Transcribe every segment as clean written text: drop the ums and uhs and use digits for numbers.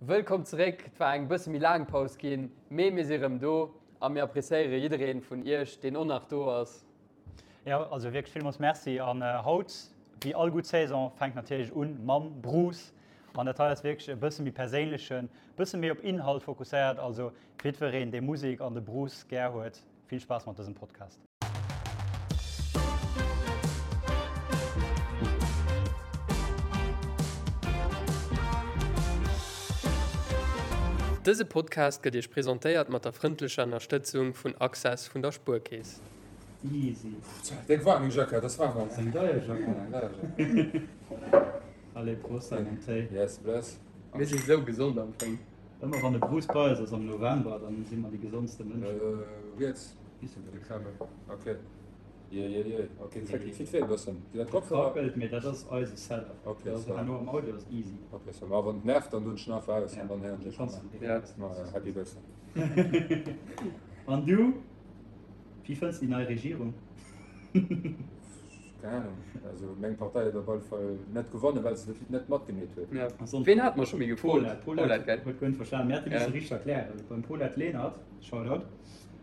Wëllkomm zeréck! Et war eng bësse méi laang Paus ginn, mee mir si rëm do a mir appreciéiere jiddereen vun iech, deen och nach do ass. Jo, also wierklech villmools Merci. An haut, wéi all gutt Saison, fänkt natierlech un mam Bruce. An dat hei ass wierklech e bësse méi perséinlechen, bësse méi op Inhalt fokusséiert. Also jiddwereen, dee Musek an de Bruce gär huet, vill Spaass mat dësem Podcast. Dëse Podcast gëtt Iech presentéiert mat der frëndlecher Ënnerstëtzung vun Access vun der Spuerkeess. Easy. Déck waarm eng Jackett, ass waarm haut. Eng deier Jackett. Eng deier Jackett. Allez, Prost an en Téi. Yes, bless. Mir si sou gesond am Fong. Ëmmer wann de Bruce bei eis ass am November, dann si mer déi gesondste Mënschen. Riets. Ok. Je, je, je. Ok, dat fit wéi e bëssen. Sinn dat Kopfhörer? Krabbelt, mee dat ass eise Setup. Ok, Dat ass ça. herno am Audio ass easy. Ok, ça. Ma wann et nervt, dann doen ech en einfach aus an dann héieren ech Kanns mech. du direkt. Ma happy birthday. An du, wéi fënns déi nei Regierung? Keng Ahnung. Also meng Partei huet op alle Fall net gewonnen, well se net matgemeet huet. Ja. Ween hat mer scho méi gefrot? Paulette, Paulette, gell? Huet guer net verstanen. Mir hätte misse Ja. richteg erklären. Beim Paulette Lenert, Shoutout,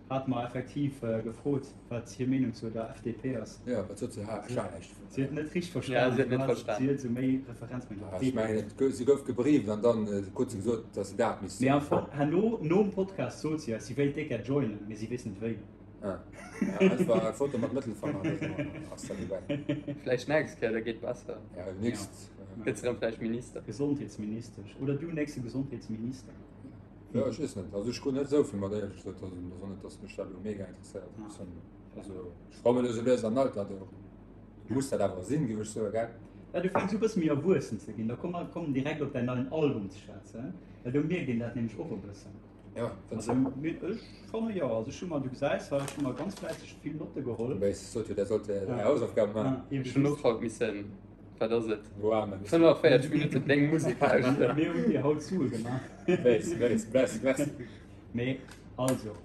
hat mer effektiv gefrot, wat hir Meenung zu der FDP ass. Ja, wat sot se? Ha, ech war näischt Si huet net richteg verstanen. Ja, si huet net verstanen. Si huet esou méi Referenz mat der Ech mengen, et gouf, si gouf gebrieft an dann krut se gesot, datt se dat misst Mee soen. am Fong, herno, nom Podcast sot si eis, si wéilt déck gär joinen, mee si weess net wéi. Ah, ja, einfach eng Foto mat Mëttelfanger oder sou, ass dat dobäi. Vläicht nächst Kéier, da geet besser. Ja, nächst. Gëtt se erëm vläicht Minister. Gesondheetsministesch. Oder du nächste Gesondheetsminister. Ja, ech weess net. Also ech krut net esou vill mat, éierlech gesot. Also et ass och net, datt mech dat elo mega interesséiert. Also ech komme elo sou lues an Alter, do muss dat awer sinn, géif ech soen, gell? Ja, du fänks u bësse méi erwuessen ze ginn. Da komm mer kommen direkt op däin neien Album ze schwätzen, well do mierkt een dat nämlech och e bëssen. Ja, fënns Also du? mir, ech fanne jo. Also ech hu mer, du gesäis hei, ech hu mer ganz fläisseg vill Notte geholl. Wéi sot jo, der sollt är Hausaufgaben maachen. Ja, Ech hunn och haut missen, wat ass et, Warmen. 45 Minutten deng Musek lauschteren. Mir hunn dir haut Sue gemaach. Weess, weess, bless, merci. Mee also,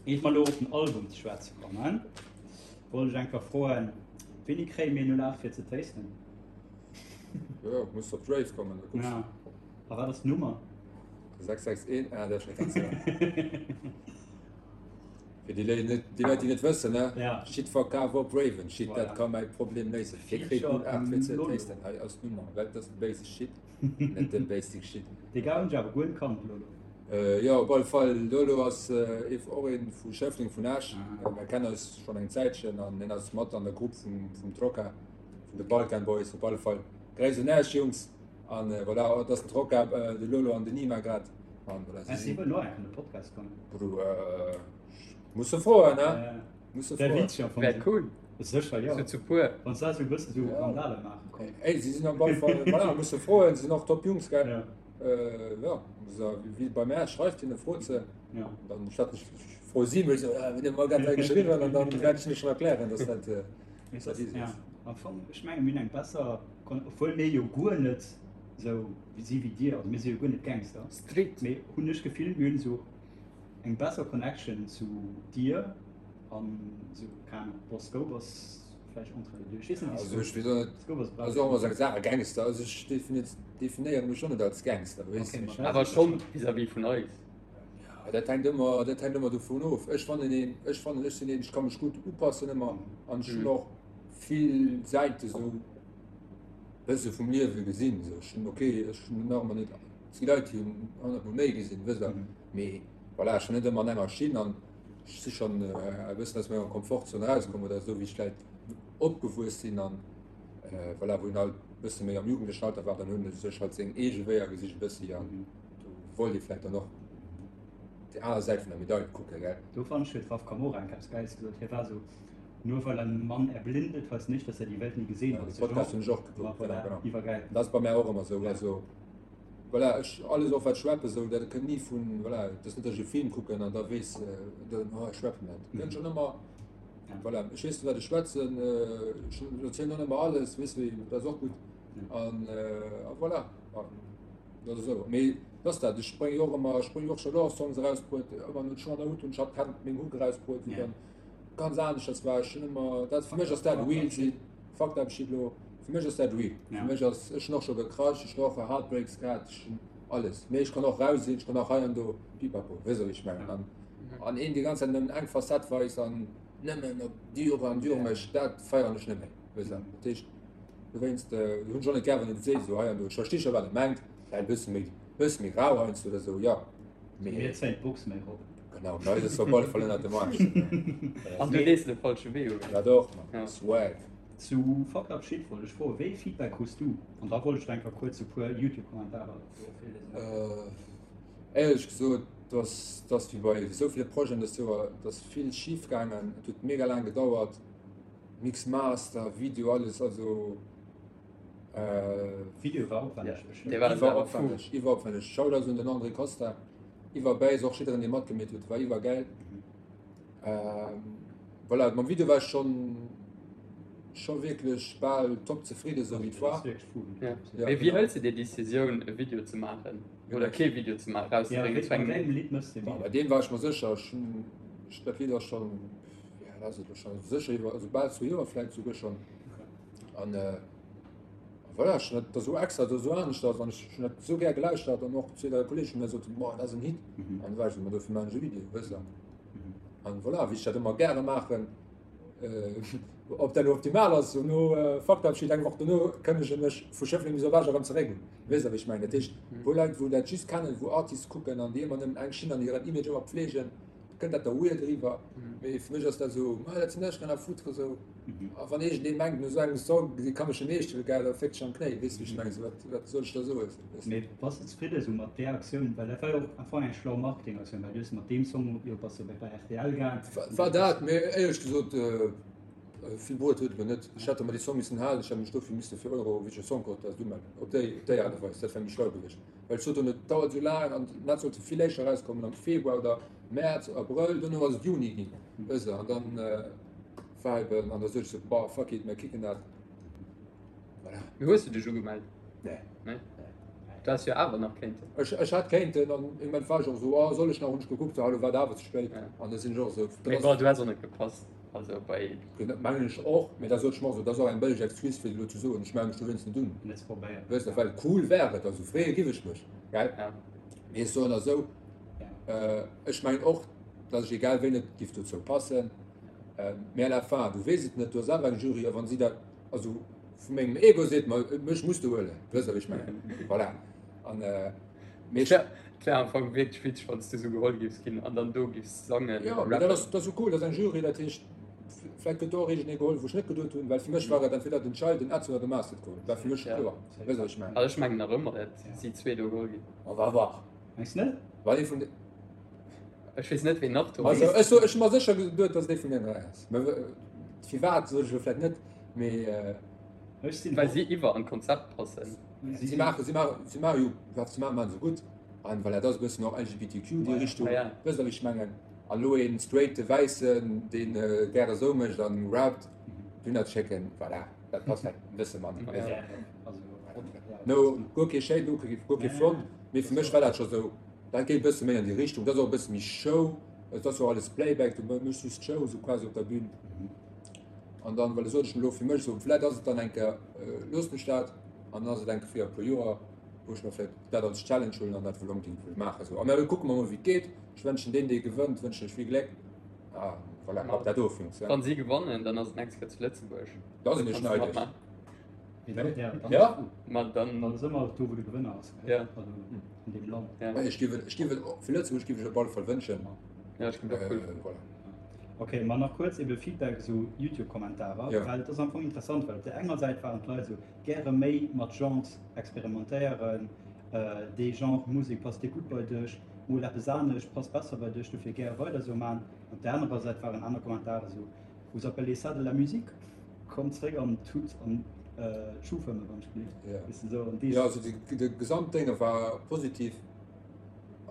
iert mer elo op den Album ze schwätze kommen, wollt ech enker froen, Wéini kréie mir 08 fir ze tasten? Jo, muss op d'Rave kommen, da kucks. Ja. A wat ass d'Nummer? 661, ah, dat ass schon ganz Fir déi Leit, net, déi Leit, déi net wëssen, ne? Ja. Shit verkaf op Raven, Shit, Voilà. dat ka mäi Problem léisen. Fir kritt Feature 08 fir ze Lolo. tasten. Hei ass d'Nummer, well dat ass de basic shit, net de basic shit. Dee Gars hunn ech awer guer net kannt, Lolo. Äh, jo, op alle Fall, Lolo ass äh, ef- och een vu Schëffleng, vun Esch. Ah. Äh, Mir kennen eis schon eng Zäitchen an hien ass mat an der Grupp vum, vum Troca, vun de Balkan Boys, op alle Fall. Gréiss un Esch, Jungs! An voilà, et ass den Troca, de Lolo an den Nima grad. An voilà, si sinn. Wëllen och eng an de Podcast kommen. Bro, muss se froen, ne? Muss se froen. Wär cool. Sécher, jo. Sou zu puer. Wann se esou e bësse sou Randale maache kommen. Ey, si sinn op alle Fall, voilà, muss se froen, si sinn och top Jungs, gell? Jo, wéi bei mär, schreift hinne, frot se. Dann statt ech froe si mech, wenn dir mer grad hei geschriwwen, an dann wäert ech hinne schonn erklären, dass dat. Ja, am Fong, ech menge mir hunn eng besser, obwuel mir jo guer net sou si wéi dir, also mir si jo guer net Gangster, Street, mee hunn ech d'Gefill, mir hunn esou eng besser Connection zu dir an esou, keng Ahnung, bon Scope ass vläicht entre les deux, ech weess net wéi Also ech Scope, weess och net, Scope ass also och ëmmer sou Saache Gangster, also ech definéiere mech och net als Gangster, weess Okay, de. ma Awer schonn vis-à-vis vun eis. Ja, dat hänkt ëmmer, dat hänkt ëmmer dovun of. Ech fannen een, ech fannen, ech sinn een, ech ka mech gutt upassen ëmmer an ech hunn och vill Säite sou bësse vum Liewe gesinn. Sou ech hunn, okay, ech hunn nach ëmmer net, et gi Leit, déi hunn honnertmol méi gesinn, wësst Der. Mee voilà, ech war net ëmmer an enger Schinn an ech si schonn e bëssen aus menger Komfortzon erauskomm oder esou wéi ech vläicht opgewuess sinn an voilà, wou een halt e bësse méi am jugendlechen Alter war, dann hunn e sech halt seng eege Wéier gesicht e bëssi an Do wollt ee vläicht dann och déi aner Säit vun der Medail kucken, gell? Do fand ech huet Raf Camora eng eppes Gäiles gesot, hie war esou, Nur weil ein Mann erblindet, heißt nicht, dass er die Welt nie gesehen Ja, hat. de Podcast hunn ech och gekuckt, Voilà, genau, genau. iwwergäil. Dat ass bei mär och ëmmer esou, also voilà, ech alles och wat ech rappen esou, dat kënnt ni vun, voilà, et ass net, datt ech e Film kucken an da weess, dann, oh ech rappen dat. Kënnt schonn ëmmer, voilà, ech weess wat ech schwätzen, ech erzielen och net ëmmer alles, weess wéi, dat ass och gutt an a voilà. Dat ass esou. Mee dat ass dat, ech brénge jo och ëmmer, ech brénge jo och scho Love Songs erausbruet, ëmmer no Chant Out hunn ech hat hat meng Hook erausbruet, wou dann ganz aneschters war. Ech hunn ëmmer, dat fir mech ass dat real sinn, fucked up shit lo, fir mech ass dat real. Fir mech ass, ech hunn och scho gecrushed, ech hunn och Heartbreaks gehat, ech hunn. Alles. Mee ech kann och rau sinn, ech kann och hei an do pipapo, weess der wéi ech mengen. An, an een déi ganz Zäit nëmmen eng Facette weist an nëmmen op dur an dur mécht, dat feieren ech net méi, weess der. Dat heescht, dowéinst hunn ech och net gär, wann een et seet esou hei an do. Ech versti scho wat e mengt, vläicht e bësse méi, bësse méi rau heiansdo oder esou, jo. Mee. Mir zéien d'Box méi erop. Genau, bei eis ass se op alle Fall ënnert dem Aarsch. An du lees de falsche Wee un. Ja doch, Mann, Swag. Zu Fucked Up Shit wollt ech froen, wéi ee Feedback krus du? An da wollt ech nach eng Kéier kuerz e puer Youtube-Kommentarer do virliesen. Éierlech gesot, dass dass wéi bei esou ville Projeten dëst Joer, et ass vill schif gaangen, et huet mega laang gedauert, Mix, Master, Video, alles, also Video war opwänneg bestimmt. Iwwer opwänneg, iwwer opwänneg. Shoutouts un den André Costa, iwwer bäi och jiddereen dee matgemeet huet, war iwwergäil. Voilà, mam Video war ech schon scho wierklech bal top zefridden, sou wéi et war. Ja. Mee wéi hëls de déi Decisioun e Video ze maachen oder kee Video ze maachen, rauszebréngen zu engem Lidd? Lidd mëss de Video? Bei deem war ech mer sécher, ech hunn dat Lidd ass schon, ja dat ass et elo schon sécher iwwer, also bal zwou Joer vläit souguer schon. An voilà, ech hunn dat da sou extra, da sou aneschters an ech hunn dat sou gär gelauschtert an och zwee, dräi Kolleegen hunn da soten, boah dat ass en Hit. An da war ech sou, ma dofir maachen ech e Video, wësst der. An voilà, wéi ech dat ëmmer gäre maachen, ob dat elo optimal ass, no Faktabschied eng Woch dono kënnege mech vu Schëffleng bis op Esch erëm zeréck un. Weess der wéi ech mengen? Dat heescht, wou Leit wou dat just kennen, wou Artists kucken an déi ëmmer nëmmen eng Schinn an hiren Image ëmmer pflegen, kënnt dat da weird eriwwer. Mee fir mech ass dat esou, ma dat sinn ech, rien à foutre esou. A wann iergendee mengt no esou engem Song, si ka mech net eescht huelen, gell, da féckt sech am Knéi, weess de wéi ech mengen? Esou wat, wat soll ech da soen? Weess de? Mee bass de zefridde esou mat där Aktioun? Well dat war jo och am Fong eng schlau Marketingaktioun, well du hues mat deem Song jo bass jo bei rtl gaang. War dat, mee éierlech gesot, vill bruet huet et mer net. Ech hätt mer dee Song missen halen, ech hätt mech dofir misse fir Eurovision Song Contest umelden, op déi, op déi Aart a Weis, dat wär méi schlau gewiescht. Well ech sot dunn, et dauert esou laang an dat sollt vill éischter erauskommen, am Februar oder Mäerz, Abrëll, duerno ass et Juni ginn, weess de, an dann. Viben an da sot ech sou, boah, fuck it, mir kicken dat. Voilà. Mee hues du dech ugemellt? Nee. Nee? Du häss jo awer nach kéinten. Ech, ech hätt kéinten an im Moment war ech och sou, oh, soll ech nach, hunn ech gekuckt, sou, hallo, war et awer ze spéit. Ja. An da sinn ech och sou, Mee bon, du häss och net gepasst, also bei. Genau, mengen ech och, mee da sot ech mer och sou, dat ass och eng bëlleg Excuse fir elo ze soen, ech melle mech dowéinst net un. Net probéiert. Wësst der, well cool wär et, also freeë giff ech mech, gell? Ja. Mee ech soen der sou, ech mengen och, datt ech egal wéi net giff dozou passen. Mee à la fin, du weess et net, du hues awer eng Jury, a wann si dat, also vu mengem Ego seet mer, mech muss de huelen, weess der wéi ech mengen, voilà. An mee ech. Et wär am Fong wierklech witzeg, wann s du esou geholl giffs ginn an dann do giffs sangen Jo, mee dat ass, dat ass jo cool, dat ass eng Jury, dat heescht, vläicht gëtt do och iergendee geholl, wou ech net geduet hunn, well fir mech war et entweder den Child, den Edson oder de Master geholl, war fir mech scho kloer, weess der wéi ech mengen. Also ech mengen nach ëmmer, dat si zwee do geholl ginn. On va voir. Mengs net? Wann ee vun de. Ech weess net ween nach do Also ech so, ech hu mer sécher geduet, dass et ee vun den 3 ass. Mä firwat sot ech elo vläit net, mee. Ech sinn Well si iwwer an d'Konzept passen. Si maachen, si maachen, si maachen jo, wat se maachen, maachen se gutt. An voilà, dat ass e bëssen och LGBTQ, déi Richtung, wësst der wéi ech mengen. An elo een straighte Wäissen, deen gäre esou mécht an rappt, dunner schécken, voilà, dat passt vläit e bësse manner. No, guer kee Shade, guer kee Front, mee fir mech war dat scho sou. Dat geet e bësse méi an déi Richtung, dat ass och e bësse méi Show, et ass jo alles Playback, du méchs just d'Show esou quasi op der Bühn. An dann, well sot ech mir elo fir mech esou, vläit ass et dann eng Kéier, loossen ech dat an dann ass et eng Kéier fir e puer Joer, wou ech mer vläit dat als Challenge huelen an dat wëll onbedéngt wëll maachen esou. A mä kucke mer mol wéi et geet. Ech wënschen deem dee gewënnt, wënschen ech vill Gléck a voilà, ab dat ofhänkt. Wann si gewannen, dann ass et nächst Kéier zu Lëtzebuerg. Da sinn ech neideg. Ja. Ma dann. Dann ass ëmmer do wou de Gewënner ass. Ja. Also an deem Land. Ja. Ech géif et, ech géif et, fir Lëtzebuerg géif ech op alle Fall wënschen. Ja, ech géif et och cool fannen. Voilà. Ok, ma nach kuerz ebe Feedback, esou Youtube-Kommentarer, Ja. well et ass am Fong interessant, well op där enger Säit waren d'Leit esou, gäre méi mat Genres experimentéieren, dee Genre Musek passt dir gutt bei dech, mol eppes anescht passt besser bei dech, dofir gäre weider esou man. Op där anerer Säit waren aner Kommentare esou, Vous appelez ça de la musique? Komm zréck an d'Tut an d'Schuhfëmme wann ech gelift. Ja. Weess de sou an dees. Jo, also de Gesamtdénge war positiv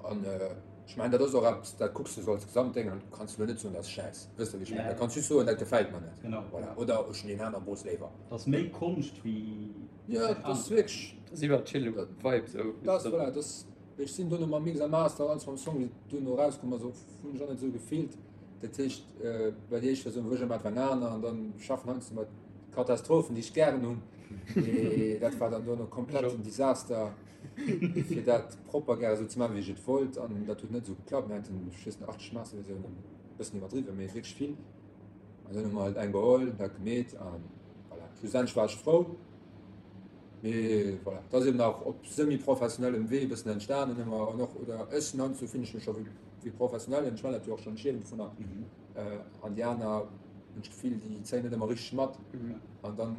an ech mengen dat ass och eppes, dat kucks de sou als Gesamtdéng an kanns de lo net soen dat ass schäiss, wëss de wéi ech mengen? Da kanns just soen dat gefält mer net. Genau. Voilà. Oder ech hunn deen aner Bos léiwer. Dat ass méi Konscht wéi. Jo, dat ass wierklech. Dat ass iwwer chill Vibe sou. Dat ass, voilà, dat ass, ech sinn dono mam Mix a Master an alles mam Song wéi duerno erauskomm ass, hunn ech och net esou gefillt. Dat heescht, bei déi éischt Versioun wou ech ëmmer war aner an dann schaffen heiansdo mat Katastrophen, déi ech gären hunn. Mee dat war dann duerno komplett en Desaster. Fir dat propper gäre sou ze maachen, wéi ech et wollt. An dat huet net esou geklappt. Mir haten, ech weess net, 80 Masterversiounen, e bëssen iwwerdriwwen, mee wierklech vill. An dann hu mer halt eng geholl, dat gemeet an voilà. Schlussendlech war ech frou. Mee voilà, dat ass eben nach op semi-professionellem Wee e bëssen entstanen ëmmer an och, oder ech sinn heiansdo fillen ech mech scho wéi wéi Professionellen, ech maachen dat jo och schonn, ech liewen dovunner. An déi aner hunn ech d'Gefill, déi zéien net ëmmer richteg mat an dann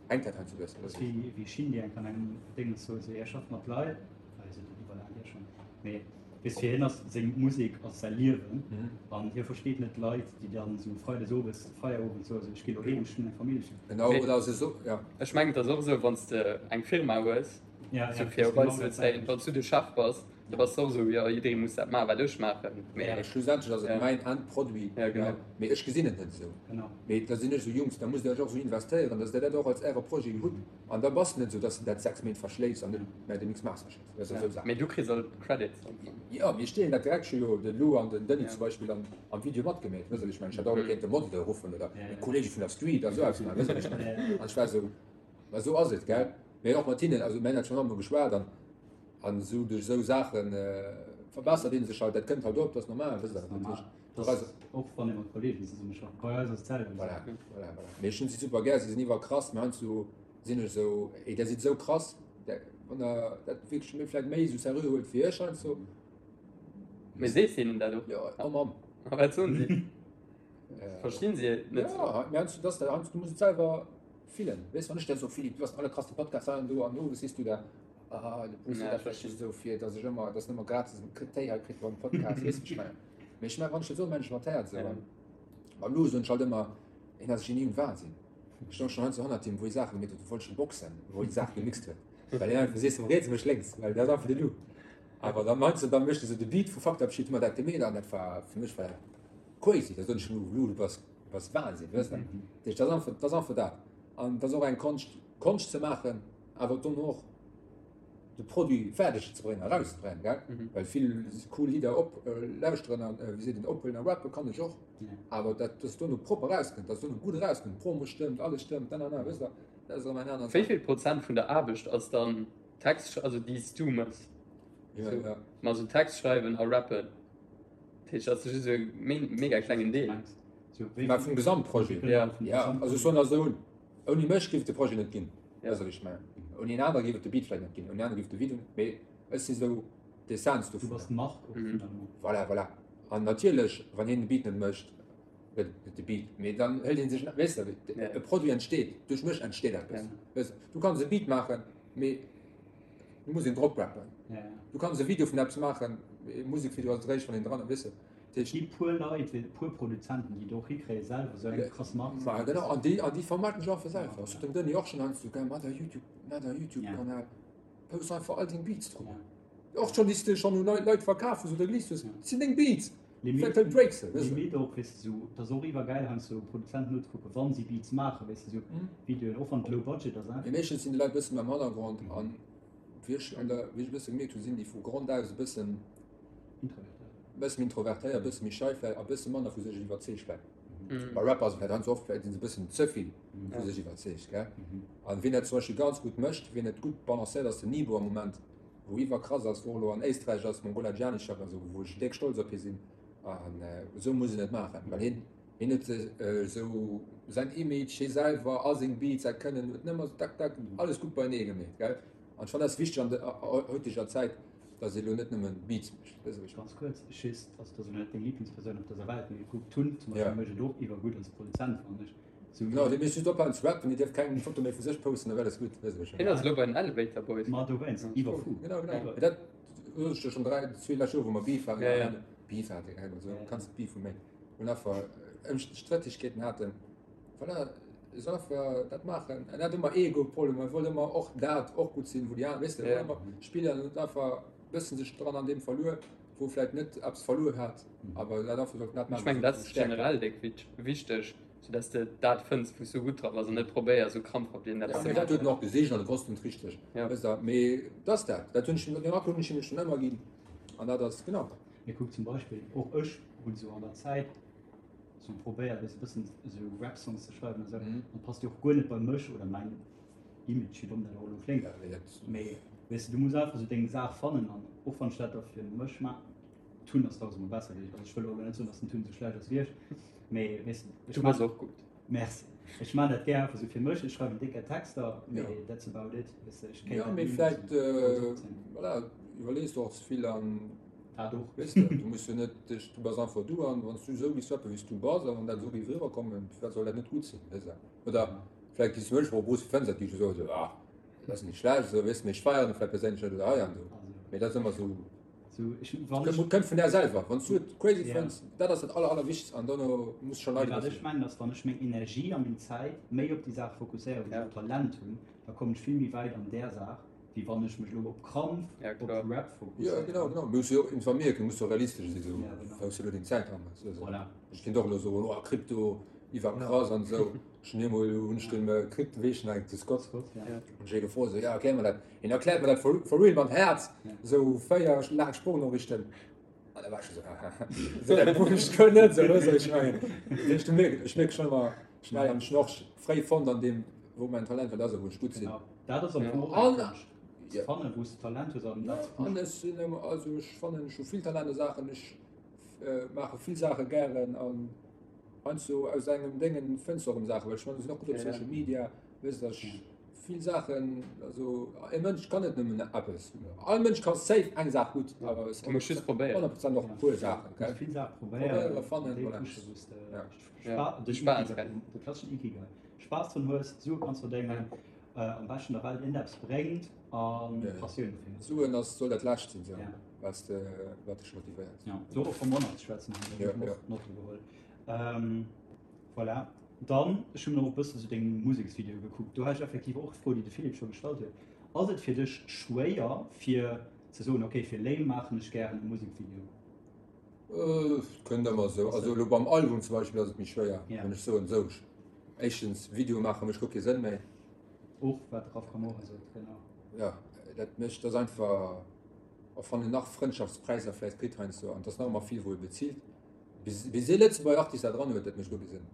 hänkt dat heiansdo e bëssen. Dat ass wéi wéi Shindy eng an engem Déngens sot, esou, hie schafft mat Leit, ah hie sot dat iwwer laang hier schonn, mee weess fir hien ass seng Musek ass säi Liewen an hie versteet net d'Leit, déi dann esou freides owes Feierowend soen, esou ech gi lo heem, ech hunn eng Famill, ech hunn. Genau, oder se so, ja. Ech mengen et ass och esou, wann s de eng Firma hues, esou fir op eis ze bezéien, wann s du de Chef bass, da bass de och esou, jo jidderee muss dat maachen, wat ech maachen, mee. Schlussendlech ass et mäin Endproduit, mee ech gesinn et net esou. Mee da sinn ech esou, Jungs, da musst der iech och esou investéieren, datt der dat och als äre Projet hutt an da bass de net esou, datt s de dat 6 Méint verschléifs an net mä de Mix Master schécks. Dat ass esou Saach. Mee du kriss all d'Credits. Jo, mir stehen dat direkt scho jo de Lou an den Denis zum Beispill an am Video matgemeet, wëss ech mengen. Ech hätt och elo kéinte Modele ruffen oder meng Kollege vun der Street a sou eppes maachen, wëss ech mengen. An ech war esou, ma esou ass et, gell. Mee och mat hinnen, also mir hunn dat schonn emol geschwat an an esou duerch esou Saache verbessert ee sech halt, dat kënnt halt op, dat ass normal, wësst der. Dat ass normal, och wann ee mat Kollegen zesummeschafft. Bei eis ass et d'selwecht. Voilà, voilà, voilà. Mee ech hunn si super gär, si sinn iwwerkrass, mee heiansdo sinn ech esou, ey, der sidd esou krass, der, wann der dat wierklech méi, vläicht méi esou seriö huelt wéi ech heiansdo. Mee sees hinnen dat och? Jo, oh Mamm. A wat soen si? Verstinn si et net? Ja, mee heiansdo, dass der, heiansdo, du muss et selwer fillen, weess, wann ech der soe, Philippe, du bass den allerkrasste Podcast hei an do an owes sees du der, ah, de Bruce seet dat vläicht just esou fir, dass ech ëmmer, dass en ëmmer gratis en Téi hei kritt beim Podcast, weess, wéi ech mengen. Mee ech mengen, wann ech dat soen, mengen ech mat Häerz esou. An mam Lou soen ech halt ëmmer, hien ass e Genie um Wahnsinn. Ech stoung schon heiansdo hannert him, wou hie Saache gemeet huet, du wollt ech boxen, wou hie Saache gemixt huet. Well hien einfach sees, riets mécht lénks, well dat ass einfach de Lou. Awer dann heiansdo, dann mécht e sou de Beat vu Fucked Up Shit, hu mer dat gemeet an dat war, fir mech war dat crazy. Da soen ech, Lou, Lou, du bass, du bass Wahnsinn, weess de. Dat heescht, dat ass einfach, dat ass einfach dat. An dat ass och eng Konscht, Konscht ze maachen, awer dono och de Produit fäerdeg ze bréngen, erauszebréngen, gell? Well vill cool Lidder op lauschteren an, wéi seet een, ophuelen a rappe kann ech och, awer dat, dass dono propper erauskënnt, dass dono gutt erauskënnt, d'Promo stëmmt, alles stëmmt, nanana, wësst Der, dat ass erëm eng aner Wéi Saach. vill Prozent vun der Aarbecht ass dann Text, also déi s du mëss? Ja, Sou, ja. ma sou Text schreiwen a rappen, dat heescht, dat ass just e mega klengen Deel. Mä vum Gesamtprojet? Ja. Ja, also ech soen dat esou, Ouni mech géif et de Projet net ginn, weess wat ech mengen. Ouni en anere géif et de Beat vläicht net ginn, ouni en anere géif et de Video net, mee ech si sou d'Essenz Du dovunner. bass d'Mark och finalement. Voilà, voilà. An natierlech, wann hien de Beat net mécht, gëtt et net de Beat, mee dann hëlt ee sech, weess de, e Produit entsteet, duerch mech entsteet eppes, weess de. Du kanns e Beat maachen, mee du muss een drop rappen. Du kanns e Video vun eppes maachen, e Musekvideo ass et eréischt, wann een dran, weess de. Et gi puer Leit, e puer Produzenten, déi et och hikréie selwer esou eng krass Mark ze Ma genau, an déi, an déi vermarkten sech einfach selwer. Ech sot dem Denis och schonn heiansdo, gell, mat der YouTube, mat der YouTube-Kanal, post einfach all deng Beats drop. Och schonn, déi s de schonn un Leit verkaf hues oder geleast hues, dat sinn deng Beats. Limit, Vläicht breaks se, weess de. Limit och, weess de, sou, et ass och iwwergäil heiansdo Produzenten nozekucken, wa si Beats maachen, weess de, sou Videoen, och wann et low budget ass, Mee meeschtens sinn déi Leit e bësse méi am Hannergrond an wéi ech an der, wéi ech e bësse gemierkt hunn, sinn déi vu Grond aus e bëssen, Bësse méi introvertéiert, bësse méi schei vläicht a bësse manner vu sech iwwerzeegt vläicht. Bei Rapper ass et vläicht heiansdo oft, vläicht sinn se bëssen ze vill vu sech iwwerzeegt, gell. An wien dat zum Beispill ganz gutt mécht, wien et gutt balancéiert, ass den Nibo am Moment, wou iwwerkrass ass, wou och elo an Éisträich ass, mam Gola Gianni-Chef an esou, wou ech déck stolz op hie sinn. An esou muss een et maachen, well hien, hien huet esou säin Image, hie selwer a seng Beats, säi Kënnen, huet nëmmer esou tak tak alles gutt beienee gemeet, gell. An ech fannen dat ass wichteg an der heuteger Zäit, dass ee lo net nëmmen Beats mécht. Weess de wéi ech Ganz kuerz, just, also dat ass elo net deng Lieblingspersoun op dëser Welt, mee kuck, Tun zum Beispill mécht et och iwwergutt als Produzent, fannen ech. Sou. Genau, dee misst just ophalen ze rappen, dee dierf keng Foto méi vu sech posten, da wär alles gutt, weess de wéi ech Hien ass elo bei den Elevator Boys. Ma dowéinst, iwwerfou. Genau, genau. Mee dat sot ech der schonn 3, zwee lescht Joer, wou mer Beef haten, ja, ja. Beef haten, gell, also kanns net Beef hu méi, hunn einfach Ëmstrettegkeeten haten. Voilà, e soll einfach dat maachen. En hat ëmmer Ego-Problemer, e wollt ëmmer och dat och gutt sinn, wou déi aner, weess de, wollt ëmmer spillen an huet einfach e bëssen sech dran an deem verluer, wou e vläicht net eppes verluer hat, awer dat einfach sollt dat Ech maachen, mengen, wat dat seng ass Stäerkt war. generell déck wichteg, sou dass de dat fënns, wou s du gutt dra bass an net probéiers, sou krampfhaft iergendeppes Ja, ze mee dat huet en maachen. och gesicht an e wosst et richteg, Ja. weess de, mee dat ass dat, dat hunn ech him, deen Rapport hunn ech him schonn ëmmer ginn an dat ass, genau. Mee kuck zum Beispill, och ech hunn sou an der Zäit, sou probéiert weess e bëssen sou Rap Songs ze schreiwen an sou an passt jo och guer net bei mech oder mäin Image, wéi domm dat och elo kléngt, mee. Weess de, du muss einfach sou deng Saach fannen an och wann ech dat da fir mech ma Tun ass dausendmol besser wéi ech. Also ech wëll och elo net soen, dass den Tun sou schlecht ass wéi ech, mee weess de, ech Du bass och gutt. Merci. Ech maan dat gär einfach sou fir mech. Ech schreiwen décker Texter, mee that's about it. Weess de, ech kéint dat ni vläit, sou grouss opzéien. Voilà, iwwerlees du och ze vill an Dat och. Weess de, du muss jo net dech, du bass einfach du an wann s du esou giffs rappen, wéi s du bass a wann dat esou géif eriwwerkommen, firwat soll dat net gutt sinn, weess de? Oder vläicht giffs du mech och Bruce, fënns dat, giff ech soen, esou, ah, dat ass net schlecht, esou, weess de, mee ech feieren et vläicht perséinlech net oder hei an do. Mee dat ass ëmmer esou. Kënnt vun där selwer. Wann s du et crazy fënns, dat ass dat aller, allerwichtegst an dono muss scho Leit. Wat ech mengen ass, wann ech meng Energie a meng Zäit méi op déi Saach fokusséieren, wou ech och Talent hunn, da kommen ech vill méi wäit an där Saach, wéi wann ech mech elo op Krampf op Rap fokusséieren. Jo, genau, genau. Muss jo och informéiert ginn, muss jo realistesch sinn, esou wou s du elo deng Zäit dran hues. Voilà. Ech kéint och elo soen, oh Krypto iwwerkrass an esou. Ech hunn eemol hunn ech dem Krypto, wéi heescht en eigentlech, de Scott, hunn ech ee gefrot, esou, ja erklär mer dat. Hien erkläert mer dat for, for real mam Häerz, esou 4 laang Sproochnooriichten. An da war ech scho sou, sou dat wosst ech guer net, sou weess ech mengen. Dat heescht, du mierks, ech mierke schonn ëmmer schnell an ech hunn och fréi fonnt an deem, wou mäin Talent wat ass a wou ech gutt sinn. Genau, dat ass am Fong och eng Konscht, ze fannen, wou s de Talent hues an dat ze pushen. An ech sinn ëmmer, also ech fannen, ech hu vill Talent a Saachen, ech maache vill Saache gären an heiansdo aus engem Déngen fënns de och erëm Saachen, well ech mengen, ech sinn och gutt op Social Media, weess de, ech. Vill Saachen, also e Mënsch kann net nëmmen eppes. All Mënsch ka safe eng Saach gutt, awer es Du muss just probéieren. 100 Prozent och e puer Saachen, gell? Muss vill Saache probéieren, Probéieren, fannen, déi voilà. pushen, wou s de Ja. Spa De Spaass, gell? De klasseschen Ikigai. Spaass drun hues, Sue kanns verdéngen, am beschten der Welt iergendeppes bréngt a Passioun dofir hues. Suen ass, soll dat Lescht sinn, sou, wat s de, wat dech motivéiert. Ja, do och vum Monat ze schwätzen, hunn ech och Notte geholl. Voilà. Dann, ech hunn och e bëssen esou deng Museksvideoe gekuckt. Do hat ech effektiv och d'Fro, déi de Philippe scho gestallt huet. Ass et fir dech schwéier fir ze soen, okay, fir Lame maachen ech gären e Musekvideo? Et kënnt ëmmer esou. Also elo beim Album zum Beispill ass et méi schwéier, wann ech soen, esou, éischtens, Videoe maache mécht guer kee Sënn méi. Och wat de Raf Camora sot, genau. Jo, dat mécht, dat ass einfach, och wann en nach Frëndschaftspräisser vläicht kritt heiansdo, an et ass nach ëmmer vill, wou e bezilt, Bis ee Lëtzebuerger Artist dat eran huet, dat mécht guer kee Sënn.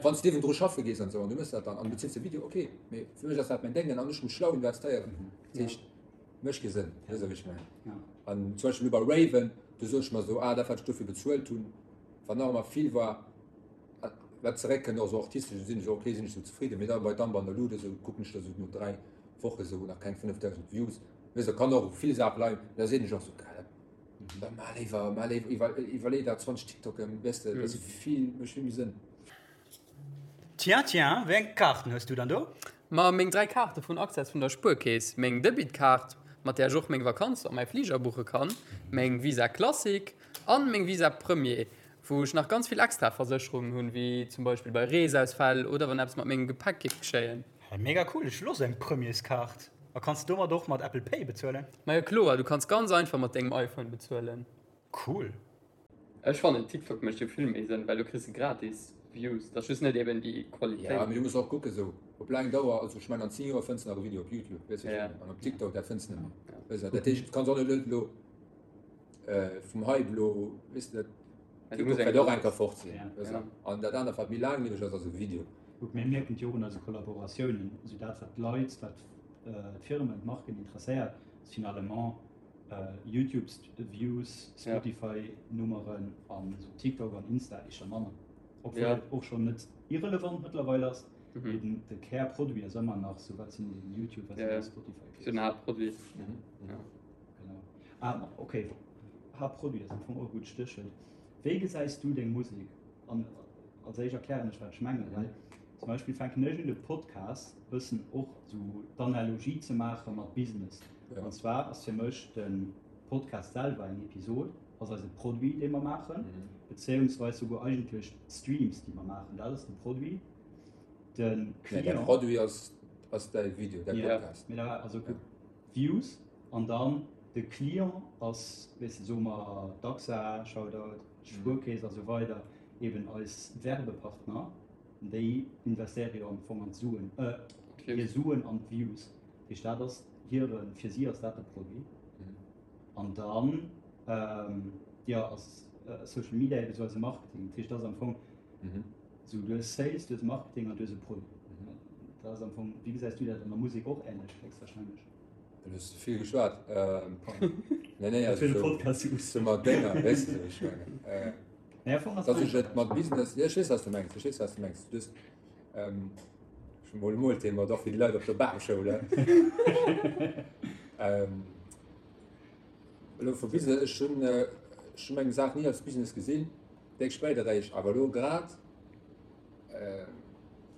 Wann s de niewendru schaffe gees an esou an du méchs dat dann an du bezills de Video, ok, mee fir mech ass dat mäin Déngen an ech muss schlau investéieren. Dat heescht, mécht kee Sënn, weess de wéi ech mengen? An zum Beispill elo bei Raven, do sot ech mer esou, ah dat wat ech dofir bezuelt hunn, wat nach ëmmer vill war, wat zeréckkënnt och esou artistesch, sinn ech ok, sinn ech esou zefridden. Mee da bei Dumb an der Luut esou kucken ech da esou no 3 Woche esou nach keng 5.000 Views, weess de, kann och u vill Saache leien, mee da sinn ech och esou, geil, Da mar léiwer, mar léiwer, iwwer, iwwerlee der 20 TikToken, weess de, dat ass vill, mécht vill méi Sënn. Tiens, tiens, wéi eng Kaarten hues du dann do? Ma meng 3 Kaarte vun Access vun der Spuerkeess, meng Debitkaart, mat där ech och meng Vakanz a mäi Fliger buche kann, meng Visa Classic an meng Visa Premier, wou ech nach ganz vill extra Versécherungen hunn, wéi zum Beispill bei Reesausfäll oder wann eppes mat mengem Gepäck géif geschéien. Hey, mega cool, ech wëll och sou eng Premierskaart. A kanns de domat och mat Apple Pay bezuelen? Majo kloer, du kanns ganz einfach mat dengem iPhone bezuelen. Cool. Ech fannen TikTok mecht jo vill méi Sënn, well do kriss de gratis Views, dat ass just net eben déi Qualitéit. Ja, mee du muss och kucken sou op laang Dauer, also ech mengen an 10 Joer fënns de nach e Video op Youtube, weess wéi ech mengen, an op TikTok dat fënns de net méi, weess de, dat heescht du kanns och net elo vum Hype elo, weess de, dat TikTok wäert och eng Kéier fort sinn, weess de, an dat anert wat méi laanglieweg ass, ass e Video. Gutt, mir mierken et jo och un eise Kollaboratiounen, esou dat wat d'Leit, wat d'Firmen, d'Marken interesséiert, ass finalement Youtube Views, Spotify Nummeren an esou TikTok an Insta éischter manner. Obwuel et och schonn net irrelevant mëttlerweil ass, mee den de Kärproduit ass ëmmer nach esou wat sinn den YouTube, wat sinn déi Spotify Views. Den Haaptproduit. Genau. Ah okay, Haaptproduit ass am Fong och e gutt Stéchwuert. Wéi gesäis du deng Musek? An als éischt erklären ech wat ech mengen, well zum Beispill fänken ech un de Podcast bëssen och sou d'Analogie ze maache mat Business. An zwar ass fir mech de Podcast selwer eng Episod, ass eise Produit dee mer maachen, bezéiungsweis souguer eigentlech d'Streams déi mer maachen, dat ass de Produit. De Client. Däi Produit ass ass däi Video, däi Podcast. Jo, mee da also Views an dann de Client ass, weess de, soe mer d'AXA, Shoutout, d'Spuerkeess a sou weider, eben eis Werbepartner, déi investéiere jo am Fong an d'Suen, hir Suen an d'Views. Dat heescht, dat ass hire, fir si ass dat de Produit. An dann, jo, ass Social Media eben esou eise Marketing. Dat heescht, dat ass am Fong esou, du hues Sales, du hues Marketing an du hues e Produit. Dat ass am Fong, wéi gesäis du dat an der Musek och änlech héchstwahrscheinlech? Du hues ze vill geschwat. Nee, nee, also so, so mat Dénger, weess de, ech mengen. Äh, Nee, am Fong ass dass ech et mat Business, ja, ech weess, wat du mengs, ech weess, wat du mengs. Du hues, ähm, schon mol mol Thema, doch fir déi Leit op der Bamschoul, eh? ähm, elo vu Business, ech hunn, ech hunn meng Saach ni als Business gesinn, déck spéit eréischt, awer elo grad,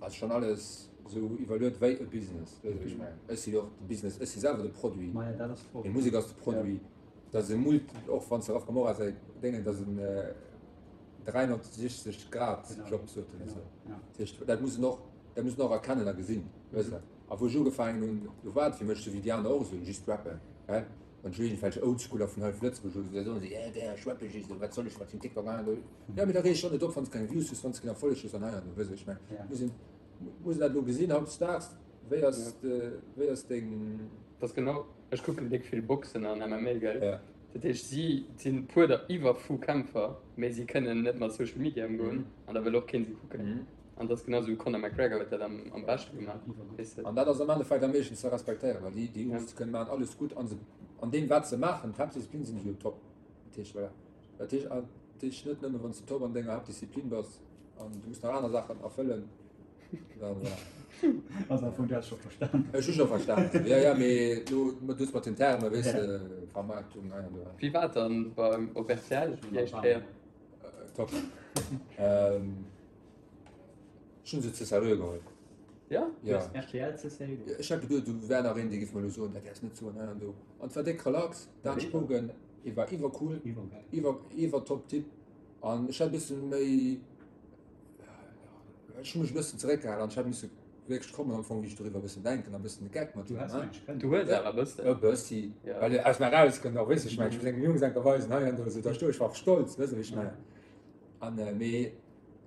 Ass schon alles sou iwwerluet wéi e Business, weess wéi ech mengen? Ech si jo och de Business, ech si selwer de Produit, meng Musek ass de Produit, dat ass e Mult, och wann s de Raf Camora säi Déngen, dat ass en 360 Grad Job sot en esou. Dat heescht, dat muss en och, dat muss en och erkennen a gesinn, weess de. A wou ech ugefaangen hunn, do war et fir mech sou wéi déi aner och esou, just rappen, he. Wann ech iergendwelch Oldschooler vun hei vu Lëtzebuerg hunn, da soen se, yeah, der, ech rappe just, wat soll ech mat dem TikTok an do. Ja, mee da reeg dech och net op, wann s de keng Views hues, wann s de keen Erfolleg hues an hei an do, weess ech mengen. Muss een, muss een dat elo gesinn hautdesdaags, wéi ass de, wéi ass deng. Dat ass genau, ech kucken déck vill Boxen an MMA, gell? Ja. Dat heescht, si sinn puer der iwwerfu Kämpfer, mee si kënnen net mat Social Media ëmgoen an da wëll och keen si kucken. An dat ass genau esou, Conor McGregor huet dat am, am beschte gemaach, weess de. An dat ass am Endeffekt am meeschten ze respektéieren, well déi, déi Jungs kënnen maachen alles gutt an se, an deem wat se maachen, d'Haaptdisziplin sinn se jo top. Dat heescht, voilà. Dat heescht, an dat heescht net nëmme wann s de top an denger Haaptdisziplin bass an du muss nach aner Saachen erfëllen, dann voilà. Also am Fong, du has scho verstan. Ech hu scho verstan, jo, jo, mee lo, du hues mat den Termen, weess de, Vermarktung, hei an do. Wéi war et dann beim, op rtl déi éischt Kéier? Top. Ähm. Ech hunn se ze seriö geholl. Ja? Ja. RTL ze seriö geholl? Ech hat geduet, do wär nach een, dee giff mer elo soen, dat däerfs net soen, hei an do. An et war déck relax, Dan Spogen, e war iwwercool, iwwer, iwwer top Typ. An ech hat e bësse méi, ech hu mech e bëssen zeréckgehalen an ech hat misse wierklech kommen am Fong, wéi ech doriwwer e bëssen denken a bëssen de Geck mat him. Du hues awer e bëssen. E bëssi, well aus mer erauskënnt och, weess de, ech mengen, ech muss engem Jungs enker weisen, hei an do, esou, da stoe ech, war och stolz, weess de, wéi ech mengen. An, mee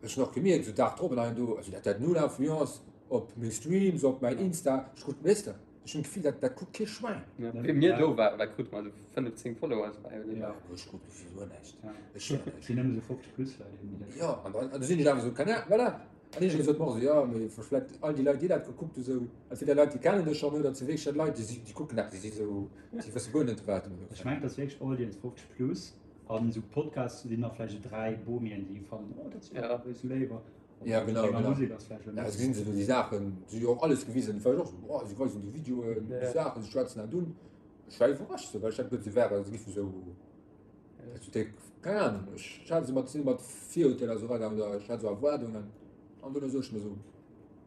Ech hun och gemierkt esou Dag drop an hei an do, also dat dat null Influence op meng Streams, op mäin Insta, ech krut, weess de, ech hun d'Gefill dat dat kuckt kee Schwäin. Ja, wéi mir do waren, wat krute mer, esou 5, 10 Followers bei oder? Ja, ech krut gefill guer näischt. Ech hun näischt. Sinn nëmme esou 50 plus Leit eben, déi dat. Jo, an dann, an du sinn ech awer esou, keine Ahnung, voilà. An iergendwéi sot mer och esou, jo, mee vläit all déi Leit déi dat gekuckt hu sou, entweder Leit déi kennen dech schonn oder et si wierklech dat Leit déi si, déi kucken dat, déi si sou, déi wësse guer net wat. Ech mengen et ass wierklech Audience 50 plus. An esou Podcasts sinn nach vläicht esou 3 Bomien, déi fannen, oh dat ass jo awer esou léiwer. Ja, genau, genau. Musek ass vläicht Ja, gesinn se do déi Saachen, si hu jo och alles gewisen, et war jo och esou, oh, si weisen déi Videoen, déi Saachen, si schwätzen dat un. Ech war iwwerrascht esou, well ech hat geduet, se wären, se giffen esou, esou déck, keng Ahnung, ech hat se mat, sinn mat Virurteeler esou eragaangen oder ech hat esou Erwaardungen an dunn esou ech mer esou,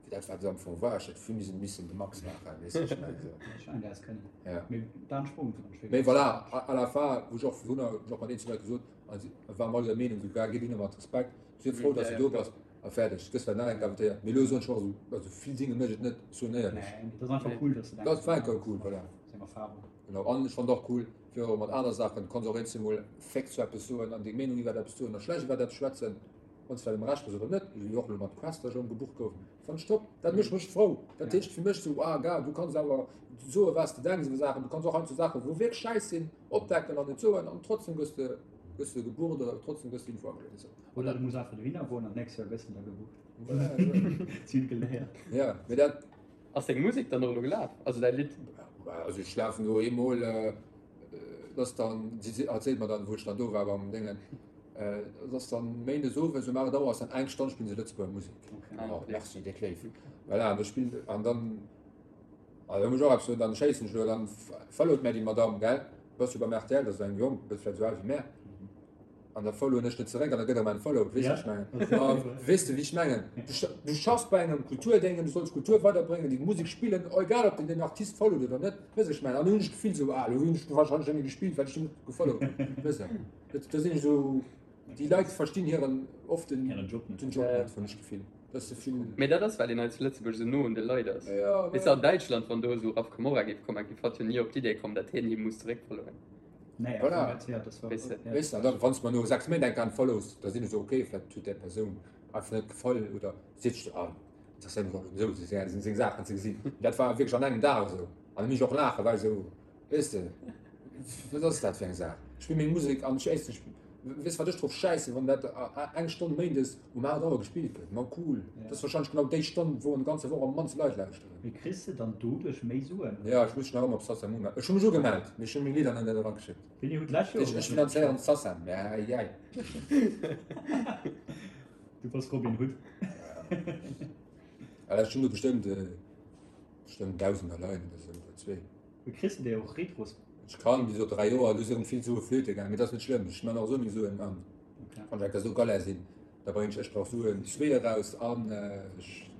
fir dat wat et am Fong war, ech hätt vill méi missen de Max maachen, weess de, ech mengen esou. Ech mengen, dat häss kënnen. Ja. Mee Dan Sprung fand ech wierklech. Mee voilà, à la fin, wou ech och vun hunn ech och mat eenzelne Leit gesot, a si waren all der Meenung, esou, gär, giff hinne mat Respekt, sief frou, dass du do bass a fäerdeg. Gëss vläicht nach eng Kéier invitéiert, mee elo soen ech och esou, also vill Dinge mécht et net, soen éierlech. Nee, mee dat ass einfach cool, dass de Dat war enker cool, voilà. Seng Erfahrung. Genau, an ech fand och cool, fir och mat aner Saachen, du kanns och eenzel mol féx zu eppes soen an deng Meenung iwwert eppes soen a schlecht iwwert eppes schwätzen, wann s de vläicht am Recht bass oder net, esou wéi och elo mat Quester ech ëmgebucht gouf, fand ech top. Dat mécht mech frou. Dat heescht fir mech esou, ah gar, du kanns awer soe wat s de denks iwwer Saachen, du kanns och heiansdo Saachen, wou wierklech schäiss sinn, opdecken an et soen an trotzdem gëss de gëss de gebucht oder trotzdem gëss de Info ageliwwert esou. Oder du muss einfach dohinner goen an d'nächst Joer gëss de da gebucht. Si hunn geléiert. Ja, mee dat. Ass deng Musek dann och elo gelaf? Also däi Lidd? Also ech lafen do eemol, dat ass dann, si erzielt mer dann, wou ech dann do war beim Déngen, dat ass dann méindes owes um 8 Auer ass dann eng Stonn spillen se Lëtzebuerger Musek. Oh, merci, déck léif. Voilà, an da spillen, an dann, also da muss ech och eppes soen, dann schéissen ech elo, dann followt mär déi Madamm, gell, bass jo beim rtl, dat ass eng Jong, bëss vläicht esou al wéi mär. An da followen ech net zeréck an da gëtt erëm unfollowed, weess de, wéi ech mengen? Ma weess de, wéi ech mengen? Du schaffs bei engem Kulturdéngen, du solls Kultur weiderbréngen, déi Musek spillen, egal ob den den Artist followt oder net, weess ech mengen? An du hunn ech d'Gefill esou, ah, elo hunn ech wahrscheinlech net méi gespillt, well ech den net gefollowt hunn, weess de? Dat, da sinn ech esou, déi Leit verstinn hiren, oft den, Hiren Job net. den Job net, hunn ech d'Gefill. Dat ass ze vill. Mee dat ass, well een hei zu Lëtzebuerg esou no un de Leit ass. Ja, Weess de, an Däitschland, wann do esou Raf Camora géif kommen, géif hatt jo ni op d'Idee kommen, datt hien hie muss zeréckfollowen. Nee, Voilà. ja, das war, Weess de. ja. Weess de, an dann, wann s de mer no 6 Méint eng Kéier unfollows, da sinn ech esou, okay, vläicht huet där Persoun einfach net gefall oder seet sech, ah, interesséiert mech och net esou, seng, seng Saachen ze gesinn. Dat war wierklech an engem Dag esou. An da misst ech och laachen, well esou, weess de, wat ass dat fir eng Saach? Ech spill meng Musek an ech éischtens. Weess wat ech drop schäissen, wann dat eng Stonn méindes um 8 Auer gespillt gëtt. Ma cool, dat ass warscheinlech genau déi Stonn, wou an der ganzer Woch am mannste Leit lauschteren. Mee kriss de dann doduerch méi Suen? Jo, ech muss mech nach ëmmer op Sacem umellen. Ech hu mech ugemellt, mee ech hu meng Lidder nach net erageschéckt. Wéini hutt d'lescht Joer Ech finanzéieren d'Sacem, mä jäi. Du bass Robin Hood. Well ech hunn do bestëmmt, bestëmmt Dausender leien oder esou, oder zwee. Mee kriss de déi och retros? Ech kann, wéi gesot, 3 Joer, do si rëm vill Sue flöte gaangen, mee dat ass net schlëmm, ech man och esou meng Suen an wann ech enker esou Galère sinn, da bréngen ech Ech brauch Suen 2 eraus an ech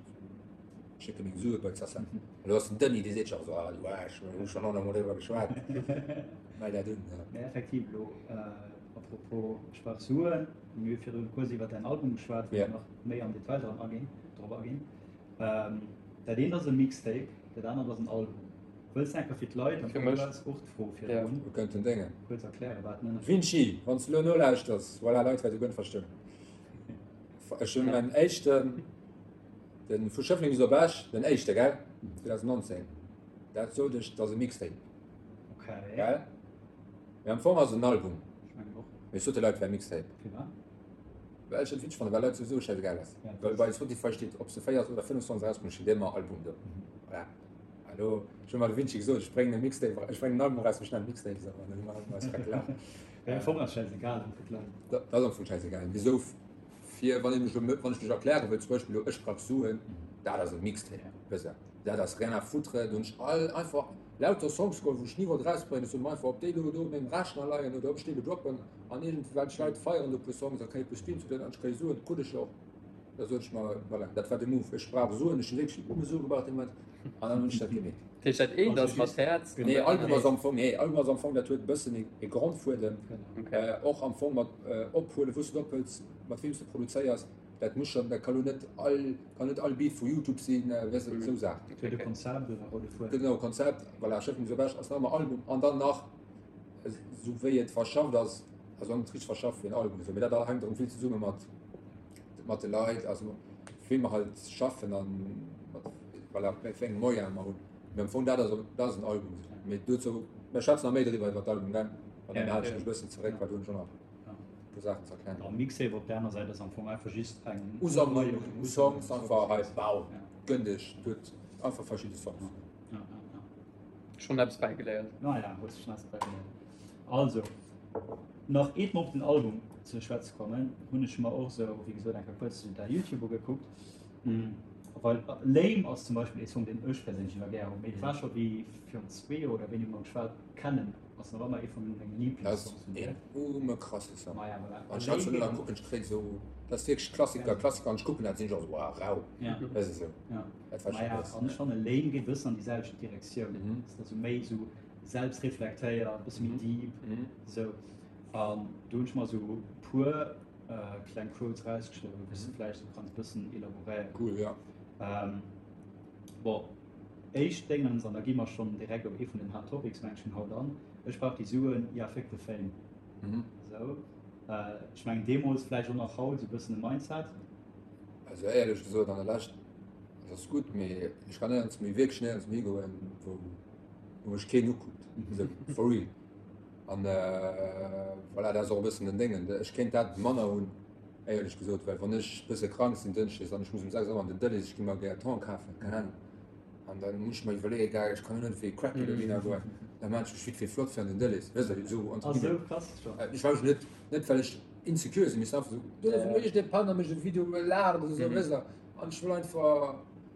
schécke meng Sue bei d'Sacem. An do ass den Denis, dee seet scho esou, ah du Aarsch, mir hu schonn honnertmol driwwer geschwat, mell dat un. Mee effektiv elo, à propos Ech brauch Suen, mir hu virdrun kuerz iwwer däin Album geschwat, wou mir nach méi am Detail dran aginn, drop aginn. Dat eent ass e Mixtape, dat anert ass en Album. Wëlls de enker fir d'Leit, an Fir mech. du has och d'Fro virdrun, Wir könnten Déngen. kuerz erklären, wat den Ënnerscheed Vinci, wann s de elo nolauschters, voilà, Leit wäerte guer net verstoen. Ech hunn mäin éischten, de vu Schëffleng bis op Esch, den éischte, gell, 2019, dat sot ech, dat ass e Mixtape, Okay. gell? Mee am Fong ass et en Album. Ech mengen och. Mee ech sot de Leit, et wär e Mixtape. Firwat? Well ech et witzeg fannen, well Leit souwisou schäisegal ass. Ja, Well bei Spotify steet, ob s de 4 oder 5 Songs erausbréngs, steet ëmmer Album do. Voilà. Hallo, ech hunn mal de Vinci gesot, ech bréngen e Mixtape, ech bréngen en Album eraus, ech nennen Mixtape esou, an dann hu mer eis grad gelaacht. Am Fong ass schäisegal fir d'Leit. Dat ass am Fong schäisegal. Mee esou fir, wann ee mech elo, wann ech mech erkläre wëll, zum Beispill elo Ech brauch Suen, dat ass e Mixtape, wësst Der, dat ass rien à foutre, do hunn ech all einfach lauter Songs geholl, wou ech ni wollt erausbréngen, ech sot mer einfach, ob déi elo do op mengem Rechner leien oder ob ech déi elo droppen an iergendwelch Leit feieren do e puer Songs a kréie e puer Streams oder an ech kréie Suen, krut ech jo och. Da sot ech mer, voilà, dat war de Move. Ech brauch Suen, ech hunn wierklech nëmme Sue gebraucht dee Moment, an dann hunn ech dat gemeet. Dat heescht, dat eent ass mat Häerz an dat Nee, Album anert. ass am Fong, nee, Album ass am Fong, dat huet e bëssen e Grondfuedem, och am Fong mat ophuelen, wou s du et ophëls, mat weem s du produzéiers, dat muss schonn, dat ka lo net all, kann net all Beat vu Youtube sinn, weess de, esou Saachen. Et huet e Konzept oder roude Fuedem. Genau, Konzept, voilà, Schëffleng bis op Esch ass nach ëmmer Album an dann nach, esou wéi et verschafft ass, also net richteg verschafft wéi en Album, esou, mee dat hänkt erëm vill zesumme mat. mat de Leit, also wéi mer halt schaffen an mat voilà, wéi eng Moyen mer hunn. Mee am Fong dat ass dat ass en Album. Mee dozou, mer schwätzen nach méi driwwer iwwer d'Album, gell? An dann halen ech mech e bëssen zeréck, well do hunn ech och nach e puer Saachen ze erklären. A Mixtape op der aner Säit ass am Fong einfach just eng Usammlung u Songs, einfach hei, bau, gënn dech, huet einfach verschidde Songs. Schonn eppes bäigeléiert. Naja, hues schonn eppes bäigeléiert. Also. Nach eet mer op den Album ze schwätze kommen, hunn ech mer och sou wéi gesot eng Kéier kuerz däi Youtube ugekuckt, well Lame ass zum Beispill ee Song deen ech perséinlech iwwer gär hunn, mee et war scho wéi virun zwee Joer oder wéini mer geschwat kennen, ass nach ëmmer ee vu menge Liiblingssongs vun dir. Dat ass een ume krasse Song. Maja voilà. Wann ech dat scho elo kucken, ech kréien esou, dat ass wierklech Klassiker, Klassiker, an ech kucken dat, sinn ech och esou, wow, rau, weess de sou. Dat war scho Maja, krass. an ech fanne Lame geet e bëssen an déi selwecht Direktioun, ass da sou méi sou selbst reflektéiert, bësse méi deep, esou. An do hunn ech mer esou puer kleng Quotes rausgeschriwwen, wou s de vläicht esou kanns bëssen elaboréieren. Cool, ja. Bon, éischt Déngens, an da gi mer schonn direkt op ee vun den Hard Topics, meng ech, vun haut an, Ech brauch déi Suen, ja fuck the fame. Esou. Ech mengen deemools, vläicht och nach haut, esou bëssen e Mindset. Also éierlech gesot, an der Lescht, dat ass gutt, mee ech kann néierens méi, wierklech néierens méi higoen, wou wou mech keen ukuckt, esou for real. An voilà, dat ass och e bëssen den Déngen. Ech kéint dat manner hunn, éierlech gesot, well wann ech e bësse krank sinn dënschdes an ech muss um 6 Auer an den Delhaize, ech gi mer gär Thon kafen, keng Ahnung, an da muss ech mer iwwerleeën, gell, ech kann jo net wéi e Cracky dohinner goen, da maan ech mech vite fait flott fir an den Delhaize, weess de, esou entre guillemets. Ah, esou krass scho? Ech war jo net, net well ech insecure sinn, mee es ass einfach esou, do ass iergendee Penner mécht e Video, laacht oder esou, weess de, an ech wëll einfach.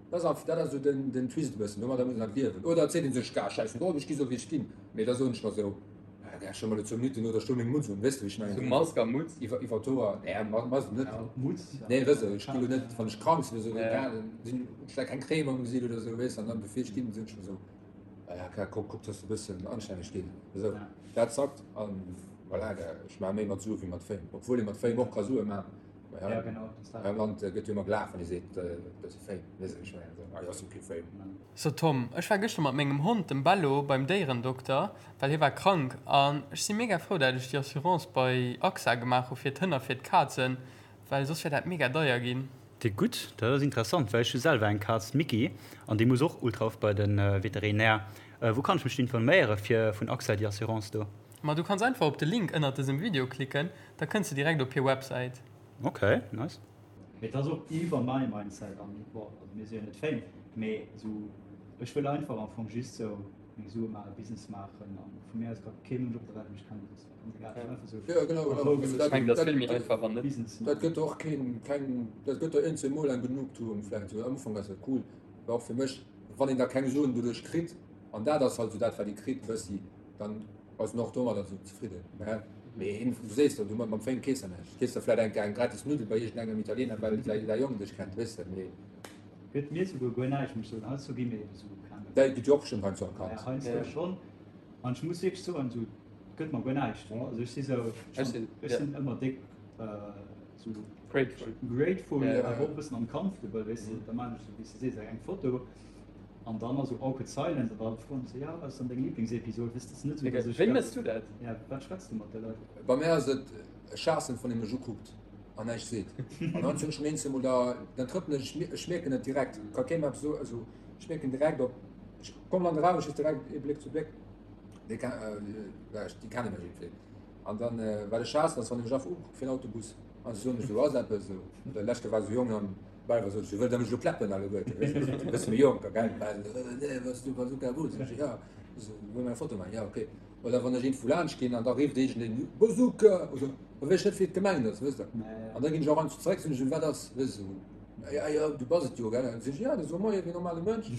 Dat ass dat ass esou den, den Twist e bëssen, domadder muss een halt liewen. Oder et seet ee sech, Gah, schäiss drop, ech gi sou wéi ech ginn. Mee da soen ech mer sou, Ah, gah, ech hu mer elo zwou Minutten oder ech hu meng Mutz un, weess de wéi ech mengen? Sou Mask a Mutz? Iwwer, iwwer d'Hoer, nee, Mask net. Mutz? Nee, weess de, ech gi lo net, wann ech krank sinn oder sou, gah, dann sinn, hunn ech vläicht keng Crème am Gesiit oder sou, weess de, an dann bevir ech ginn, soen ech mer sou, Ah ja, gah, kuck, kuck, dass de e bëssen anstänneg ginn. Esou, dat zackt an voilà, gah, ech maache méi mat Sue wéi mat Fame, obwuel ee mat Fame och ka Sue maachen. Ja, genau, das Hei am Land gëtt jo ëmmer gelaacht, wann ee seet, dat ass e Fame. Weess ech net, ah jo, ass jo kee Fame. So Tom, ech war gëschter mat mengem Hond, dem Bello, beim Déierendokter, well hie war krank. An ech si mega frou dat ech déi Assurance bei AXA gemaach hu fir d'Hënn a fir d'Kazen, well soss wär dat mega deier ginn. Déi gutt, dat ass interessant, well ech hu selwer eng Kaz, d'Micky, an déi muss och ultra oft bei de Veterinär. Wou kann ech mech informéiere fir vun AXA déi Assurance do? Ma du kanns einfach op de Link ënnert dësem Video klicken, da kënns de direkt op hir Websäit. Ok, nice. Mee et ass och iwwer mäi Mindset an bon, also mir si jo net Fame, mee esou ech wëll einfach am Fong just sou meng Sue maachen, Business maachen an vu mir aus ka kee Mënsch op der Welt mech kennen, dat ass mir ganz egal, ech wëll einfach sou Jo, genau, a Rou genau. Ech mengen, dat ass vill méi einfach, wann net. Business Dat maachen. gëtt och keen, keng, dat gëtt der eenzel mol eng Genugtuung vläicht, sou am Ufank ass dat cool, war och fir mech, wann een da keng Suen doduerch kritt, an dat ass halt sou dat wat ee kritt bëssi, dann ass en och domadder sou zefridden. Mä mee een, du sees der, du mam Fame kees der näischt. Kees der vläit eng eng gratis Nuddel bei iergendengem Italiener, well säi säi Jong dech kennt, weess de, mee. Gëtt mir souguer guer näischt, muss ech soen. Heiansdo gi mir ebe sou erkannt. Däi gëtt jo och bestëmmt heiansdo erkannt. Ja, heiansdo schonn. An ech muss wierklech soen, sou, gëtt mer guer näischt. Also ech si sou, Ech sinn, ech sinn ëmmer déck sou. Grateful. Grateful, awer och e bëssen uncomfortable, weess de. Da maan ech sou, wéi s de sees, eng Foto. An dann ass sou awkward silence an da froen se, jo, wat ass dann deng Lieblingsepisod? Weess, dat ass net sou, dass ech. Wéi mëss du dat? Ja, wat schwätz du mat de Leit? Bei mär ass et e Schaassen, wann ee mech ukuckt an näischt seet. An dann hunn ech meng eenzel mol da, dann trëppelen ech, ech mierken et direkt, ka kee mer eppes soen, also ech mierken direkt op, ech kommen an de Raum, ech weess direkt ee Bléck zu Bléck, déi déi kenne mech iergendwéi. An dann wat ech haassen ass, wann ee mech einfach ukuckt fir en Autobus an se soen mech esou, ass eppes esou? Oder lescht Kéier war esou Jong an Bal war sot ech, wëllt der mech elo kläppen alleguerten, weess de, e bësse méi jonker, gell, bal, nee, was du Bazooka Boots, sot ech, ja, so, wëll mer eng Foto maachen, ja, okay. Oder wann ech iergendwou laanscht ginn an da rifft iergendeen, Bazooka, oder da weess ech net, wéi et gemengt ass, wësst der. An da ginn ech och einfach zeréck, soen ech, wat ass, weess de, ja, ja, du bass et jo, gell, dann sot ech, ja, da so moie wéi normale Mënsch,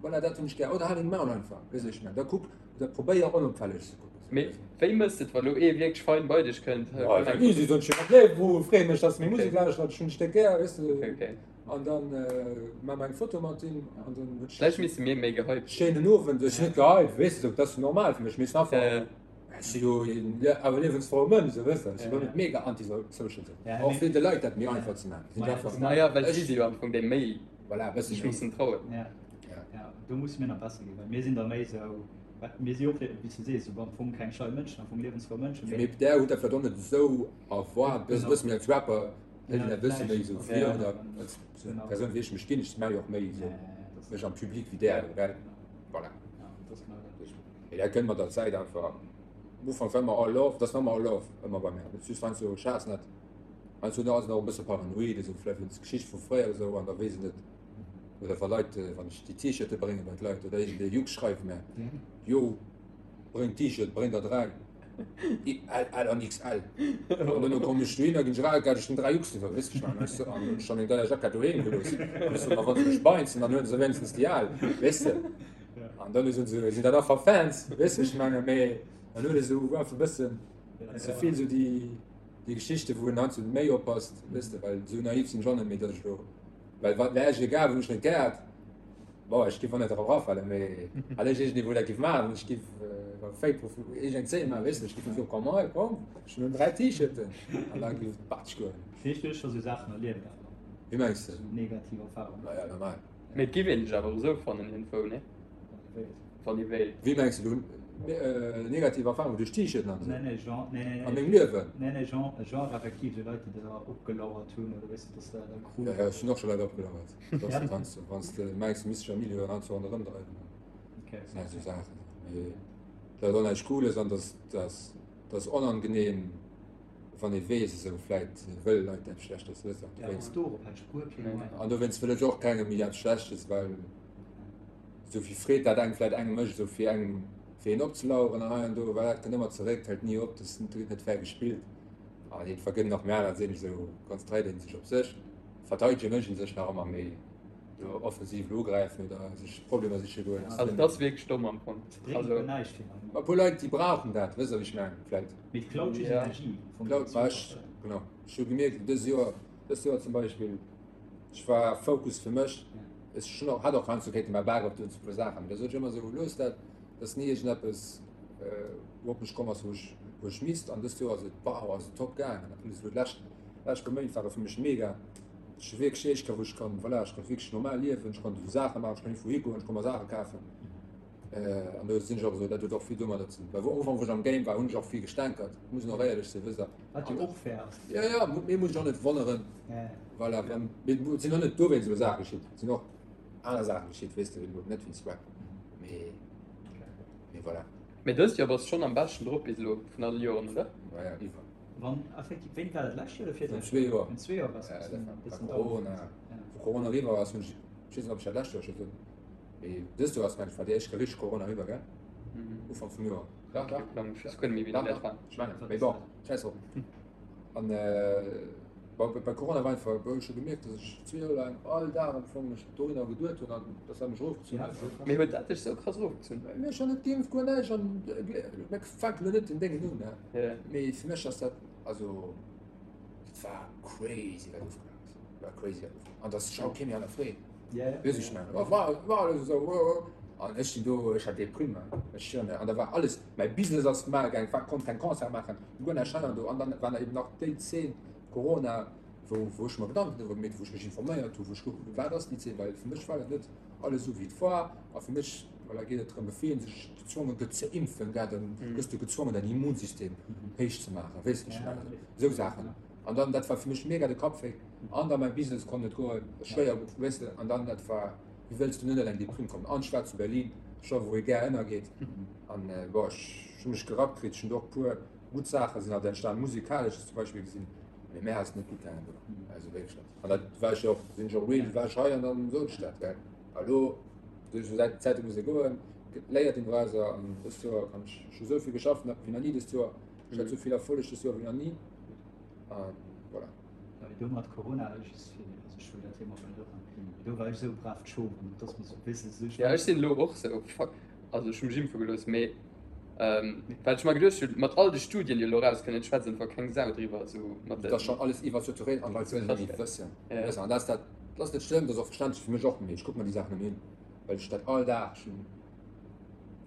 voilà, dat hunn ech gär, oder hal deng Maul einfach, weess de, wéi ech mengen, da kuck, Oder probéier onopfälleg ze kucken. Mee wéi mëss de et, wa lo ee wierklech fein bei dech kënnt? Easy, soen ech him, nee, wou freeë mech, dass de meng Musek lauschtert, ech hunn dech déck gär, weess de. An dann maache mer eng Foto mat him an dann huet Vläicht misste mir méi gehypt. Schéinen Owend, ech sinn net gehypt, weess de, dat ass jo normal fir mech, mee es einfach, ech si jo een awer liewensfroue Mënsch, esou, weess de, ech si lo net mega anti-social, esou, och fir de Leit dat méi einfach ze maachen, sinn einfach. Naja, well si si jo am Fong déi méi. Voilà, e bësse méi. Mussen trauen. Ja. Ja, do musse mir nach besser ginn, well mir sinn da méi esou, mir si och, wéi s du sees, esou am Fong keng schei Mënschen, am Fong liewensfrou Mënschen. Mee där hutt dat vläicht och net esou erwaart, e bësse méi als Rapper hëlt een dat e bësse méi esou vir oder als Persoun wéi ech mech ginn, ech maache jo och méi esou mech am Public wéi där, gell? Voilà. Mee dat kënnt mat der Zäit einfach. Am Ufank war ëmmer all love, dat ass nach ëmmer all love ëmmer bei mär, just heiansdo schaass net. Heiansdo ass en och e bësse paranoid, esou vläicht wéinst Geschicht vu fréier oder esou, an da weess en net, oder wa Leit, wann ech déi T-Shirte brénge bei d'Leit oder iergendee Jux schreift mär, Jo, bréng T-Shirt, bréng der 3, L, L an XL. An duerno kommen ech dohinner, ginn ech eraus, gell, ech hunn 3 Jux iwwer, weess ech nach, an ech hunn ech meng deier Jackett doheem gelooss. An ech soen, ma wa se mech beinzen, dann huele se wéinstens déi al, weess de. An dann soen se, sinn dat einfach Fans, weess de, ech menge, mee dann huet ee sou einfach e bëssen ze vill sou déi. Déi Geschichte wou en heiansdo méi oppasst, weess de, well esou naiv sinn ech och net méi, datt ech elo, well wat wär ech egal, wann ech net gäert, bon, ech giff och net drop erafalen, mee well ech iergendee wou dat giff maachen, ech giff e Fake Profil, iergend eng Zeen maachen, weess de, ech giff soen, komm hei, komm, ech hunn 3 T-Shirten an da giff et batsch goen. Vläicht hues du scho sou Saachen erlieft awer. Wéi mengs de? Sou negativ Erfahrungen. Ma ja, normal. Mee et giff een dech awer och esou fannen iergendwou, nee? Wann ee wéilt. Wéi mengs de do negativ Erfahrungen duerch T-Shirten an esou? Nee, nee, Genre, nee, nee, An mengem Liewen? Nee, nee, Genre, Genre effektiv esou Leit, déi der opgelauert hunn oder weess de, dass der da krut. Ja, ja, ech hunn och scho Leit opgelauert. Dass du wanns du, wanns de mengs, du misst dech am Milieu an esou ronderëm dreiwen. Okay. Dat sinn halt esou Saachen. Mee dat ass och näischt Cooles an dass, dass, dass onangenehm, wann ee weess, esou vläit wëlle Leit eppes Schlechtes, weess de. Ja, dorop hätt ech guer keng Meinung. An dowéinst wëll ech och kengem méi eppes Schlechtes, well. Esou vill Freed dat engem vläit engem mécht, esou fir engem fir een opzelaueren an hei an do, well dat kënnt ëmmer zeréck, hält ni op, dat gëtt net fair gespillt. An een vergënnt nach méi aner sinn, esou konzentréiert een sech op sech, verteidege mécht een sech nach ëmmer méi do offensiv elo ugräifen oder sech Problemer siche goen. Also dat ass wierklech domm am Fong. Bréngt guer näischt finalement. E puer Leit déi brauchen dat, wësst der wéi ech mengen, vläit. Mee et klaut just Energie vum Klaut, ma ech, genau, ech hu gemierkt dës Joer, dëst Joer zum Beispill, Ech war Focus fir mech. Ech hunn och, hat och heiansdo kéinte mäi Bak opdoen zu puer Saachen, mee da sot ech ëmmer esou, looss dat, et ass ni iergendeppes wou op mech komm ass, wou ech, wou ech misst. An dëst Joer ass et, wow, ass et top gaangen. En plus elo d'lescht, lescht puer Méint ware fir mech mega. Ech hu wierklech éischt Kéier wou ech kann, voilà, ech konnt wierklech normal liewen, ech konnt esou Saache maachen, ech konnt iergendwou higoen, ech konnt mer Saache kafen. An do sinn ech och esou, dat huet och vill domadder ze dinn, well am Ufank wou ech am Game war, hunn ech och vill gestänkert, muss een och éierlech sinn, wësst der. Wat jo och fair ass. Jo, jo, mir muss ech och net wonneren, voilà, wann, mee et sinn och net dowéinst elo Saache geschitt, et sinn och aner Saache geschitt, weess de, elo net wéinst Rap, mee, mee voilà. Mee dëst Joer bass schonn am beschten drop bis elo vun alle Joren, oder? Ja, ja, iwwer. Wann effektiv, wéini war dat, lescht Joer oder virlescht? Zwee Joer. Virun zwee Joer bass du e bëssen down. Corona, wou Corona eriwwer ass, hunn ech, ech weess net, ob ech dat lescht Joer scho sot, mee dëst Joer ass mengen ech war déi éischt Kéier richteg Corona eriwwer, gell? Ufank vum Joer. Dach, dach. Ech weess guer net méi, wéini dat war. Ech mengen, mee bon, schäiss drop. An bon, bei Corona war einfach, wou ech hu gemierkt, dass ech zwee Joer laang all Dag am Fong mech dohinner geduet hunn an dass dat mech erofgezunn huet. Mee huet dat dech sou krass erofgezunn? Mee ech hunn net geimpft, guer näischt an mir fänken elo net den Déngen un, ne? Mee fir mech ass dat, also dat war crazy wat ofgelaf ass, dat war crazy wat ofgelaf an dass scho kee méi hannerfreet. Weess ech mengen, oh war war alles esou, oh oh. An ech sinn do, ech hat Deprime, ech schwören der, an da war alles, mäi Business ass mal gaang, war konnt keng Concert maachen, guer näischt hei an do. An dann war eben nach déi Zeen Corona, wou wou ech mer Gedanken driwwer gemeet hunn, wou ech mech informéiert hunn, wou ech gekuckt hunn, wat ass déi Zeen, well fir mech war dat net alles esou wéi et war. A fir mech, voilà, geet et drëm, bevir een sech gezwonge gëtt ze impfen, gell, dann gëss du gezwongen däin Immunsystem héich ze maachen, weess de, ech mengen, esou Saachen. An dann, dat war fir mech mega de Kappwéi. An dann mäi Business konnt net goen, schwéier, weess de, an dann dat war, wéi wëlls du net an eng Deprime kommen? An ech war zu Berlin, scho wou ee gär ënnergeet. An bon, ech hu mech gerappt kritt, ech hunn do och puer gutt Saache sinn halt entstan, musikalesch zum Beispill gesinn, mee mär ass et net gutt gaangen do, also wierklech net. An dat war ech jo och, sinn ech och real, war ech hei an dann sot ech dat, gell. A lo, duerch esou Säit Zäite muss ee goen, léiert een dorausser an dëst Joer kann ech, ech hu esou vill geschafft wéi nach ni dëst Joer, ech hat esou vill Erfolleg dëst Joer wéi nach ni an voilà. Ja, mee do mat Corona, just fir, also ech wëll dat Thema och net opmachen, mee do war ech esou brav d'Schof an et ass mir esou e bësse sou, Ja, ech sinn elo och sou, fuck, also ech hu mech impfe gelooss, mee wat ech mer geduecht hunn, mat all de Studien, déi elo erauskënnen, et schwätzt einfach keng Sau driwwer, esou mat den. Et ass schonn alles iwwersaturéiert an d'Leit wëllen net méi wëssen. Weess de, an dat ass dat, dat ass net schlëmm, dat ass och verständlech fir mech och, mee ech kucke mer déi Saachen net méi un, well ech dat all Dag, ech hunn,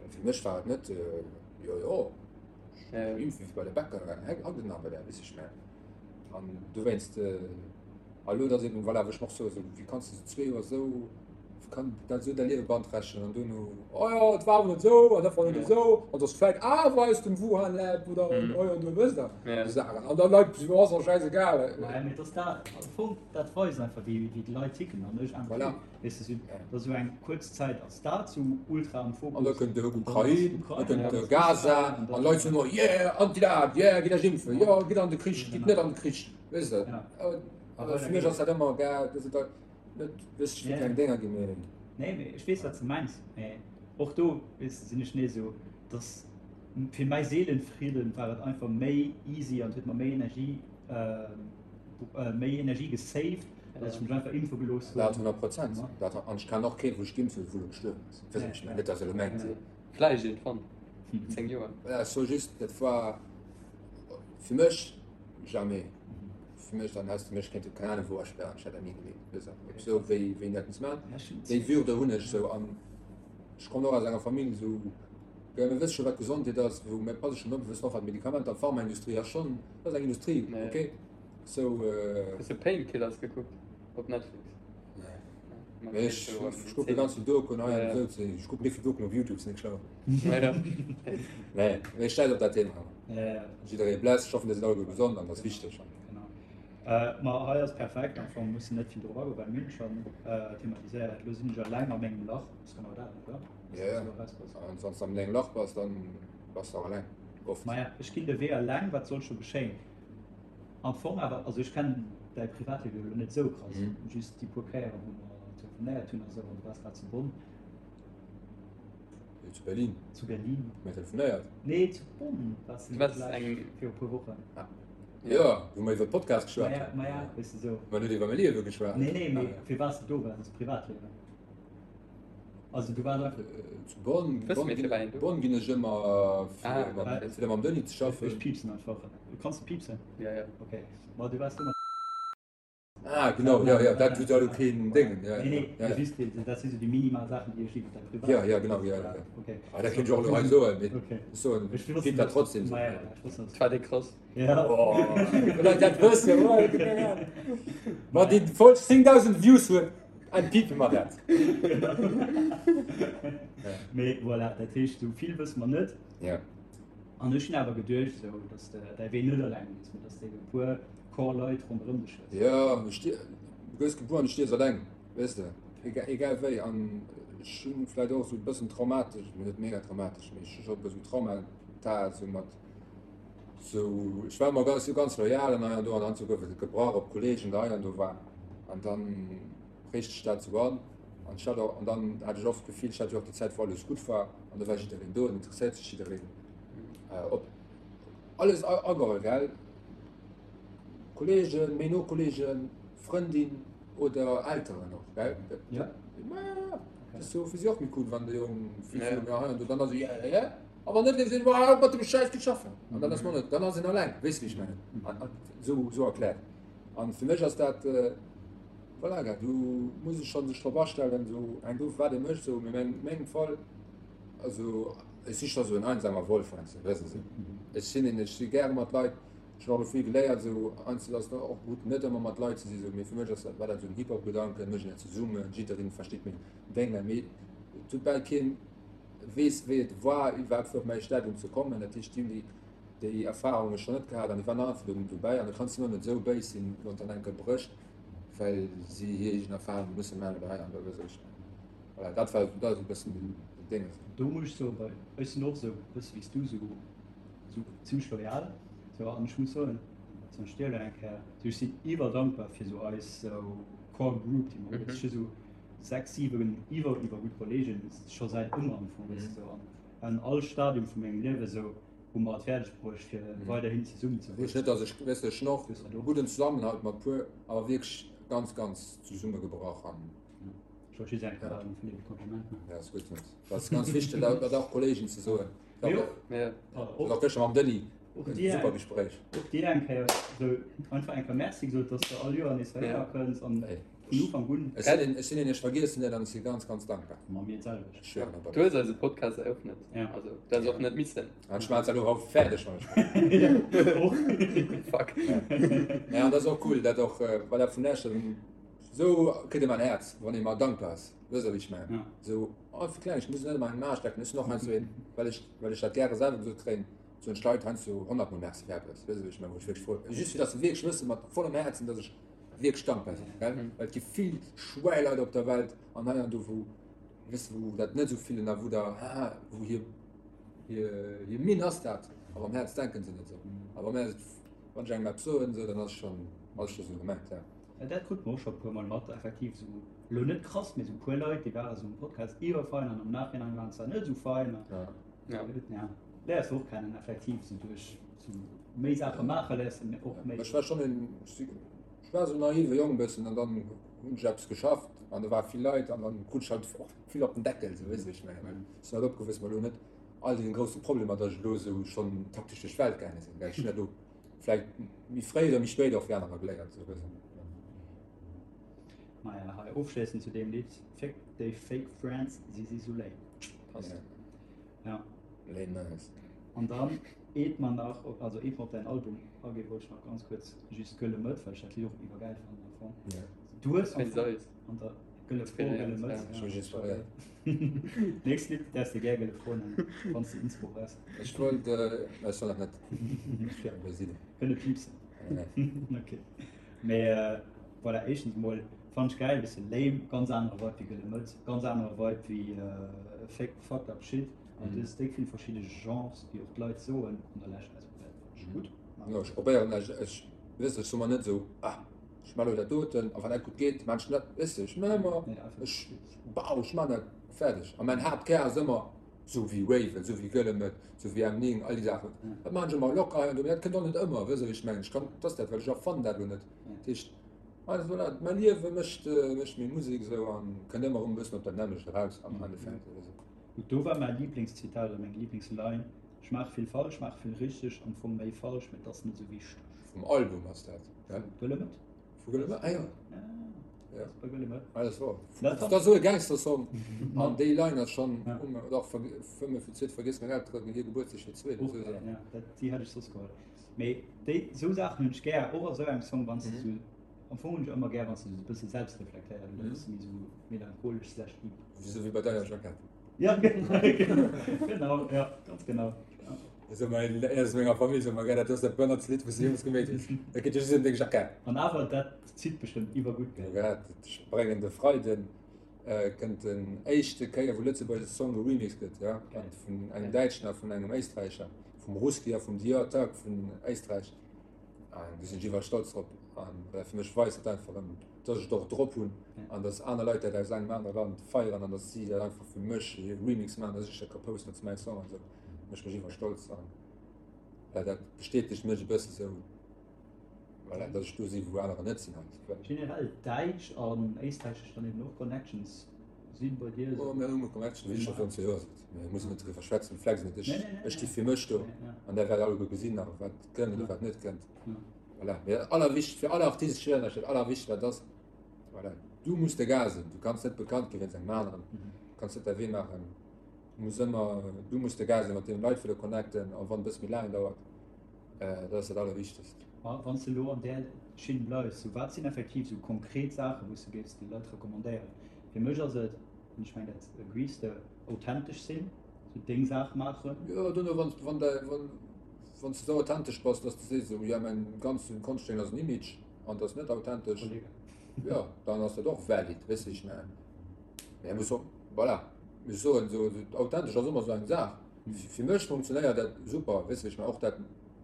well fir mech war et net, jo jo, ech impfe wéi bei de Bäcker, haut et nach bei der, weess ech mengen. An dowéinst, a lo, dat ass eben, voilà, wou ech mer och soen, esou, wéi kanns de esou zwee Joer esou, wéi kann dat esou däi Liewe beanträchtegen an duerno, oh jo, et war awer net esou an dat war net esou an et ass vläicht awer aus dem Wuhan Lab oder oh jo, du wësst der, esou Saachen. An da Leit, jo, ass och schäisegal. Mä mee et ass dat, am Fong, dat weist einfach, wéi déi Leit ticken an ech einfach, Voilà. weess de, sou, dass esou eng kuerz Zäit ass dat sou ultra am Fokus. An da kënnt de Ukrain, da kënnt de Gaza an d'Leit soen, oh yeah, anti-dat, yeah, gitt iech impfen, jo, gitt an de Krich, gitt net an de Krich, weess de. Awer fir mech ass dat ëmmer, gell, dat ass net, weess ech, fir keng Dénger ginn, mee. Nee, mee ech weess, wat s de mengs, mee och do, weess de, sinn ech nees esou, dass fir mäi Seelenfridden war et einfach méi easy an huet mer méi Energie, méi Energie gesaved, dass ech mech einfach impfe gelooss hunn. Dat 100 Prozent. Dat, an ech kennen och keen, wou sech geimpft huet, wou elo gestuerwen ass. Weess ech net, net dass elo mengt. Vläicht iergendwann, an 10 Joer. Voilà, ech soe just, dat war fir mech jamais. Fir mech, dann häss de mech kéinte keng Ahnung wou asperren, ech hätt dat ni geleet. Weess de, esou wéi wéi een dat muss maachen. Déi Würde hunn ech esou an ech kommen och aus enger Famill esou, jo mir wësse scho wat Gesondheet ass, wou mir passe schonn op, mir wëssen och wat Medikamenter, d'Pharmaindustrie ass schonn, dat ass eng Industrie, okay. So, äh, Hues du Painkillers gekuckt op Netflix? Nee. Mee ech, ech kucke ganz vill Dokuen hei an esou. Ech kucken net vill Dokuen op Youtube, sinn net schlau. Nee, mee schäiss op dat Thema. Jidderee bless, ech hoffen, dir sidd alleguer gesond an dat ass wichteg. Genau. Äh, ma hei ass perfekt, am Fong musse net vill drop agoen, well mir hunn schonn äh, thematiséiert. Elo sinn ech eleng a mengem Lach, ass genau dat, oder? Ja, ja. An wann s de an dengem Lach bass, dann bass de och eleng. Oft. Maja, ech ginn de Wee eleng, wat soll scho geschéien? Am Fong awer, also ech kennen däi Privatliewe jo elo net esou krass, just déi puer Kéieren, wou mer telefonéiert hunn a sou, an du waars grad zu Bonn. Nee, zu Berlin. Zu Berlin. Hu mir telefonéiert? Nee, zu Bonn waars du vläicht viru puer Wochen. Ah. Jo, wou mer iwwer Podcast geschwat hunn. Maja, weess de sou. Mer net iwwer mäi Liewe geschwat. Nee, nee, mee fir wat s du do waars, ass Privatliewen. Also du waars einfach. Zu Bonn, Bonn, ginn, Bonn ginn ech ëmmer fir, ah, fir mam Denis ze schaffen. Ech piepsen einfach. Kanns du piepsen? Ja, ja. Okay. Ma du waars do mat. Ah, genau, ja, ja, dat huet elo keen Déngen. Ja, nee, nee, ja, ja. Just, dat si sou déi minimal Saachen, déi ech iwwer däi Privat. Ja, ja, genau, ja, ja. Okay. Ah, dat kéint ech och elo hei soen, mee okay. ech soen, ech wosst dat trotzdem. Ma ja, ech wosst dat. War dee krass. Ja. Oh, Leit dat wëssen, oh, Ma déi voll 10.000 Views huet. En piepe mer dat. Mee voilà, dat heescht, sou vill wësse mer net. Ja. An ech hunn awer geduecht, sou, dass de däi Wee net eleng gees, mee dass de e puer Core Leit ronderëm dech hues. Ja, du gëss gebuer an du stierfs eleng, weess de, egal, egal wéi. An. Ech hunn vläit och esou e bëssen traumatesch, mee net mega traumatesch, mee ech hu scho e bëssen Traumata esou mat esou, ech war ëmmer ganz, ganz loyal an hei an do an dann esou gouf et gebrach op Kollegen der hei an do war an dann prägt sech dat esou an an ech hat och, an dann hat ech oft d'Gefill, ech hat jo och déi Zäit wou alles gutt war an do war jiddereen do an interesséiert sech jiddereen op alles ageholl gell, Kollegen, méi no Kollegen, Frëndin oder Elteren och gell? Ja. Ma dat ass jo fir si och méi cool, wann de Jong vill ja. Méi hei an do dann ass ja, ja, ja. Awer net sinn war mat dem Schäiss ze schaffen. An dann ass man net, dann ass en alleng, weess wéi ech mengen. An, an, so, so erkläert. An fir mech ass dat äh, voilà, gell, du muss ech schon sech drop astellen, so eng gouf wat e mécht, so mee meng, mengem Fall also ech si scho sou en einsamer Wolf heiansdo, weess de. Ech sinn een, ech si gäre mat Leit. Ech hunn och elo vill geléiert, esou einzel ass och gutt, net ëmmer mat Leit ze sinn, esou, mee fir mech ass dat, war dat esou den Hip-Hop-Gedanken, mécht een dat zesummen, jiddereen versteet meng Dénge, mee et huet bal keen weess wéi et war iwwerhaapt fir op mäi Stadium ze kommen, dat heescht déi hunn déi déi Erfahrunge schonn net gehat an déi waren einfach do dobäi an da kanns de och net esou béis sinn, wann et dann eng Kéier brécht, well si hir eegen Erfahrunge musse maachen oder hei an do, weess ech. Voilà, dat war dat ass e bëssen den Dénges. Do muss ech soen, well ech sinn och esou e bësse wéi s du, esou esou zimmlech loyal sou an ech muss soen zum Beispill dir elo eng Kéier sou ech sinn iwwerdankbar fir sou eis sou Core Group déi mer hunn. Ech hu sou 6, 7 iwwer iwwer gutt Kollegen scho säit ëmmer am Fong weess de sou an an all Stadium vu mengem Liewe sou hu mer et fäerdeg bruecht fir weiderhin zesummen ze Heescht net dass ech weess de ech hunn och e gudden Zesammenhalt mat puer awer wierklech ganz ganz zesummegebrach an Ech wollt just eng Kéier vun dir e Kompliment maachen. Ja ass gutt dat ass ganz wichteg dat och Kollegen ze soen. Jo. Ja. Och gëschter mam Denis. Och dir super Gespréich. Och dir eng Kéier sou einfach eng Kéier Merci gesot, dass de all Joer nees heihinner kënns an vun Ufank un. Ech sinn ech sinn een, ech vergiessen net an ech si ganz, ganz dankbar. Ma mir d'selwecht. Ech schwören op Du hues eise Podcast eröffnet. Ja. Also, du häss och net missen. An ech maachen et elo haut fäerdeg, wann ech Och. Fuck. Ja, an dat ass och cool, dat och, voilà, vun lech, sou kritt ee mer en Häerz, wann ee mer dankbar ass. Wësst Der, wéi ech mengen? Ja. Sou, oh, fir Klengegkeet muss ech net ëmmer eng Maach strecken. Ech sinn och heiansdo een, well ech, well ech dat gäre selwer gesot kréien, soen ech Leit heiansdo honnertmol Merci fir eppes. Wësst Der, wéi ech mengen? Wou ech wierklech frou, just fir datt se wierklech wëssen, mat vollem Häerzen, datt ech wierklech dankbar sinn, gell? Well et gi vill Schwäileit op der Welt an hei an do, wou, wësst Der, wou dat net esou fillen a wou der, haha, wou hir, hir, hir Minn ass dat, awer am Häerz denken se net esou. A wa mir, wann ech engem eppes soen, esou, dann ass schonn, ass scho sou gemengt, ja. Ja, dat krut mer och scho e puer Mol mat, effektiv esou, elo net krass, mee esou e puer Leit, déi ware sou um Podcast iwwerfein an am Nachhinein waren se net esou fein. Ja. Ja. Ja, léiers de och kennen, effektiv, sou duerch sou méi Saache maache léiers de och méi. Ech war schonn en, ech war esou naive Jong e bëssen an dann hunn ech eppes geschafft an do ware vill Leit an dann krut ech halt och vill op den Deckel, sou, weess de wéi ech mengen, well ech sinn halt opgewuess mat elo net all deene grousse Problemer, datt ech elo esou schonn taktesch duerch d'Welt gaange sinn, well ech hunn dat elo Vläicht méi fréi oder méi spéit och wéi anerer geléiert esou gesinn. Maja, hei ofschléissend zu deem Lidd, Fick déi fake friends, si si sou lame. Passt. Ja. Lame nice. An dann, eet mer nach, also eet mer op däin Album aginn, wollt ech nach ganz kuerz just Gëlle Mëtt, well ech dat Lidd och iwwergäil fannen am Fong. Ja. Du hues am Wéinst Fong eis. an der Gëlle Fro, Gëlle Mëtt. Ech hu mech inspiréiert. Nächst Lidd däerfs de gär Gëlle Fro nennen, wann s de Inspo brauchs. Ech wollt, ech soll dat net besinn. Kënne piipsen. Ok. Mee voilà, éischtens emol fannen ech gäil, bësse lame, ganz anere Vibe wéi Gëlle Mëtt, ganz anere Vibe wéi Fake Fucked Up Shit. An du hues déck vill verschidde Genres, wéi och d'Leit soen an der Lescht. Also dat fannen ech gutt. Jo, ech probéieren, ech, ech, weess de, ech soe mer net esou, ah, ech man elo dat doten, a wann dat gutt geet, man ech dat, weess de, ech man ëmmer, ech, bau, ech man dat fäerdeg. A mäin Haaptkär ass ëmmer, Sou wéi Raven, sou wéi Gëlle Mëtt, sou wéi M9, all déi Saachen. Dat maachen ech ëmmer locker hei an do, mee dat kënnt och net ëmmer, wësst Der wéi ech mengen? Ech kann, dat ass dat, well ech erfannen dat elo net. Dat heescht, also voilà, mäi Liewe mécht, mécht meng Musek esou an kënnt ëmmer erëm e bëssen op dat nämmlecht eraus am Endeffekt oder sou. Gutt, do war mäi Liblingszitat oder meng Liblingsline, Ech maache vill falsch, maache vill richteg, am Fong méi falsch, mee et ass net esou wichteg. Vum Album ass dat, gell? Vu Gëlle Mëtt. Vu Gëlle Mëtt, ah jo. Ja. Bei Gëlle Mëtt. Ah, das war. Dat ass esou e Gangster-Song. An déi Line ass schonn, dach, fëmmen fir d'zweet, vergiss meng Elteren, hir Gebuertsdag fir d'zweet. Och, ja, dat, déi hätt ech soss geholl. Mee déi, esou Saachen hunn ech gär, och a sou engem Song, wann s de sou, am Fong hunn ech ëmmer gär, wann s de sou e bësse selbstreflektéiert oder e bësse méi sou melancholesch slash deep. Esou wéi bei deiner Jackett. Ja, genau, ja, ganz genau. Esou mei aus menger Famill soe mer, gell, dat ass dat bënnertst Lidd, wou s de jeemools geméit hues. Dat geet jo just ëm deng Jackett. An awer, dat zitt bestëmmt iwwergutt, gell? Ja, ech bréngen de Freiden. Kënnt den éischte Kéier wou lëtzebuergesche Song geremixed gëtt, jo, an vun engem Däitschen a vun engem Éisträicher, vum Ruski a vum Dior Tag vun Éisträich. An do sinn ech iwwer stolz drop. An well fir mech weist dat einfach erëm, dass ech et och drop hunn an dass aner Leit dat aus engem anere Land feieren an dass si dat einfach fir mech e Remix maachen, dass ech dat ka posten als mäi Song an esou. Mécht mech iwwer stolz an well dat bestätegt mech e bësse sou. Voilà, dass ech do sinn, wou anerer net sinn halt. Generell däitsch an éisträichesch dann eben och Connections sinn bei dir? Oh, mir hunn Connections, wéi ech scho virun 2 Joer sot. Mir mussen net driwwer schwätzen, flex net. Ech, ech sti fir mech do an der wäert alleguer gesinn nach, wat kënnt oder wat net kënnt. Voilà. Mee dat allerwichtigst fir alle Artisten, ech schwéieren iech, dat allerwichtigst wat ass, voilà, du muss de Gas sinn. Du kanns net bekannt gi wéinst engem aneren, du kanns net däi Wee maachen. Du muss ëmmer, du muss de Gas sinn, mat deem Leit wëlle connecten, a wann et e bësse méi laang dauert. Dat ass dat Allerwichtegst. A wann s de elo an där Schinn bleifs, sou wat sinn effektiv sou konkret Saachen, wou s de géifs de Leit recommandéieren? Fir mech ass et, an ech mengen dat agrees de, authentesch sinn, sou deng Saach maachen. Jo, dono wann wann däi wann wann s de sou authentesch bass, dass de sees esou, jo mäin ganzen Konschtdéng ass en Image an et ass net authentesch, jo dann ass dat och valid, weess de wéi ech mengen? Mä muss och, voilà, ech soen esou, authentesch ass ëmmer sou eng Saach. Fir mech funktionéiert dat super, weess de wéi ech mengen, och dat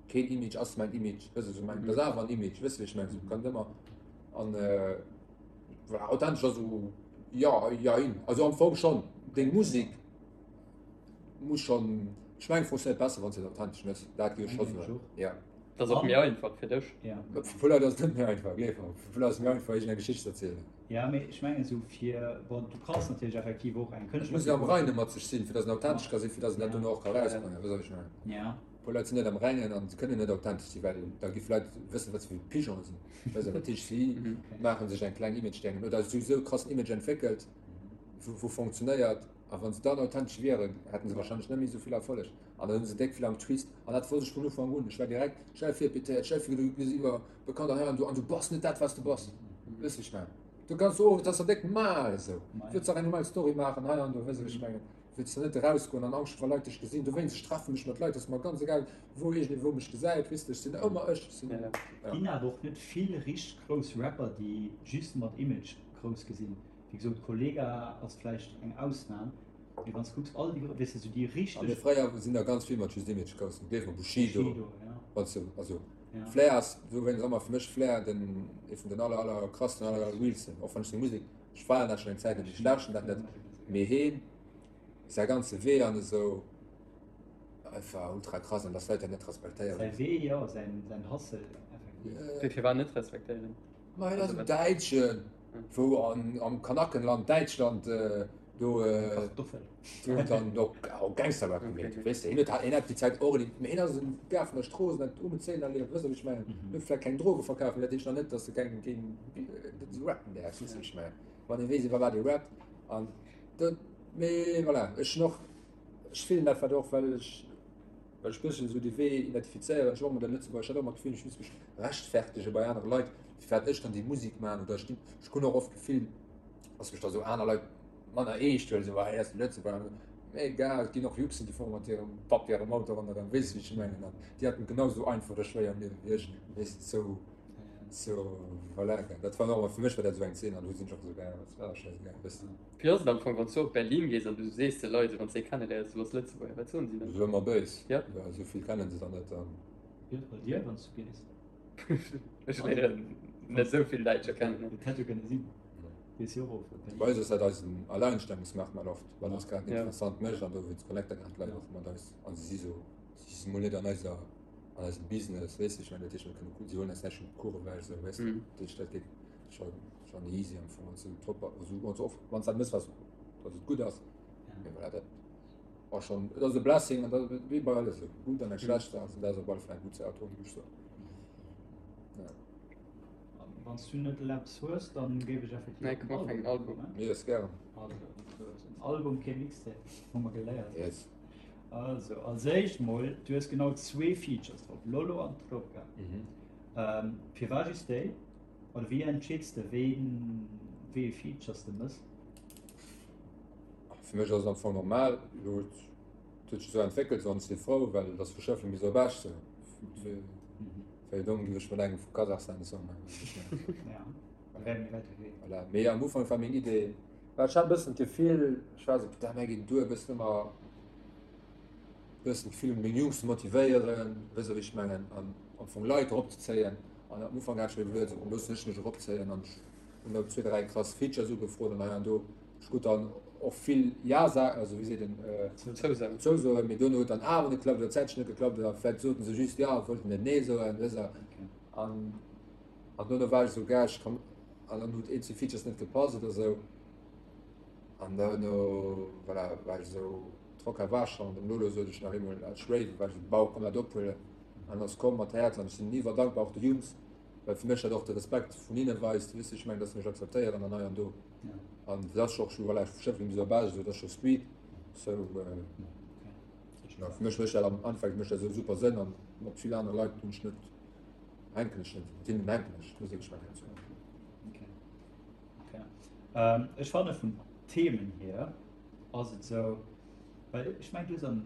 keen Image ass mäin Image, weess de wéi ech mengen, dat ass awer en Image, weess de wéi ech mengen, sou kann ëmmer an voilà, authentesch ass esou jo, jein, also am Fong schonn, deng Musek muss schonn, ech mengen funktionéiert besser wann s de et authentesch méchs, dat géif ech scho soen, jo. Dat ass och méi einfach fir dech. Fir puer Leit ass et net méi einfach, gleef mer, fir puer Leit ass et méi einfach iergendeng Geschicht ze erzielen. Ja, mee ech mengen esou fir, bon, du kanns natierlech effektiv och eng Et muss een am Reine mat sech sinn, fir datt een authentesch ka sinn, fir datt een dat dono och ka erausbréngen. Weess wat ech mengen? Ja. E puer Leit sinn net am Rengen an se kënnen net authentesch sinn, well da gi Leit wëssen, wat se fir Pigeone sinn. Weess dat heescht, si maache sech eng kleng Image-Dengen oder si hu sou e krassen Image entwéckelt, wou wou fonctionnéiert. A wa se dann authentesch wieren, hätte se warscheinlech net méi esou vill Erfolleg. An dann hu se déck vill am Twist. An dat wosst ech vun Ufank un. Ech war direkt schnell virpétéiert, schnell vir, du bist iwwer bekannt an hei an do an du bass net dat, wat du bass. Weess wéi ech mengen? Du kanns och, dat ass der déck mal esou. Wëlls dach eng normal Story maachen hei an do, weess wéi ech mengen? Wëlls der net erausgoen an Angscht hu wa Leit dech gesinn. Dowéinst, ech treffe mech mat Leit, ass mer ganz egal, wou iergendee wou mech gesäit, weess de, ech sinn ëmmer ech. Ech sinn, ja. Ginn awer och net vill richteg grouss Rapper, déi just mat Image grouss gi sinn. Wéi gesot, Kollegah ass vläicht eng Ausnam, mee wann s de kucks, all déi, weess de, sou déi richteg. A mee fréier sinn der ganz vill mat just Image grouss ginn, gleef mer, Bushido, Bushido, ja. Wann s de, also ja. Flair ass dowéinst ëmmer fir mech Flair den, ee vun den aller, aller krassten, aller, aller realsten, och wann ech seng Musek, ech feieren dat schonn eng Zäit net, ech lauschten dat net, mee heen, säi ganze Wee an esou, einfach ultra krass an dass Leit dat net respektéieren. Säi Wee, jo, säin, säin Hustle, effektiv. Wéi firwat net respektéieren? Ma hien ass en Däitschen, wou an, am Kanackenland, Däitschland, do, do dann och Gangster-Rap gemeet huet, weess de. Hien huet, hien hat déi Zäit och, mee hien ass en Gars vun der Strooss an hat um Zéien erlieft, weess de, wéi ech mengen. Hien huet vläicht keng Droge verkaf, mee dat heescht nach net, dass e keng, keng, dass e rappen däerf, weess de, wéi ech mengen. Wann ee weess, iwwer wat ee rappt an dat, mee voilà, ech hunn och, ech fillen dat wat och, well ech, Well ech bëssen esou dee Wee identifizéieren. Ech hu och ëmmer dat Lëtzebuerger, ech hat och ëmmer d'Gefill, ech muss mech rechtfertege bei anere Leit, firwat ech dann déi Musek maachen. Oder ech ginn, ech hunn och oft d'Gefill, dass mech da sou aner Leit manner eescht huelen, esou, ah, hie ass de Lëtzebuerger. Mee egal, et ginn och Juxen, déi fuere mat hirem Papp hirem Auto ronderëm, weess de wéi ech mengen. An déi haten et genau esou einfach oder schwéier am Liewe wéi ech, weess de, sou, sou, voilà. Dat war och ëmmer, fir mech war dat esou eng Zeen an do sinn ech och esou gaangen, dat war schäisegal, weess de. Wéi ass et am Fong, wann s du op Berlin gees an du sees de Leit, wann s de ee kenneléiers, du bass Lëtzebuerger, wat soen si dann? Sou ëmmer béis. Ja. Ja, esou vill kennen se dann net dann. Wéi ass et bei dir, wann s du gees? Ech léieren net esou vill Däitscher kennen. Et hätt jo kënne sinn. Gees jo och op Berlin. Bei eis ass dat eisen Alleinstellungsmerkmal oft, wat eis grad interessant mécht an dowéinst connecte grad d'Leit och mat eis an si si sou, si si mol net an eiser, an eisem Business, weess de, ech mengen, dat heescht mir kënne, si huelen eis näischt vum Kuch ewech, esou, weess de, dat heescht dat geet scho. Schon easy am Fong, wann du top, also wann du oft, wann du dat mëss, was, dass et gutt ass. Mee voilà, dat war schon, et ass e Blessing an dat wéi bei alles esou, gutt an eng schlecht Saach, an dat ass op alle Fall eng gutt Saach, do muss ech soen. Ja. Wann du net eppes hues, dann géif ech effektiv Nee, komm, mach eng Album. Mir ass gären. Also, en Album, kee Mixtape, hu mer geléiert. Yes. Also, als éischt mol, du hues genau zwee Features drop, Lolo an Tropica. Mhm. Ähm, firwat just déi? Oder wéi entscheeds de ween wéi ee Features de mëss? Fir mech ass et am Fong normal, elo huet huet sech esou entwéckelt, esou an ech si frou, well et ass vu Schëffleng bis op Esch sou. Wéi domm géif ech mat engem vu Kasachstan e Song maachen, weess ech net. Ja, wär méi wäit ewech. Voilà, mee am Ufank war meng Idee. Well ech hat e bëssen d'Gefill, ech war esou, putain, mär ginn duer, e bëssen ëmmer e bëssen d'Gefill, meng Jungs ze motivéieren, weess de wéi ech mengen, an am Fong Leit eropzezéien. An am Ufank hat ech mir iwwerluet, esou, loossen ech mech eropzéien an ech hunn da zwee, dräi krass Features ugefrot an hei an do. Ech krut dann och vill Ja-Sa-, also wéi seet een, Zousoen. Zousoen, mee duerno huet dann awer net geklappt oder zäitlech net geklappt oder vläicht soten se just Ja a wollten net Nee soen, weess de. An an duerno war ech esou, gell, ech kann, an dann huet eenzel Features net gepasst oder sou. An duerno, voilà, war ech esou, Trocker war schonn, dem Lolo sot ech nach eemol als Rave, war ech esou, Bau, komm dat ophuelen. An ass komm mat Häerz an ech sinn iwwer dankbar och de Jungs, well fir mech dat och de Respekt vun hinne weist, weess de, ech mengen, dass se mech akzeptéieren an hei an do. An dat ass och scho, voilà, ech schëffelen esou erbäi, esou, dat ass scho Street, sou, ja, fir mech mécht dat am Endeffekt mécht dat esou super Sënn an mat vill anere Leit hunn ech net, hänken ech net, mat hinnen hänken ech, muss ech mengen, sou. Okay. Okay. Ähm, ech fanne vun Themen hier ass et sou, well ech meng du hues am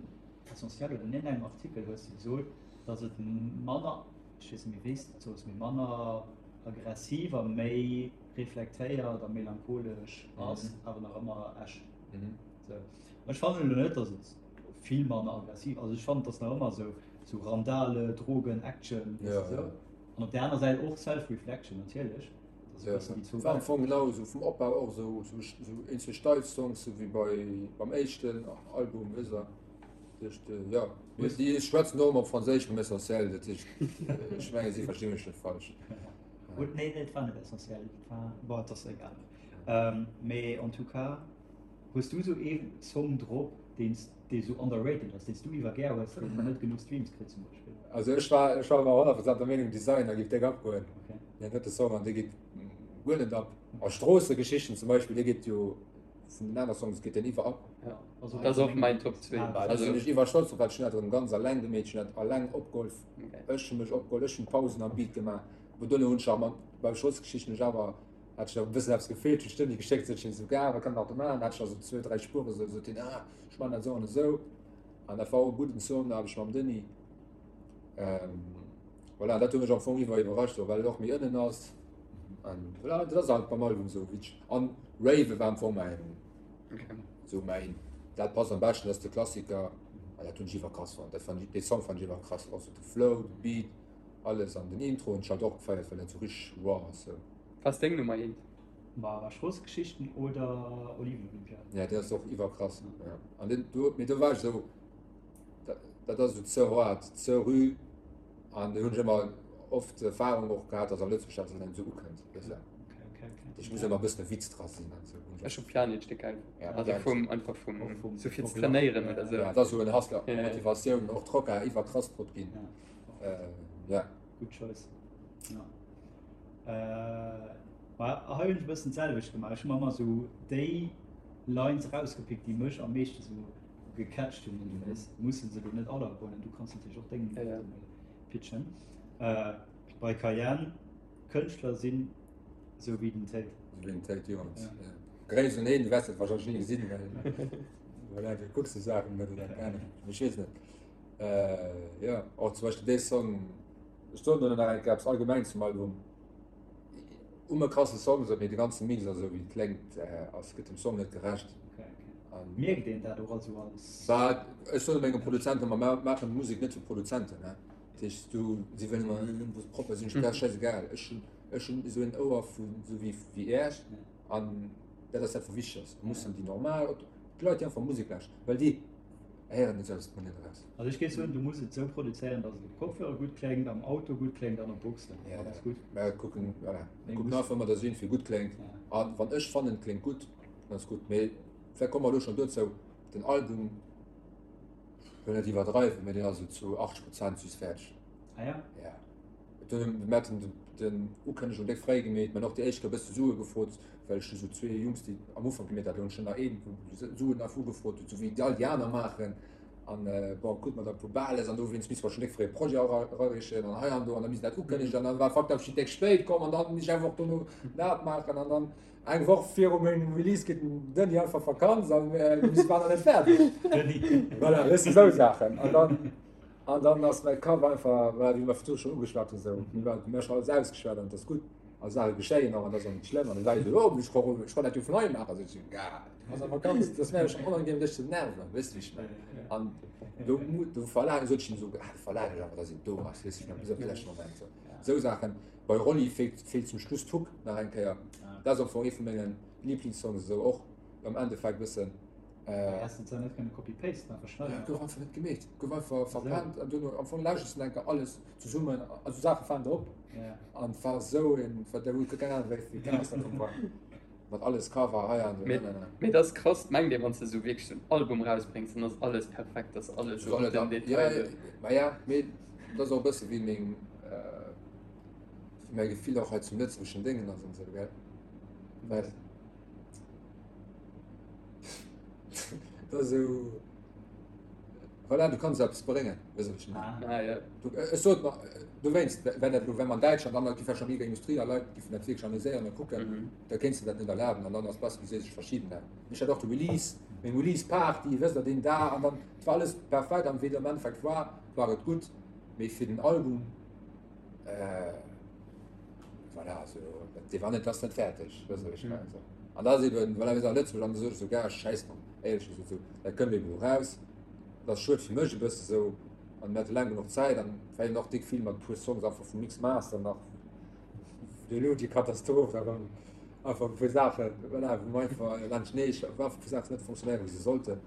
Essentiel oder an iergendengem Artikel hues de gesot, datt et manner, ech weess net méi wéi s de et soos, mee manner aggressiv a méi reflektéiert a melancholesch ass, awer nach ëmmer Esch. Sou. Ech fannen elo net, datt et vill manner aggressiv, also ech fannen, et ass nach ëmmer sou, sou Randale, Drogen, Action, weess de sou. An op där aner Säit och Self-Reflection natierlech. Dat ass e bëssen déi zwou War am Fong genau esou vum Opbau och esou, esou, esou eenzel steif Songs, sou wéi bei, beim éischten Album, weess de. Dat heescht, jo, mee déi schwätzen och ëmmer op Franséisch beim Essentiel, dat heescht, ech mengen, si versti mech net falsch. Gut, nee, nee, et war net essentiell, et war, bon, et ass egal. Ähm, mee en tout cas, hues du sou ee Song drop, deen s, dee sou underrated ass, deen s du iwwer gär hues, deen net genuch Streams kritt zum Beispill? Also ech war, ech war ëmmer 100% der Meenung, Designer géif déck abgoen. Okay. Deen drëtte Song, an dee geet guer net ab. A Stroossegeschichten zum Beispill, dee geet jo vun den aner Songs geet deen iwwer ab. Ja, also Dat ass och mäin Top 2. Ah, Also sinn ech iwwer stolz drop, well ech hunn dat erëm ganz alleng gemeet, ech hunn dat alleng opgeholl. Okay. Ech hu mech opgeholl, ech hunn d'Pausen am Beat gemaach. Bon, duerno hunn ech awer mat, bei Stroossegeschichten hunn ech awer, hat ech nach e bëssen eppes gefeelt, hunn ech d'Deni geschéckt, sot hien esou, Gars, wat kann een nach do maachen? Hat ech nach esou zwou, dräi Spuere sou, sot hien, ah, ech maachen dat esou an esou. An dat war och e gudden Song, da hat ech mam Denis. Ähm, voilà, dat huet mech am Fong iwwer iwwerrascht, well et och méi ënnen ass. An voilà, dat ass halt beim Album esou wéi an Rave war am Fong mäin, Okay. esou mäin, dat passt am beschten, dat ass de Klassiker. An dat hunn ech iwwer krass fonnt. Dat fand ech, dee Song fand ech iwwer krass. Och sou de Flow, de Beat, alles an den Intro hunn ech halt och gefeiert, well dat sou richteg raw ass sou. Was ass deng Nummer eent? Ma Stroossegeschichten oder Oliven-Olympiade? Ja, deen ass och iwwer krass. Ja. An den, do, mee do war ech esou, dat, dat ass esou ze hard, ze rü. An do hunn ech ëmmer oft d'Erfahrung och gehat, dass am Lëtzebuerg dat net esou ukënnt. Weess de? Okay, okay, okay. Ich muss ëmmer e bëssen e Witz dra sinn an esou. Ech hu Pianic déck geil. Ja, Also Pianic. vum, einfach vum, Och vum- sou fir ze och trainéieren Lach, oder ja. sou. Ja, dat ass esou en Hustler, Ja, ja. Motivatioun, och Trocker iwwer krass drop ginn. Ja. Äh, ja. Good choice. Ja. Äh, ma hei hunn ech e bëssen d'selwecht gemaach. Ech hu mer ëmmer esou déi Lines erausgepickt, déi mech am meeschte sou gecatcht hunn. Du weess, musse se elo net all ergoen. Du kanns natierlech och deng Ja, ja. pitchen. Äh, bei Cayenne, Kënschtler sinn sou wéi den Tate. Sou wéi den Tate Jones. Ja. Ja. Gréisst un een, du wäers dat wahrscheinlech ni gesinn, well voilà, du kucks déi Saachen net oder keng Ahnung. Ech weess net. Äh, ja, och zum Beispill dee Song, ech soen do nach eng Kéier eppes allgemeng zum Album. Um e krasse Song, sou, mee de ganze Mix a sou wéi et kléngt, ass, gëtt dem Song net gerecht. Okay, okay. An Mierkt een dat och also als. Bah, ech soen mengem Produzent ëmmer, mer maachen Musek net fir Produzenten, ne. Dat heescht, du, si wëllen ëmmer, äh, muss propper sinn, ech, dat ass schäisegal. Ech hunn, ech hunn esou en Ouer vu, sou wéi, wéi Äech, an dat ass dat, wat wichteg ass. Mussen déi normal, d'Leit, déi einfach Musek lauschteren, well déi héieren et selbst net eraus. Also ech géif soen, du muss et esou produzéieren, datt et op Kopfhörer gutt kléngt, am Auto gutt kléngt an op Boxen. Ja, Dann ass gutt. Mä kucken, voilà, Mee kucken muss- einfach ëmmer, datt et iergendwéi gutt kléngt. Ja. A wann ech fannen, et kléngt gutt, dann ass gutt. Mee vläicht komme mer elo schonn dozou, den Album, ech wëll net iwwerdreiwen, mee deen ass esou zu 80 Prozent just fäerdeg. Ah ja? Ja. Mir haten den Ukënnegung déck fréi gemeet, mir hunn och déi éischt Kéier e bësse Sue gefrot, well ech hu sou zwee Jungs, déi am Ufank gemeet haten, hunn ech nach een, wou Suen einfach ugefrot huet, sou wéi all déi aner maachen. An bon, krute mer da e puer Bales an dowéinst misste mer schonn déck fréi e Projet erareechen an hei an do an da misst dat ukënnegen an dann war fucked up, ech sinn déck spéit komm an dann misst ech eng Woch dono dat maachen an dann eng Woch viru mengem Release geet den Denis einfach Vakanz an mir waren nach net fäerdeg. Voilà, weess de, sou Saachen. An dann. An dann ass mäi Kapp einfach, voilà, wéi mer virdru schonn ugeschwat hunn, esou, mir war, mir hu schonn alles ausgeschwat an et ass gutt. A Saache geschéien och an dat ass och net schlëmm. An da war ech esou, oh, ech ka, ech kann dat jo vun hei maachen. Sot ech, Gah, du bass awer ganz, dat ass mir awer schonn onangenehm dech ze nerven, weess de wéi ech mengen. An do, do verlaangen, sot ech him esou, ah, do verlaangen ech awer, dass een do ass, weess de wéi ech mengen, bis op de leschte Moment. Esou, esou Saachen. Bei Rolli feelt, feelt zum Schluss d'Hook nach eng Kéier. Dat ass am Fong ee vu menge Liblingssongs esou och am Endeffekt bëssen. Häss de zwar net kënne copy-pasten a verschnëllen. Gouf einfach net gemeet, gouf einfach verpennt an duerno am Fong lauschters de enker alles zesummen, also Saache falen der op an war esou een, war der huet keng Ahnung wéi wéi krass dat war mat alles Cover hei an do nanana. Mee dat ass krass, mengt ee wann s de esou wierklech esou en Album rausbréngs, dann ass alles perfekt, ass alles esou op den Detail do. Maja, mee dat ass och e bësse wéi meng, wéi mäi Gefill och hei zum lëtzebuergeschen Déngen ass an esou, gell, well. Dat ass esou, voilà, du kanns eppes bréngen, weess de wat ech mengen? Ah, ja. Du, ech sot mer, dowéinst, wenn dat elo, wenn mer an Däitschland, an da gi vläicht nach méi Industrie a Leit giffen dat wierklech analyséieren a kucken, Mhm. da kéints de dat net erlaben an dann ass besser, du sees, ech verschiben dat. Ech hat och de Release, meng Release-Party, wësst Der, deen Dag an dann, et war alles perfekt an wéi et am Endeffekt war, war et gutt, mee fir den Album, Äh, voilà, also, dee war net, ass net fäerdeg, weess de, wéi ech mengen, so. An da ass eben, voilà, mir sinn a Lëtzebuerg an da sot ech sou, Gars, schäiss drop, éierlech gesot, sou, dat kënnt eben elo raus, dat ass schued fir mech e bësse sou, an mir hate laang genuch Zäit an war eben och déck vill mat e puer Songs einfach vum Mix Master nach, elo déi Katastroph da rëm, einfach e puer Saachen, voilà, wou mer einfach laanscht, nee, wou einfach e puer Saachen net funktionéieren, wéi se sollten.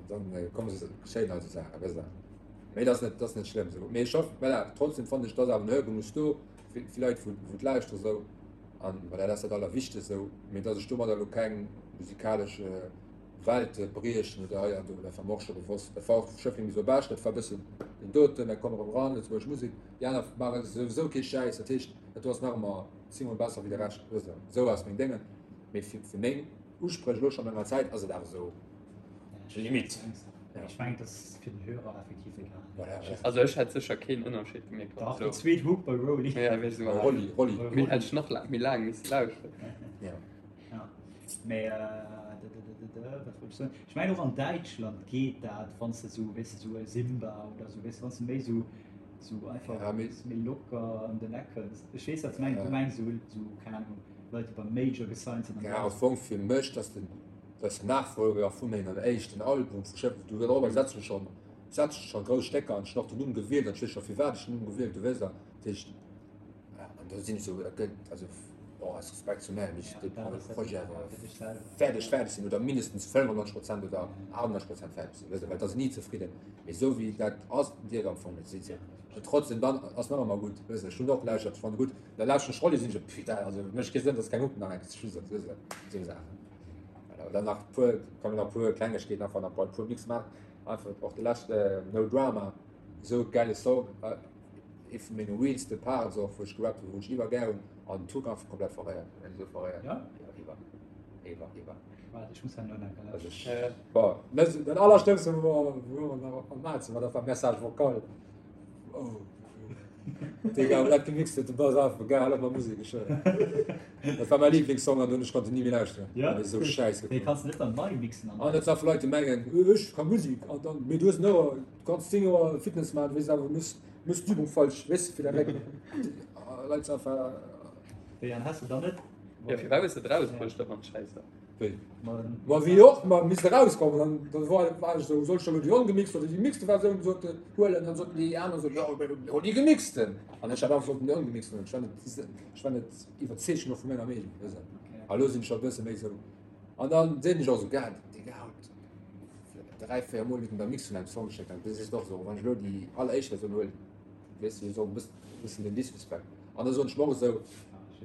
Dann komme se geschéien also Saachen, weess der. Mee dat ass net, dat ass net schlëmm esou. Mee ech hoffen, voilà, trotzdem fannen ech, dass awer en Hörgenuss do fir fir Leit, wou wou d'lauschteren esou. An voilà, dat ass dat Allerwichtegst esou. Mee dass ech domadder elo keng musikalesch Welte briechen oder hei an do, dat war mer och scho bewosst. Dat war och Schëffleng bis op Esch, dat war e bëssen den doten, da komm erëm ran, lëtzebuergesch Musek. Déi aner maache souwisou kee Schäiss, dat heescht, dat do ass nach ëmmer zéngmol besser wéi de Rescht, weess der. Esou ass meng Déngen. Mee fir fir meng Uspréch elo schonn enger Zäit ass et awer esou Limit. Ech mengen, dat ass fir den Hörer effektiv egal. Voilà, ja. Also ech hätt sécher keen Ënnerscheed gemierkt. Dach, déi zweet Hook bei Rolli. Ja, wéi se Rolli, Rolli. Mir hätt ech nach laang, méi laang misse lauschteren. Ja. Ja. Mee, wat wollt ech soen? Ech mengen och an Däitschland geet dat, wann s de esou, weess de, esou e Simba oder esou, weess de, wann s de méi esou, esou einfach Ja, mee. méi locker ëm den Eck kënns. Ech weess, wat s de mengs. Du mengs esou, esou, keng Ahnung, Leit, déi beim Major gesigned sinn an Ja, am Fong fir mech, dass den, dass den Nachfolger vu mengem éischten Album vu Schëffleng, du dorobber setzen ech schonn, setzen ech schonn grouss Stécker an ech hunn och den Numm gewielt an ech weess scho firwat ech den Numm gewielt hu, weess der. Dat heescht, an do sinn ech esou, dat gëtt, also bon, aus Respekt zu mär, mee ech dee Projet awer fäerdeg, fäerdeg sinn oder mindestens 95 Prozent oder 98 Prozent fäerdeg sinn, weess der, well et ass ni zefridden, mee esou wéi dat ass, dierf am Fong net sinn. An trotzdem, dann ass nach ëmmer gutt, weess der, ech hunn och gelauschtert, ech fannen gutt. Da lauschteren ech Rolli, sinn ech esou, putain, also mécht kee Sënn, dass keng Hook nach eng Kéier zu Schluss ass, weess de, esou Saachen. Voilà, dann nach puer, kann nach puer Klengegkeeten einfach nach e puer Mix maachen, einfach och de leschte No Drama, esou gäile Song, ee vu menge realste Parts och, wou ech gerappt hunn, wou ech iwwer gär hunn, an d'Hook einfach komplett verréiert, esou verréiert, Ja? iwwer, iwwer, iwwer. Waart, ech muss herno nach Also ech, bon, den allerschlëmmste wou mer nach am Mazen war, dat war Message vocal. Oh. Digga, aber dat gemixt huet, du bass einfach geil, hal op mat Musek, ech schwören. Dat war mäi Lieblingssong an dunn ech konnt en ni méi lauschteren. Ja? Dat ass esou schäiss Mee geklongen. kanns de net dann nei mixen An dat sinn einfach Leit, déi mengen, ech ka Musek an dann, mee du hues en Ouer, du kanns 10 Joer Fitness maachen, du weess awer, du muss, muss d'Übung falsch, weess de, fir dat Réck. Leit sinn einfach. Wéi, an has de dann net? Ja, firwat hues de et erausbruecht, da wann et schäiss war? Wéi? Ma wéi och, ma misst erauskommen. An da war, war ech esou, soll ech da lo déi ongemixte oder déi gemixte Versioun sote huelen? Dann soten déi aner esou, jo, hol déi gemixten. An ech hat einfach sollten déi ongemixten huelen. Ech war net, ech war net iwwerzeegt genuch vu menger Meenung, weess de. A lo sinn ech scho e bësse méi esou. An dann sinn ech och esou, Gad, Digga, haut 3, 4 Mol huet en der Mix vun engem Song geschéckt. An du sees och esou, wann ech elo déi alleréischt Versioun huelen, weess de, esou e bëssen den Disrespect. An da soen ech mer och esou,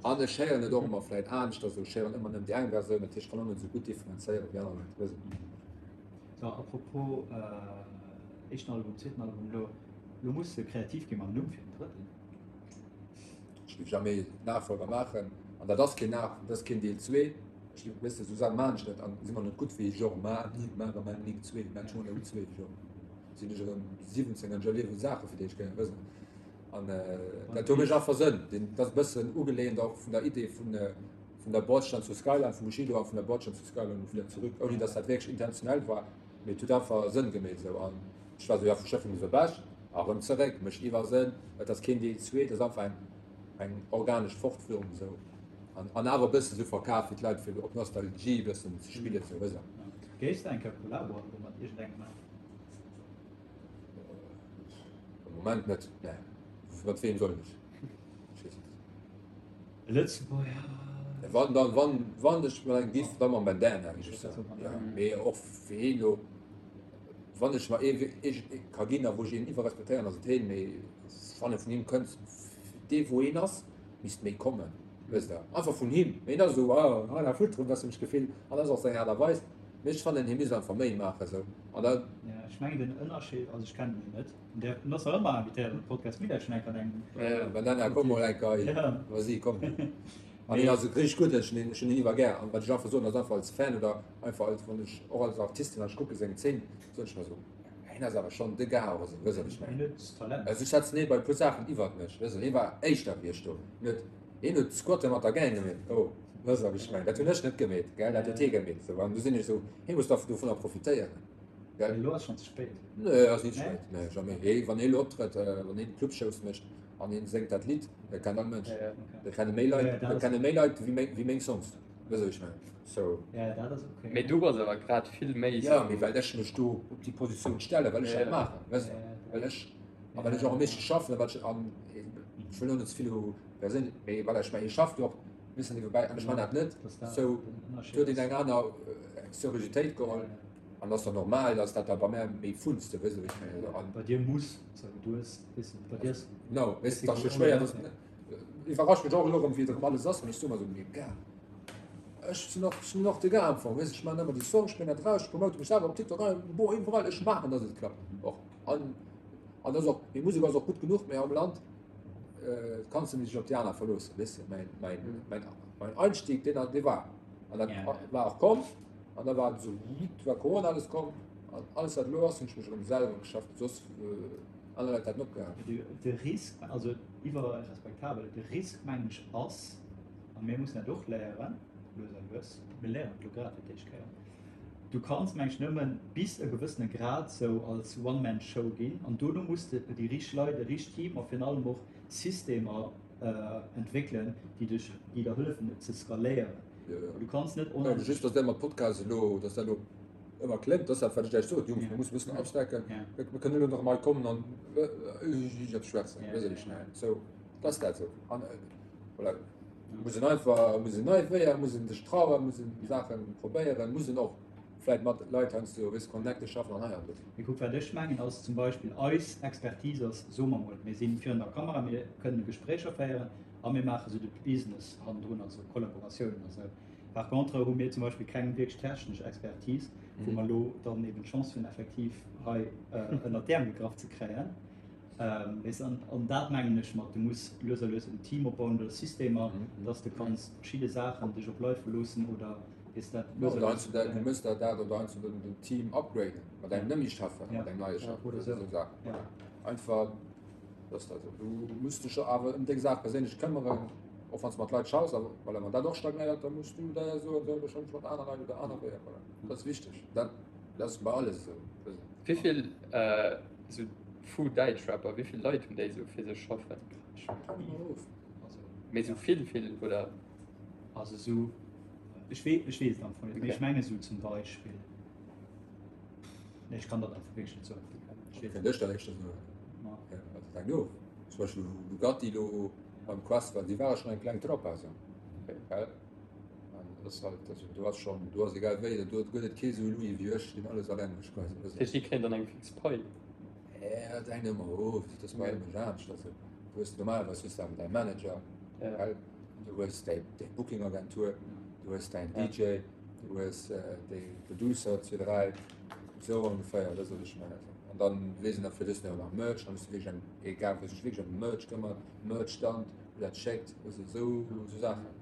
An ech héieren et och ëmmer vläit aneschters, ech héieren ëmmer nëmmen déi eng Versioun, dat heescht, ech kann och net esou gutt differenzéieren wéi aner Leit, weess et. So, apropos éischten Album, zweeten Album, elo, elo muss de kreativ gi mam Numm fir den drëtten. Ech géif jamais Nachfolger maachen, an dat ass keen Nach, dat ass keen Deel zwee. Ech géif, weess de, esou Saache maachen ech net an si mer net gutt wéi Genre, ma ni, ma ma nik zwee, mä ech hunn elo zwee, Genre sinn ech erëm 17 an ech erliewen Saache fir déi ech gär, weess de. An dat huet mech einfach Sënn. Dat ass e bëssen ugeleent och vun der Idee vun vun der Bordstein zur Skyline vum Bushido a vun der Bordstein zur Skyline und wieder zurück, ouni datt dat wierklech intentionell war, mee et huet einfach Sënn gemeet esou. An ech war esou, jo, vu Schëffleng bis op Esch a rëm zeréck, mécht iwwer Sënn. Et ass keen Deel zwee, et ass einfach eng. Eng organesch Fortführung esou an an awer e bëssen esou verkaf fir d'Leit fir op Nostalgie e bëssen ze spillen esou, weess de. Géifs de eng Kéier Kollabo elo mat iergendengem maachen? Am Moment net, nee. Mat weem soll ech? Ech weess net. E Lëtzebuerger? Wann dann, wann, wann ech mat engem giff, da mam Bandana, géif ech soen. Ja, mee och fir heen elo, wann ech mer ee ee ka ginn a wou ech een iwwerrespektéieren, ass et heen, mee wann e vun him kënnt, dee wou een ass, misst méi kommen, wësst Der, einfach vun him. Mee hien ass esou, ah, rien à foutre, huet ech d'Gefill, an ass och seng Aart a Weis. Mee ech fannen, hie misst einfach méi maachen esou. An da. Ja, ech mengen den Ënnerscheed, also ech kennen hien net, en däerf, en ass nach ëmmer invitéiert an de Podcast, mir däerf schon eng Kéier an engem. Ja, Bandana, komm mol eng Kéier, vas-y, komm. An hien ass richteg gutt, ech hunn hien iwwer gär. An wat ech einfach soen, ass einfach als Fan oder einfach als, wann ech och als Artist, wann ech kucke seng Zeen, soen ech mer esou, Hien ass awer schonn de Gars och esou, wëss wat ech mengen. Hien huet Talent. Also ech schätzen hie bei e puer Saachen iwwert mech, wëss hie war éischter wéi ech do. Hien huet, hien huet Squatte mat der Gang gemeet, oh, wëss wat ech mengen, dat hunn ech net gemeet, gell, dat huet hie gemeet esou. An du sinn ech esou, hie muss da dovunner profitéieren, gell. Mee elo ass schonn ze spéit. Nee, ass ni ze spéit, nee, jamais. Hie, wann hie elo optrëtt, wann hien Clubshows mécht an hien séngt dat Lidd, dat kennt all Mënsch, dat kenne méi Leit, dat kenne méi Leit wéi meng, wéi meng Songs. Wëss ech mengen. So. Ja, dat ass okay. Mee du bass awer grad vill méi. Ja, mee well ech mech do op déi Positioun stellen, well ech dat maachen, wëss de, well ech, a well ech och am meeschte schaffen, a well ech, an ech wëll elo net ze vill u perséinlech, mee voilà, ech mengen, hie schafft jo och e bëssen niewebäi an ech man dat net, sou, do huet een eng aner Seriositéit geholl an ass jo normal, dass dat da bei mär méi funzt, wëss de, wéi ech mengen, an. Bei dir muss, sou, du hues, weess de, bei dir ass. Genau, weess de, et ass jo schwéier, dass. Iwwerrascht mech och elo erëm wéi et erëm alles ass, mee ech soe mer esou, mee gars, ech sinn och, ech sinn och de Gars am Fong, weess, ech maachen ëmmer déi Songs, ech bréngen dat eraus, ech promote mech selwer op TikTok, bon, iwwerall, ech maachen, dass et klappt och. An, an dat ass och, meng Musek ass och gutt genuch, mee am Land kanns de dech op déi aner verloossen, weess de, mäin, mäin, mäin, mäin Einstieg, deen, dee war, an dat war och komm, an da war et esou, war Corona alles komm, an alles wat elo ass, hunn ech mech erëm selwer geschafft, soss. Aner Leit hätten opgehal. De Risk, also iwwer respektabel, de Risk mengen ech ass, a mir mussen dat och léieren, lues a lues, mir léieren et elo grad fir d'éischt Kéier, du kanns mengen ech nëmmen bis e gewëssene Grad sou als One-Man-Show ginn an dono muss de déi richteg Leit, e richtegt Team a virun allem och Systemer entwéckelen, déi dech, déi der hëllefen et ze skaléieren. Du kanns net onendlech. Just, datt dat mat Podcast elo, datt dat elo ëmmer kléngt, dat ass dat, wat ech lech sot, Jungs, mir mussen e bëssen upstecken, mir kënnen elo nach emol kommen an eppes schwätzen, weess ech net, sou, dat ass dat sou. An voilà, muss een einfach, muss een nei Wéier, muss een sech trauen, muss een Saache probéieren, muss een och vläicht mat Leit heiansdo, weess, Connecte schaffen an hei an do. Mee kuck, wat ech mengen ass zum Beispill, eis Expertise ass, soe mer mol, mir si virun der Kamera, mir kënne Gespréicher féieren a mir maache sou de Business hannendrun, also Kollaboratiounen a sou. Par contre hu mir zum Beispill keng wierklech technesch Expertise, wou mer elo dann eben d'Chance hunn, effektiv hei ënnert d'Äerm gegraff ze kréien. Weess, an, an dat mengen ech mat, du muss lues a lues en Team opbauen oder Systemer, dass de kanns verschidde Saachen dech op Leit verloossen oder, weess, dat lues a lues. Oder heiansdo dat, du mëss dat dat oder heiansdo den, den Team upgraden, mat engem net méi Chef, mat engem neie Chef oder esou Saachen. Einfach. Das dat esou. Du muss dech awer ëm deng Saach perséinlech këmmeren, och wann s de mat Leit schaffs, awer voilà, wann dat och stagnéiert, da muss du der soen, sou, elo schaffen ech mat aner Leit oder aner Weeër, voilà. Dat ass wichteg. Dat, dat ass bei alles esou. Wéi vill esou vu Däitschrapper, wéi vill Leit hunn déi esou fir sech schaffen? Mee esou vill, vill oder? Also esou, ech wee, ech weess et am Fong net, mee ech menge sou zum Beispill. Nee, ech kann dat einfach wierklech net soen. Ech weess net. Ech dat éischter soen. Ma. Ja, dat hänkt of. Zum Beispill Bugatti lo beim Quest war, déi ware schonn eng kleng Trupp also. Gell? An dat ass halt, also do ass schonn, do ass egal wéi, do gëtt et kee sou Louis wéi ech, deen alles alleng mécht quasi. Dat heescht, déi kréien dann eng fix Pai? Ja, dat hänkt ëmmer of, dat ass bei allem anescht. Also du hues normalerweis hues du awer däi Manager, gell? Du hues däi, däi Booking-Agentur, du hues däin DJ. Du hues déi Producer, zwee, dräi, esou ongeféier, dat ass wat ech mengen. An dann weess een nach fir dës nach Merch, dann hues du wierklech eng, egal wou sech wierklech ëm Merch këmmert, Merch-Stand, wou dat schéckt, weess de, esou esou Saachen.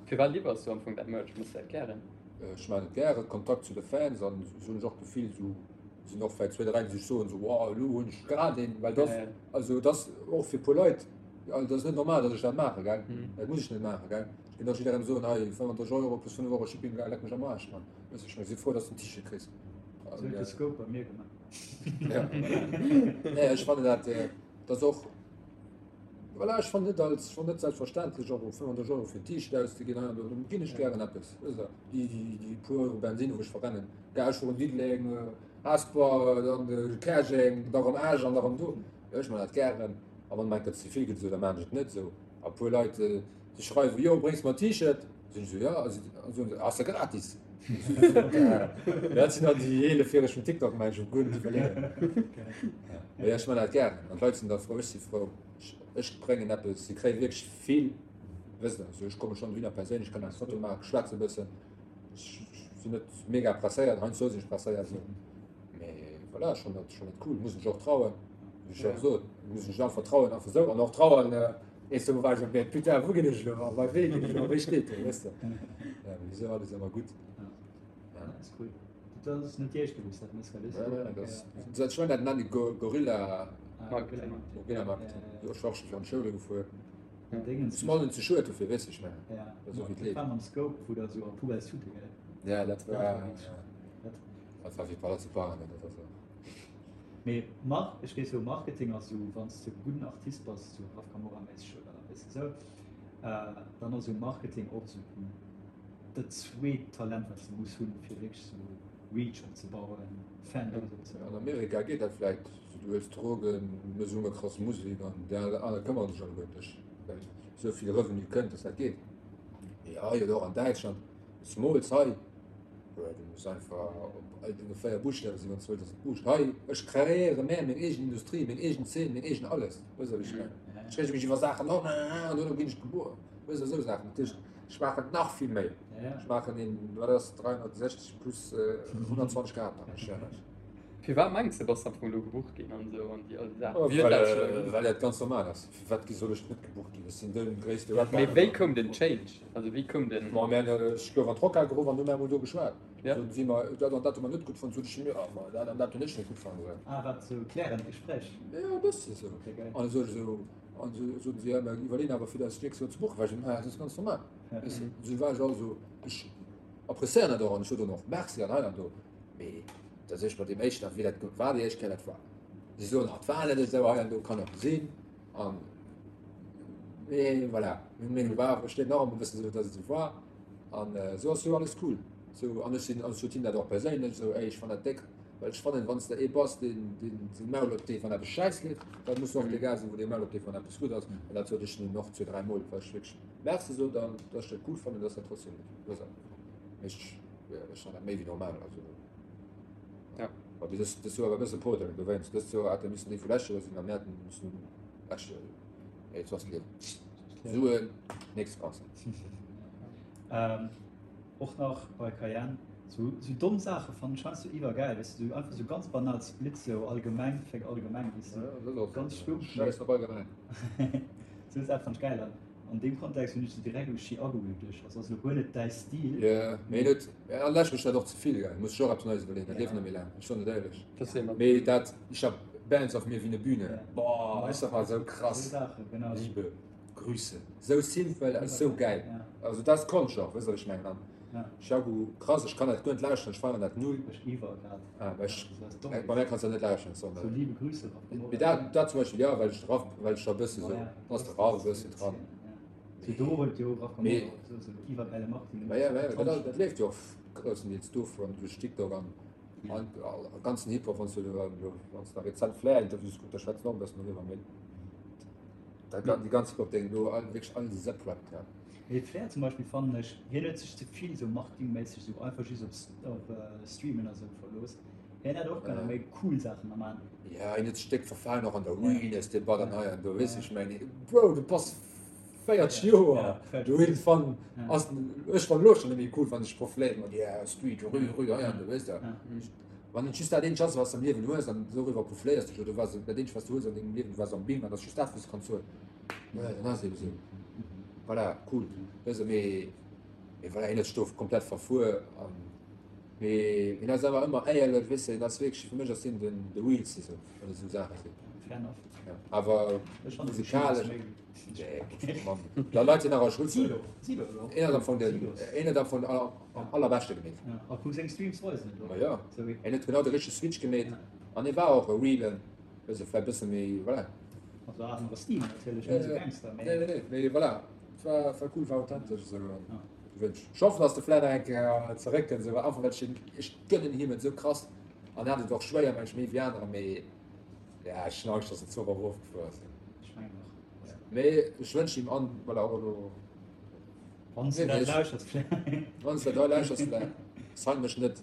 Firwat liwwers du am Fong dat Merch? Méchs du dat gären? Ech maachen et gären, Kontakt zu de Fans an esou hunn ech och d'Gefill, esou sinn och vläicht zwee, dräi, déi sech soen, esou, wow, elo hunn ech grad een, well dat, also dat ass och fir e puer Leit, dat ass net normal, datt ech dat maachen, gell, dat muss ech net maachen, gell. Ech kéint och jidderengem soen, hei 35 Euro plus 5 Euro Shipping, leck mech am Aarsch, Mann. Weess ech, ech si frou, dass du en T-Shirt kriss. Sou huet de Scope bei mir gemaach. Ja, voilà. Nee, ech fannen dat, dat ass och. Voilà, ech fannen net als, ech fannen net selbstverständlech och 35 Euro fir en T-Shirt auszeginn hei an do, do ginn ech gären eppes, wësst Der, déi, déi, déi puer Euro Bensinn, wou ech verrennen, gell, ech fueren Diddeleng, Hesper, dann Käerjeng, da rëm Esch an da rëm do, jo, ech man dat gären a wann mer eng Kéier ze vill gëtt esou, da man ech et net esou. A puer Leit, déi schreiwen, jo, bréngs mer e T-Shirt, sinn ech esou, jo, a si soen se, ass ja gratis. Dat sinn dann déi eelefjäreg vum TikTok, mengen ech, wou guer net iwwerleeën. Mee ech man dat gären an d'Leit sinn da frou, ech si frou, ech bréngen eppes, si kréie wierklech vill, wësst Der, also ech komme schonn dohinner perséinlech, kann eng Foto maachen, schwätze e bëssen, ech sinn net mega presséiert, heiansdo sinn ech presséiert esou, mee voilà, ech fannen dat, ech fannen dat cool, muss mech och trauen, wéi ech och sot, muss mech einfach trauen, einfach esou an och trauen, eens do war ech op, putain, wou ginn ech elo a bei wee ginn ech elo a wéi steet do, wësst Der, ja, mee esou alles ëmmer gutt. Ja, dat ass cool. Dat ass net déi éischt Kéier, wou s dat méchs, gell? Ja, ja, dat ass, dat ech mengen, dat nennen déi Gorilla. Marketing. Gorilla Marketing. Jo, ech war och scho fir an d'Schoule gefuer. An Dingens. Ass mer net ze schued dofir, weess de, ech mengen. Ja. Dat ass och wéi d'Leed. Dat war mam Scope, wou der esou a Poubelle tute, gell? Ja, dat war. Dat war wierklech. Dat. Dat war wéi Palazzo Parano, dat ass och. Mee Mar, ech géif soen, Marketing ass esou, wann s de e gudden Artist bass, esou Raf Camora-méisseg oder weess de esou, dann ass esou Marketing och esou dat zweet Talent wat s de muss hunn fir wierklech sou Reach opzebauen, Fanbase opzebauen. An Amerika geet dat vläit, sou du huels Drogen, mëss elo krass Musek an déi aner këmmere sech alleguer ëm dech, well esou vill Revenu kënnt, dass dat geet. Mee hei oder och an Däitschland, zemools hei, du muss einfach op all denge 4 Buschtawe sinn, wann s de wëlls, dass et buuscht. Hei, ech kreéiere mär meng eegen Industrie, meng eegen Zeen, meng eegen alles, weess de wat ech mengen? Ech reege mech iwwer Saachen op an duerno ginn ech gebuer, weess de, esou Saachen. Dat heescht, Ech maachen nach vill méi. Ech maachen een, wat ass 360 plus 120 Grad maachen ech, ja. Firwat mengs de bass de am Fong elo gebucht ginn an esou an déi all déi Saachen? Wéi huet dat sech erginn? Well dat ganz normal ass. Firwat soll ech net gebucht ginn? Ech sinn de gréisste Rapper Mee wéi koum den Change? Also wéi koum den. Bon, mir hunn, ech gouf an d'Rockhal geruff an hu mir emol do geschwat. Soten si mer, dat an dat hu mer net gutt fonnt. Sot ech, jo, ma dat an dat hunn ech net gutt fonnt. Ah, wat sou klärend Gespréich? Jo, e bësse sou. An esou esou. An esou soten si, ja, mer iwwerleeën awer fir eis d'nächst Joer ze buchen. War ech esou, naja, dat ass ganz normal. Weess de, esou war ech also, ech appréciéieren dat och an ech sot och nach Merci an hei an do. Mee da sot ech mat deem éischten, wéi dat war déi éischt Kéier, dat war, si soen, ah, et war net esou hei an do, kann och sinn. An, mee voilà, meng Meenung war awer, steet nach ëmmer e bëssen esou, datt et esou war. An esou ass jo alles cool. Esou, an ech sinn, an ech sot him dat och perséinlech esou, ey, ech fannen dat déck. Well ech fannen, wann s de ee bass, deen deen Maul opdeet, wann eppes schäiss leeft, da muss de och dee Gars sinn, wou dee Maul opdeet, wann eppes gutt ass. An dat sot ech nun och zwee, dräi Mol, well ech wierklech Merci sot an dass ech dat cool fannen, dass dat trotzdem gutt ass. Mee ech, ech fannen dat méi wéi normal. Also, ja. Mä bis dës, dës Joer war e bësse Poteren dowéinst. Dëst Joer hätte missen déi vu lescht Joer sinn a mir hätten missen lescht Joer sinn. Mee et ass d'Liewen. Suen, nächste Concert. Och nach bei Cayenne, sou sou domm Saache fannen ech heiansdo iwwergäil, weess de, sou einfach sou ganz banal Splits, sou allgemeng, féck allgemeng, weess de, ganz stumpf, mee Schäiss op allgemeng. sou Saache fannen ech gäil an an deem Kontext hunn ech sou direkt u Chiago geduecht, also ass elo guer net däi Stil. Jo, mee net, an lech mech dat och ze vill, gell, muss ech och eppes Neies iwwerleeën, dat leeft net méi laang, ech soen et éierlech. Dat sinn mer. Mee dat, ich hab Bands auf mir wie ne Bühne, boah, ech sag mal, sou krass, Sou Saache, genau. Liebe. Grüße. Sou simpel a sou gäil. Also dat ass Konscht och, weess wat ech mengen. An Chiago, krass, ech kann dat guer net lauschteren, ech feieren dat null. Ech iwwer grad. Ah, well ech, bei mär kanns dat net lauschteren, sorry. Sou liebe Grüße Raf Camora. Mee dat, dat zum Beispill, jo, well ech de Raf, well ech da e bësse sou, ass de Raf e bëssen dran. Sou do huet jo Raf Camora och sou sou iwwergäile Marketing. Mä ja, mä ja, dat, dat leeft jo och groussendeels dovun, duerch TikTok an an ganzen Hip-Hop, wann s du, wann s de rezent Flair-Interviews kucks, da schwätzen och e bëssen doriwwer, mee. Dat gan, déi ganz Hip-Hop-Déng do, all, wierklech all Sepp rappt, ja. Mee Flair zum Beispill fannen ech, hien huet sech ze vill sou marketingméisseg sou einfach just op op Streamen a sou verlooss. Hien hätt och kënne méi cool Saachen nach man. Ja, hien huet sech déck verfalen, och an der Realness Debatt an hei an do, weess ech mengen, Bro, du bass 40 Joer, du iergendwann ass, ech fannen elo schonn net méi cool, wann sech profiléiert mat yeah, Street, rue, rue, hei an do, weess de. Wann et just dat eenzegt ass, wat s de am Liewen hues, an doriwwer profléiers dech, oder wat dat eenzegt, wat s de hues an dengem Liewen, du waars am Bing, an dat ass just dat, wat s de kanns soen, jo, dann ass et ebe sou. Voilà, cool. Weess de, mee, mee voilà, hien huet sech do komplett verfuer, an, mee hien ass awer ëmmer éierlech, weess de, hien ass wierklech, fir mech ass hien den, de realste sou, wann et esou Saache sinn. Fair enough. Ja, awer Ech fannen de Chino musikalesch. méi. Da Leit sinn awer Schutz. Een ass am Fong den, een huet am Fong am allerbeschte gemeet. A kuck seng Streams weisen et och. Ma jo, en huet genau de richtege Switch gemeet an hie war och e realen, wësse vläicht bësse méi, voilà. Also anere Stil natierlech, net esou Gangster, mee. Nee, nee, mee voilà, et war, war cool, war authentesch esou an gewënscht. Ech hoffen, dass de vläit nach eng Kéier zeréckkënnt, esou, einfach well ech hien, ech gënnen him et esou krass an en hat et och schwéier, meng ech, méi wéi anerer, mee ja, ech hunn Angscht, dass en ze oft erofgefuer ass. Ech mengen och. Mee ech wënschen him an, voilà, och elo. Wann s du dat lauschters, Flair. Wann s du dat lauschters, Flair, sign mech net.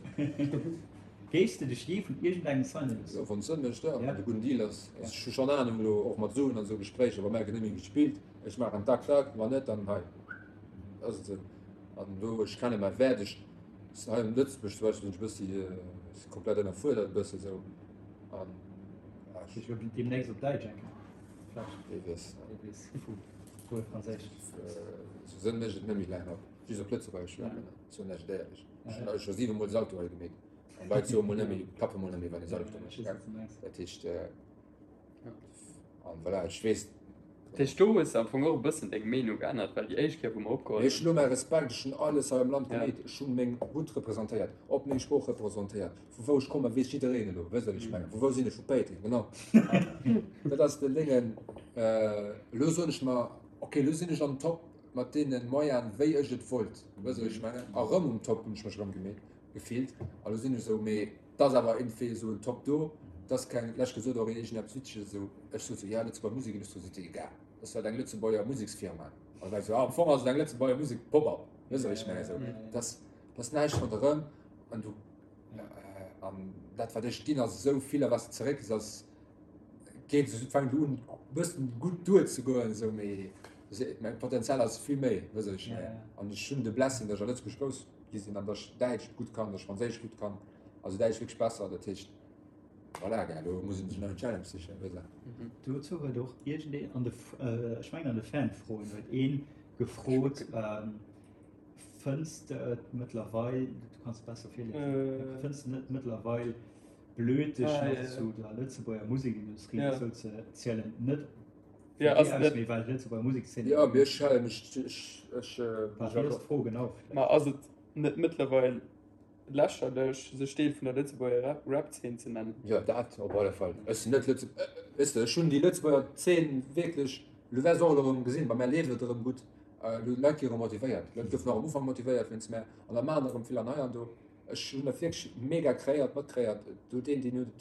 Géifs de dech jee vun iergendengem signe loossen? Jo, wann et Sënn mécht, jo, wann et e gudden Deal ass. Also ech hu schonn Anung elo, och mat Suen an esou Gespréicher, wa mär gëtt net méi gespillt, ech maachen tak tak, wann net, dann hei ass et esou. An do, ech kenne mäi Wäert, ech hei an Lëtzebuerg zum Beispill sinn ech e bëssi, si komplett ënnerfuerdert e bësse esou an ja, ech. Ech wëll deemnächst op Däitsch eng Kéier, vläicht. Wee weess. Wee weess. Wuel Franséisch. Sou sënn ech et net méi laang op, just op Lëtzebuergesch schwätzen, soen ech et éierlech. Ech hunn scho 7 mol Salto hei gemeet an Leit soe mol net méi, klappe mol net méi wann ee Salto mécht. Dat heescht, an voilà, ech weess. Dat heescht do hues de am Fong och e bëssen deng Meenung geännert, well déi éischt Kéier wou mer opgeholl hunn. Ech hunn elo mäi Respekt, ech hunn alles hei am Land gemeet, ech hunn meng Route representéiert, op meng Sprooch representéiert. Vu wou ech kommen, weess jiddereen elo, wësst der, wéi ech mengen. Vu wou sinn ech? Vu Péiteng, genau. Dat ass den Déngen. Elo soen ech mer, ok, elo sinn ech am Top mat deene Moyenen, wéi ech et wollt, wësst der, wéi ech mengen. A rëm um Top hunn ech mech erëm gemeet, gefillt. A lo sinn ech esou, mee et ass awer iergendwéi esou en Top do, et ass keng, lech gesot och een iergendeppes Witzeges esou, ech sot esou, ja, Lëtzebuerger Musekindustrie, sot si, egal, dat ass halt eng Lëtzebuerger Museksfirma. An da war ech esou, ah, am Fong ass et eng Lëtzebuerger Musek-Pop-up, wësst der, wéi ech mengen, esou, et ass, et ass näischt ronderëm. An du, an dat wat ech ginn ass esou vill a wat s de zeréck ass geet esou fänkt elo un bëssen gutt duerzegoen esou mee mäin Potenzial ass vill méi wëss ech ja. An ech hunn de Blessing, datt ech a Lëtzebuerg grouss gi sinn an datt ech Däitsch gutt kann, datt ech Franséisch gutt kann, also Däitsch wierklech besser, dat heescht voilà gell, elo muss een sech nach en Challenge sichen wëss de. Dozou huet och iergendeen an de, ech mengen an de Fanfroen huet een gefrot, Fënns de et mëttlerweil, du kanns et besser virliesen, fënns de net mëttlerweil blöd dech nach zu der Lëtzebuerger Musekindustrie dozou ze zielen? Net vun dir aus, mee well d'Lëtzebuerger Musekszeen. Jo, mee ech halen mech, ech, ech. Wat wéi ass d'Fro genau? Ma ass et net mëttlerweil lächerlech, sech Deel vun der Lëtzebuerger Rap-Zeen ze nennen? Jo, dat op alle Fall. Ech sinn net Lëtze, weess de, ech hunn déi Lëtzebuerger Zeen wierklech, elo wäers och elo erëm gesinn, bei mär leeft et erëm gutt. Elo Leit gi erëm motivéiert. Leit goufen och am Ufank motivéiert wéinst mär an da maachen erëm vill an hei an do. Ech hunn dat wierklech mega kreéiert, matkréiert. Do deen, deen huet et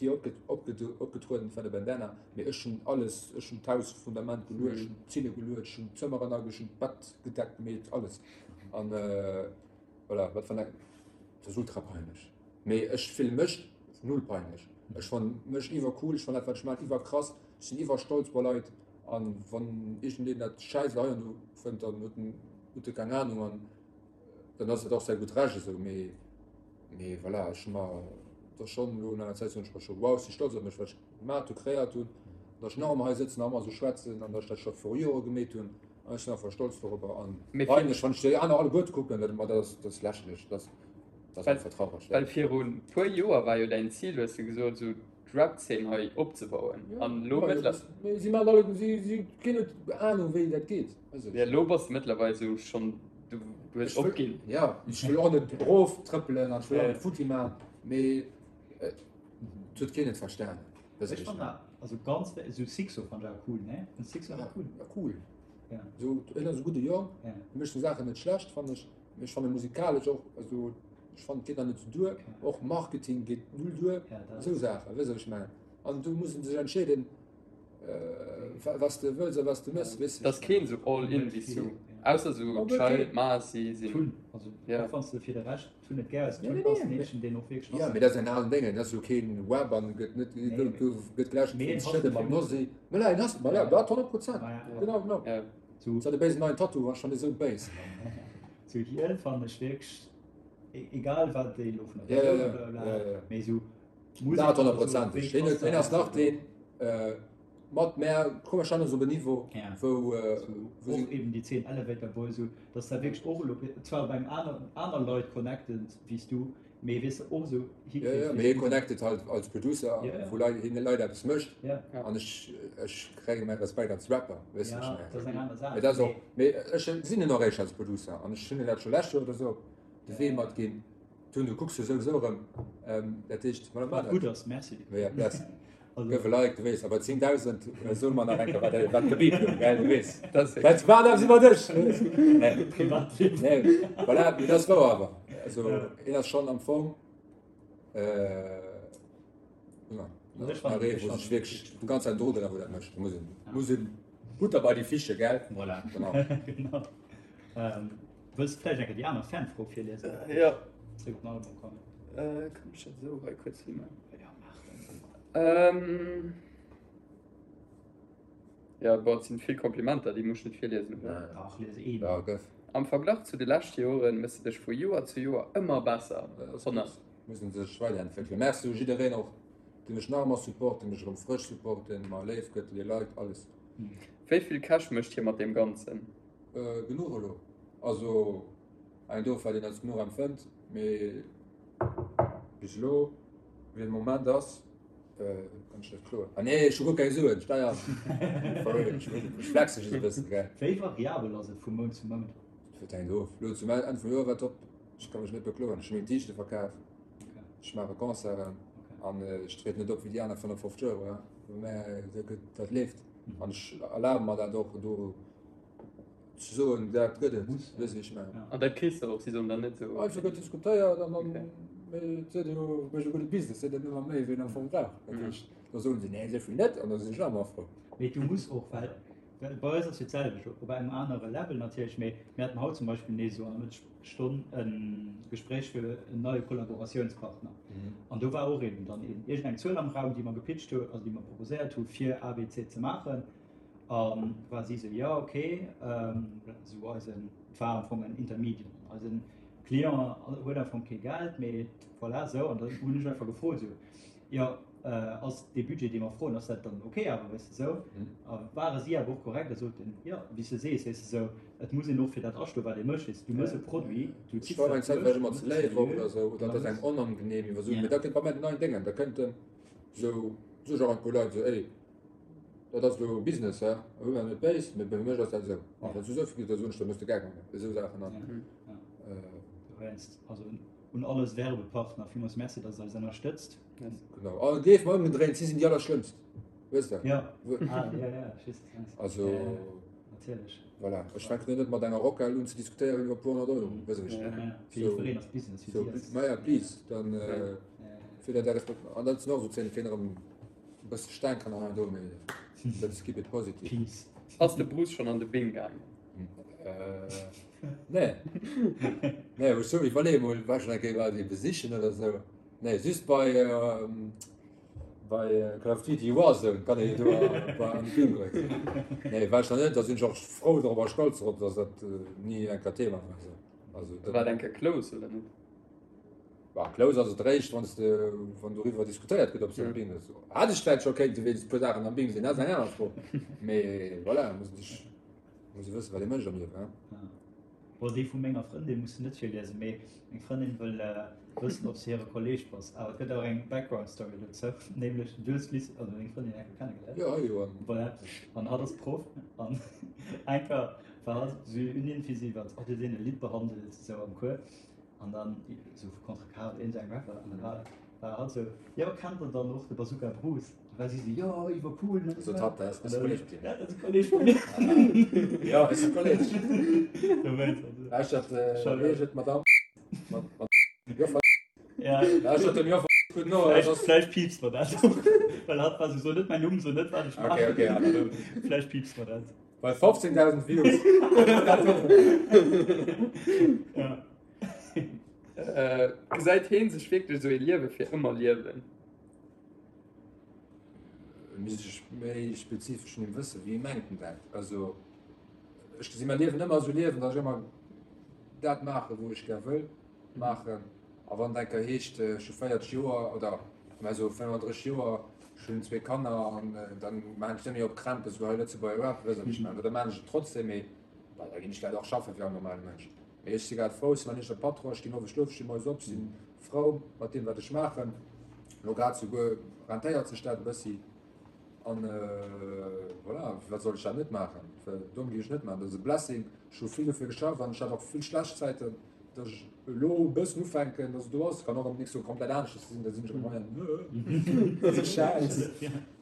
dir opgetrueden, dat war de Bandana. Mee ech hunn alles, ech hunn d'Hausfundament geluecht, ech hunn d'Zille geluecht, ech hunn d'Zëmmeren age, ech hunn d'Bett gedeckt gemeet, alles. An voilà, wat wann eng, dat ass ultra peinlech. Mee ech fille mech null peinlech. Ech fanne mech iwwercool, ech fannen dat wat ech maachen iwwerkrass, ech sinn iwwerstolz bei Leit. An wann iergendeen dat schäiss hei an do fënnt, dann huet en huet e keng Ahnung an dann ass et och säi gutt Recht esou. Mee mee voilà, ech hu mer da schonn elo no enger Zäit soen ech mer scho, wow, ech si stolz op mech, wat ech gemat hu, kreéiert hunn, datt ech nach ëmmer hei sëtzen, nach ëmmer esou schwätzen an datt ech dat scho viru Jore gemeet hunn. An ech sinn einfach stolz dorobber an peinlech, wann ech déi aner alleguerte kucken, dat dat ass dat ass lächerlech, dat ass dat ass einfach traureg. Well viru puer Joer war jo däin Zil, hues de gesot, esou d'Rap-Zeen hei opzebauen an elo mëttler. Mee si maachen alle, si si keen huet Ahnung wéi dat geet. Ja elo bass de mëttlerweil esou schonn, du hues opginn. Ja ech wëll och net erof trëppelen an ech wëll och net futti maachen, mee et huet keen et verstanen. Ech fannen dat also ganz esou Sixo fannen ech awer cool ne? Fënns Sixo awer cool? Ja cool. Esou hien ass e gudde Jong, hie mécht seng Saachen net schlecht fannen ech, mee ech fanne musikalesch och, also Ech fannen et geet nach net sou duer, och Marketing geet null duer, esou Saachen, weess de wat ech mengen? An do muss en sech entscheeden, wat s de wëlls a wat s de mëss, weess de. Et ass keen sou all in wéi s du, ausser sou Child, Masi sinn. Also och wann s de fir de Rescht Tun net gär hues, Tun ass en Eechen deen och wierklech ass. Jo, mee dat ass en alen Déngen, dat ass jo keen Web an gëtt net, gëtt geläscht vum Schëdde mam Nosy. Voilà, en ass, voilà, dat 100 Prozent, genau, genau. Sou de béisen neien Tattoo ass schonn esou béis. Sou hien fannen ech wierklech egal wat déi elo vun der Persoun ja, ja, ja, ja, ja. mee sou Musek dat 100%eg. Hien huet hien ass nach deen äh, mat mär komme schon op en Niveau ja. wou äh, so, wou och eben déi 10 Elevator Boys sou dass da wierklech och elo zwar op engem aner aner Leit connected wéi s du mee weess de och sou Ja, ja, mee hie connected halt als Producer Ja, ja. wou Leit hien Leit eppes mécht Ja. an ech ech kréie mäi Respekt als Rapper weess de Ja, ech mengen. dat ass eng aner Saach Mee dat ass och mee mee ech sinn en och eréischt als Producer an ech hunn en dat scho lescht Joer oder sou de Wee mat ginn. Tun, du kucks jo souwisou erëm, dat heescht, voilà, Wat gutt ass, merci. Ja, bless. Gëff e Like, du weess, a bei 10.000 soe mer nach eng Kéier, wat wat gebeept gouf, gell, du weess. Dat war eppes iwwer dech, nee. Privatliewen. Nee, voilà, mee dat ass wouer awer. Also, een ass schonn am Fong, ja, nach ee, wou sech wierklech déi ganz Zäit Drogen a wou dat mécht. Muss een, muss een Butter bei die Fische, gell? Voilà. Genau. Genau. Wëlls de vläicht eng Kéier déi aner Fanfro virliesen? Jo. Zréck op den Album kommen. Kann ech dat esou hei kuerz himaachen? Ähm, ja, boah, et sinn vill Komplimenter, déi muss ech net virliesen, oder? Dach, lies een. Ja, gëff. Am Verglach zu de leschte Joren mëss de dech vu Joer zu Joer ëmmer besser. 100. Muss en sech weiderentwéckelen. Merci u jiddereen och, dee mech nach ëmmer support, dee mech erëm frësch support, deen mer léif gëtt, les Leit, alles. Wéi vill Cash mécht hie mat deem Ganzen? Äh, genuch elo. Also, eng do, wat een als genuch empfënnt, mee bis elo. Wéi den Moment ass, kann ech net kloen. Ah nee, ech hu guer keng Suen, Steier. For real, ech flexe just e bëssen, gell. Wéi variabel ass et vu Mount zu Mount? Dat hänkt of. Elo zum Enn vum Joer war top. Ech ka mech net bekloen. Ech hu meng T-Shirte verkaf, ech maache Concerten an ech trieden net op wéi déi aner 55 Euro, mä dat leeft an ech erlabe mer dat och do. Ze soen, dat gëtt et, weess ech net. An dat kriss de och, si soen dann net esou. Einfach gëtt diskutéiert an dann, mee et seet jo, mécht e gudde Business, seet en ëmmer méi wéi en am Fong brauch. Dat heescht, da soen se, nee, esou vill net, an da sinn ech nach ëmmer frou. Mee du muss och, well bei eis ass jo d'selwecht, op engem anere Level natierlech, mee mir haten haut zum Beispill nees esou an der Mëttesstonn e Gespréich fir en neie Kollaboratiounspartner. An do war och eben dann iergendeng Zuel am Raum, déi mer gepitcht hu, also déi mer proposéiert hu fir A, B, C ze maachen. A war si sou, jo ok, sou eisen, et war am Fong en Intermediate, eisen Client huet am Fong kee Geld, mee voilà sou. An dann hunn ech einfach gefrot sou, jo ass dee Budget dee mer froen, ass dat dann ok awer, weess de sou. A ware si awer och korrekt a soten, jo wéi s de sees, weess de sou, et muss een och fir dat astoen, wat ee mécht, weess de, du méchs e Produit, du ziss dat duerch, du méchs et seriö, oder sou, oder et ass engem onangenehm iwwer Suen, mee da kënnt bei mär den neien Déngen, da kënnt en sou, sou ech och an e puer Leit sou, ey, Dat ass elo Business, he? Hu mer net béis, mee bei mech ass dat esou. A wann s du esou vill gëss, da soen ech, da muss de Geld maachen. Esou Saachen dann. Dowéinst, also un all eis Werbepartner, villmools Merci, dass der eis ënnerstëtzt. Genau. A gleef mer, ëmgedréint, si sinn déi allerschlëmmst. Weess de? Jo. Ah, jo, jo, ech weess, wat du mengs. Also. Ja, ja, natierlech. Voilà. Ech fänken elo net mat enger Rockhal un ze diskutéieren iwwer e puer 100 Euro. Weess de, wéi ech mengen? Ja, ja. Fir jiddwereen ass Business, fir si ass. Maja, please, dann, fir dat alles. An dat sinn och esou Zéinen, kéint erëm. E bësse Staang kann nach do, mee let's keep it positive. Peace. Ass de Bruce schonn an de Bing gaangen? Nee. Nee, ech sou iwwerleeë mol, war schonn eng Kéier bei déi besichen oder sou. Nee, just bei bei Call of Duty Warzone kann ee jo do bei an de Bing goen. Nee, war ech nach net, da sinn ech och frou drop a stolz drop, dass dat ni eng Kéier Thema war. Also dat. War et eng Kéier close oder net? Bah, close ass et réischt, wann s de, wann doriwwer diskutéiert gëtt, ob s de am Bing ass. Hätt ech vläicht scho kéinte wéinst e puer Saachen am Bing sinn, dat ass eng aner Fro. Mee voilà, muss ee sech, muss ee wëssen, wat ee mécht am Liewen, hein. Bon, déi vu menger Frëndin muss de net virliesen, mee meng Frëndin wëll wëssen, ob s de hire Kolleeg bass. Awer et gëtt och eng Background Story dozou, nämlech du hues d'Liz, also meng Frëndin, eng Kéier kennegeléiert. Jo, jo, an. Voilà, an hatt ass Proff an eng Kéier war hatt esou un iwwer, oh, du hues een e Lidd behandelt, esou am Cours. An dann esou vu Contrecarre oder iergendengem Rapper. An da war, war hatt esou, jo, kennt der dann och de Bazooka Bruce? Da war si esou, jo, iwwercool, ne? Sot hatt, dat ass e Kolleg vun dir. Ja, dat ass e Kolleg vun mir. Jo, ass e Kolleg. Dowéinst, also. Lauschtert, wéi heescht et, Madame? Joffer. Ja. Lauschtert dem Joffer gutt no. Vläicht, vläicht piipst mer dat och. Well hatt war esou, so net mäin Numm, so net, wat ech maachen. Okay, okay, ja, dann. Vläicht piipst mer dat. Bei 15.000 Views. Ja. Äh, gesäit heen sech wierklech esou ee Liewe fir ëmmer liewen? Misst ech méi spezifesch vun him wëssen, wéi mengt en dat? Also ech gesi mäi Liewen ëmmer esou liewen, datt ech ëmmer dat maachen, wou ech gär wëll maachen. A wann et eng Kéier heescht, ech hu 40 Joer oder mä sou 35 Joer, ech hunn zwee Kanner an dann maachen ech net méi op Krämpes wéi hei Lëtzebuerger Rap, weess wat ech mengen. Oder maachen ech et trotzdem, mee bah, da ginn ech dat och schaffen wéi all normale Mënsch. Mee ech si grad frou, ech si mäin eegene Patron, ech ginn owes schlofen, ech sti moies op, si frou mat deem wat ech maachen. Elo grad souguer rentéiert sech dat e bëssi an voilà, firwat soll ech dat net maachen? Well domm ginn ech net maachen, dat ass e Blessing, ech hu vill dofir geschafft an ech hat och vill schlecht Zäiten. Datt ech elo e bëssen ufänken, datt et do ass. Kann och am nächste Joer komplett aneschters sinn, da sinn ech erëm hei an dat ass Schäiss.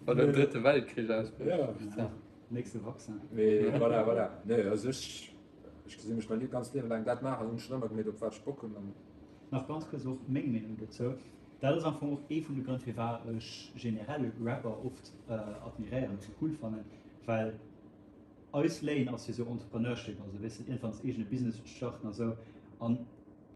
Wann den drëtte Weltkrich ausbrécht. Ja. Nächste Vaccin. Mee voilà, voilà. Nee, also ech, ech gesi mech mäi ganzt Liewe laang dat maachen, hunn ech schonn ëmmer gemeet, op wat ech Bock hunn an. Nach ganz kuerz och meng Meenung dozou. Dat ass am Fong och ee vun de Grënn firwat ech generell Rapper oft admiréieren a cool fannen, well eis Lane ass jo sou Entrepreneurship, also weess de iergendwann s eegene Business starten a sou. An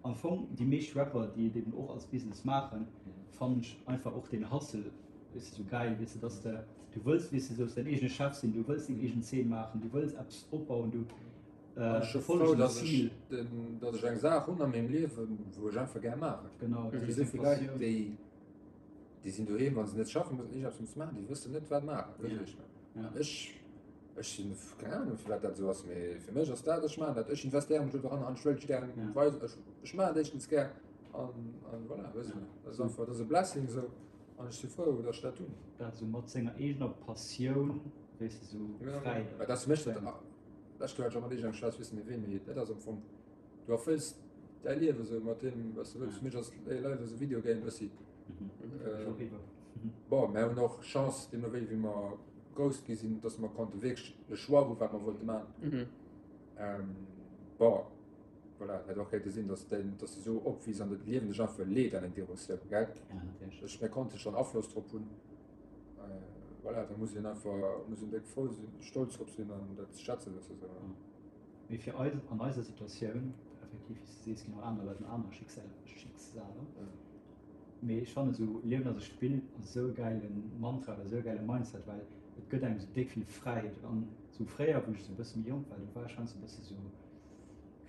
am Fong déi meescht Rapper déi et eben och als Business maachen, fannen ech einfach och deen Hustle weess de sou gäil, weess de dass de du wëlls weess de sou däin eegene Chef sinn, du wëlls deng eegen Zeen maachen, du wëlls eppes opbauen, du An ech si frou, dass ech den, dass ech eng Saach hunn a mengem Liewen, wou ech einfach gär maachen. Genau, Et gi souvill Leit, déi, déi sinn doheem, wa se net schaffen mussen, iergendeppes musse maachen, déi wëssen net, wat maachen. Wësst Dir, wéi ech mengen? An ech, ech sinn, keng Ahnung, firwat dat esou ass, mee fir mech ass dat, ech maachen dat, ech investéiere mech do dran an ech wëll et gär weisen, ech, ech maachen et éischtens gär an, an voilà, wësst Dir. Dat ass einfach, dat ass e Blessing esou an ech si frou, dass ech dat hunn. Dat esou mat senger eegener Passioun, weess de, esou fräi. Well dat ass fir mech dat. Lescht Joer hat ech och mat iergendengem Schwätz, weess net méi ween, mee dat ass am Fong, du erfëlls däi Liewe sou mat deem, wat s du wëlls. Fir mech ass Life as a Video Game bëssi. Bon, mär hunn och Chance, deemno wéi wéi mer grouss gi sinn, dass mer konnte wierklech de Choix hu wat mer wollte maachen. Bon, voilà, et hätt och kéinte sinn, dass däin, dass du sou opwiiss an dat Liewen dech einfach leet an eng Direktioun, gell? Ech, mir konnte schonn Afloss drop hunn. Voilà, da muss een einfach muss een déck frou sinn, stolz drop sinn an dat ze schätzen wëssen. Sou. Mee fir eis, an eiser Situatioun, effektiv, wéi s de sees, ginn och aner Leit an aner Schicksaler. Mee ech fannen esou Liewen ass e Spill ass esou e gäile Mantra oder esou e gäile Mindset, well et gëtt engem esou déck vill Fräiheet. An esou fréier, wou ech esou e bësse méi jonk war, do war ech heiansdo e bësse sou,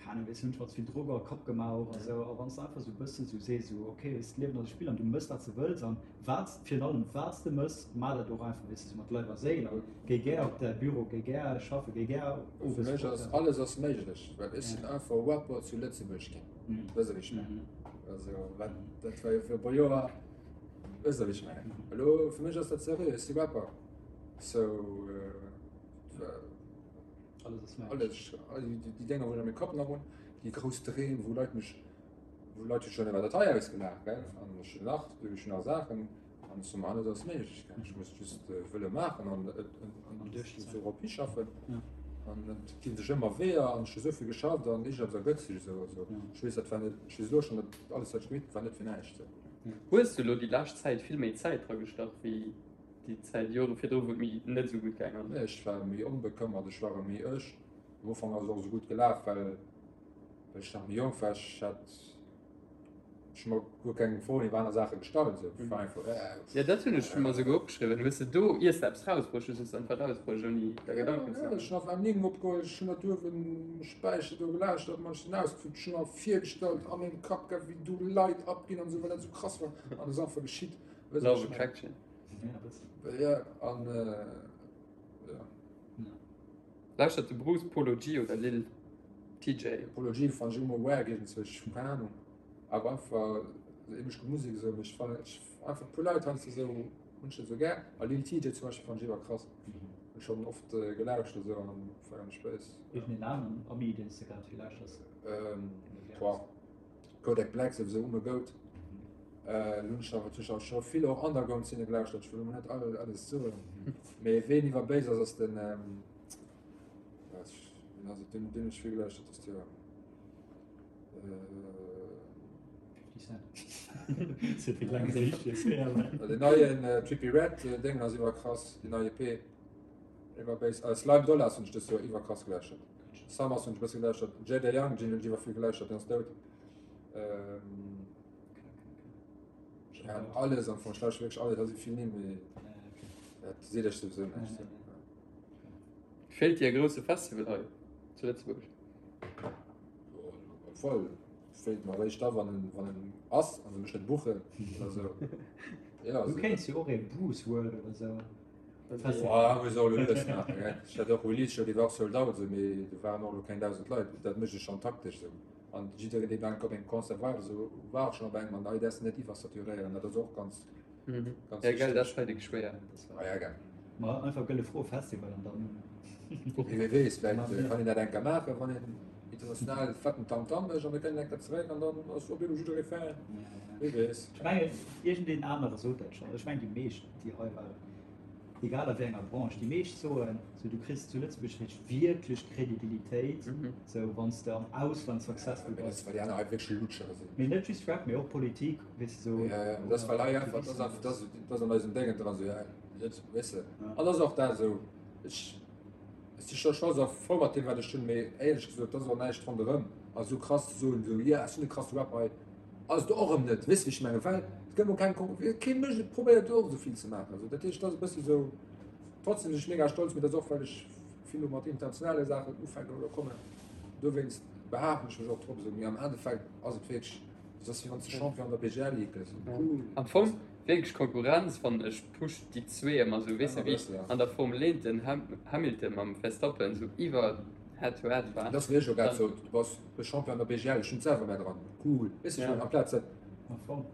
Keng Ahnung, weess, hunn schonns vill Drock a Kapp gemaach och a sou. A wann s de einfach sou e bëssen sou sees, sou ok, weess, d'Liewen ass e Spill an du mëss wat s de wëlls an wat, virun allem wat s de mëss, maach dat och einfach, weess de, sou mat Leif a Séil a géi gär op däi Büro, géi gär schaffen, géi gär owes. Fir mech ass alles ass méiglech, well ech sinn einfach Rapper zu Lëtzebuerg ginn, weess de wéi ech mengen? Also wat, dat war jo fir e puer Joer, weess de wéi ech mengen? Elo fir mech ass dat seriö, ech si Rapper, sou. Alles ass méiglech. Alles, all déi, déi Dénger, wou ech a mengem Kapp nach hunn, déi grouss Dreem, wou Leit mech, wou Leit hu schonn iwwer dat hei ausgelaach, gell, an ech hunn nach, ech hunn nach Saachen, an ech soe mer, alles ass méiglech, gell, ech muss just wëlle maachen an an dorop hischaffen. An et ginn sech ëmmer Weeër an ech hu esou vill geschafft an iergendwas ergëtt sech esou. Also ech weess, dat war net, ech weess elo schonn, dat alles wat ech gemeet hunn, war net fir näischt. Hues du elo déi lescht Zäit vill méi Zäit dragestach wéi Déi Zäit, Jore virdru, wou et méi net esou gutt gaang ass. Nee, ech war méi onbekëmmert, ech war méi ech. Am Ufank ass et och esou gutt gelaf, well ech nach méi jonk war. Ech hat, ech hu mer guer keng Froen iwwer aner Saache gestallt esou. Ech war einfach, äh. Jo, dat hunn ech mer esouguer opgeschriwwen. Hues de do, iers de eppes rausbruecht hues, hues de einfach rausbruecht, ouni der Gedanken ze maachen? Jo, ech hunn einfach Nimm opgeholl, ech hunn dat uewen um Späicher do gelauschtert, mer ech sinn ausgeflippt, ech hunn mer virgestallt a mengem Kapp, gell, wéi do Leit abginn an esou, well dat esou krass war. An et ass einfach geschitt. Weess Love Attraction. Ja, an ja. Lauschtert de Bruce Polo G oder Lil TJ? Polo G fand ech ëmmer wack iergendzwou, ech hu keng Ahnung. Awer einfach esou eemesch gutt Musek esou, mee ech fannen ech einfach puer Leit heiansdo esou hunn ech net esou gär. A Lil TJ zum Beispill fand ech iwwer krass. Hunn ech schonn oft gelauschtert esou an feieren ech béis. Iergendeen aneren Ami deen s de grad vill lauschters? Boah. Kodak Black souwisou um e Goat. Lo hunn ech awer natierlech och scho vill och Underground-Szene gelauschtert, ech wëll elo net all alles soen, mee ween iwwer béis ass, ass den, ween ass et, deen hunn ech vill gelauschtert dëst Joer. 50 Cent. Den neien Trippie Redd Déngen ass iwwer krass, déi nei EP iwwer béis. Slime Dollars hunn ech dëst Joer iwwer krass gelauschtert. Summers hunn ech e bësse gelauschtert. Jada Young Gin hunn ech iwwer vill gelauschtert, deen ass dout. Ähm, ja, alles am Fong, ech lauschteren wierklech alles, also vill Nimm, mee dat seet ech souwisou näischt. Feelt dir e grousse Festival hei zu Lëtzebuerg? Voll feelt mer eréischt da wann en wann en ass an se mech net buchen oder sou. Ja, Du kéints jo och ee Bruce World oder sou. Boah, muss och elo lues maachen, gell. Ech hat och Release Show, déi war och sold out esou, mee do waren och elo keng 1.000 Leit. Dat mécht ech schonn taktesch esou. An jiddereen, dee enk op engem Concert war oder sou, war och schonn op engem an hei däerfs de net iwwersaturéieren. Dat ass och ganz, ganz Ja, gell, dat ass hei déck schwéier. Ah ja, gell. Ma einfach Gëlle Fro Festival an dann. Mee wie weess, vläicht kann een dat eng Kéier maachen, wann een. International fetten Tamtam mécht an da kënnt en eng Kéier zeréck an dann ass op eemol jidderee Fan. Wie weess. Ech mengen, iergendeen anere sot dat schonn. Ech mengen, déi meescht, déi hei waren, egal a wéi enger Branche, déi meescht soen, sou, du kriss zu Lëtzebuerg réischt wierklech Kredibilitéit, sou, wann s de am Ausland successful Mee dat bass. ass, well déi aner hei wierklech Lutschere sinn. Mee net just Rap, mee och Politik, weess de, sou. Ja, ja, dat ass, well hei einfach, dat ass einfach, dat ass, dat ass an eisem Déngen dran, sou, ja, Lëtzebuerg, weess de. An dat ass och dat esou, ech. Ech si scho stolz a frou mat deem wat ech hunn, mee éierlech gesot, et ass och näischt ronderëm a sou krass ze soen, sou yeah ech sinn e krasse Rapper hei, ass et och erëm net, weess de wéi ech mengen, well et gëtt mol keng Kon, kee mécht et, probéiert och esou vill ze maachen, sou dat heescht et ass e bëssi sou, trotzdem sinn ech mega stolz, mee dat ass och well ech vill elo mat internationale Saachen ufänken oder kommen, dowéinst behaapten ech mech och drop esou, mee am Endeffekt ass et wierklech, et ass wéi wann s de Champion an der BGL Ligue gëss, cool. Am Fong Wierklech Konkurrenz fannen ech pusht déi zwee emmer sou, weess de wéi an der Formel 1 den Hamilton mam Verstappen sou iwwer head to head war. Dat ass wéi ech och grad sot, du bass de Champion an der BGL, ech hunn et selwer mär dran, cool, weess de ech mengen amplaz dat,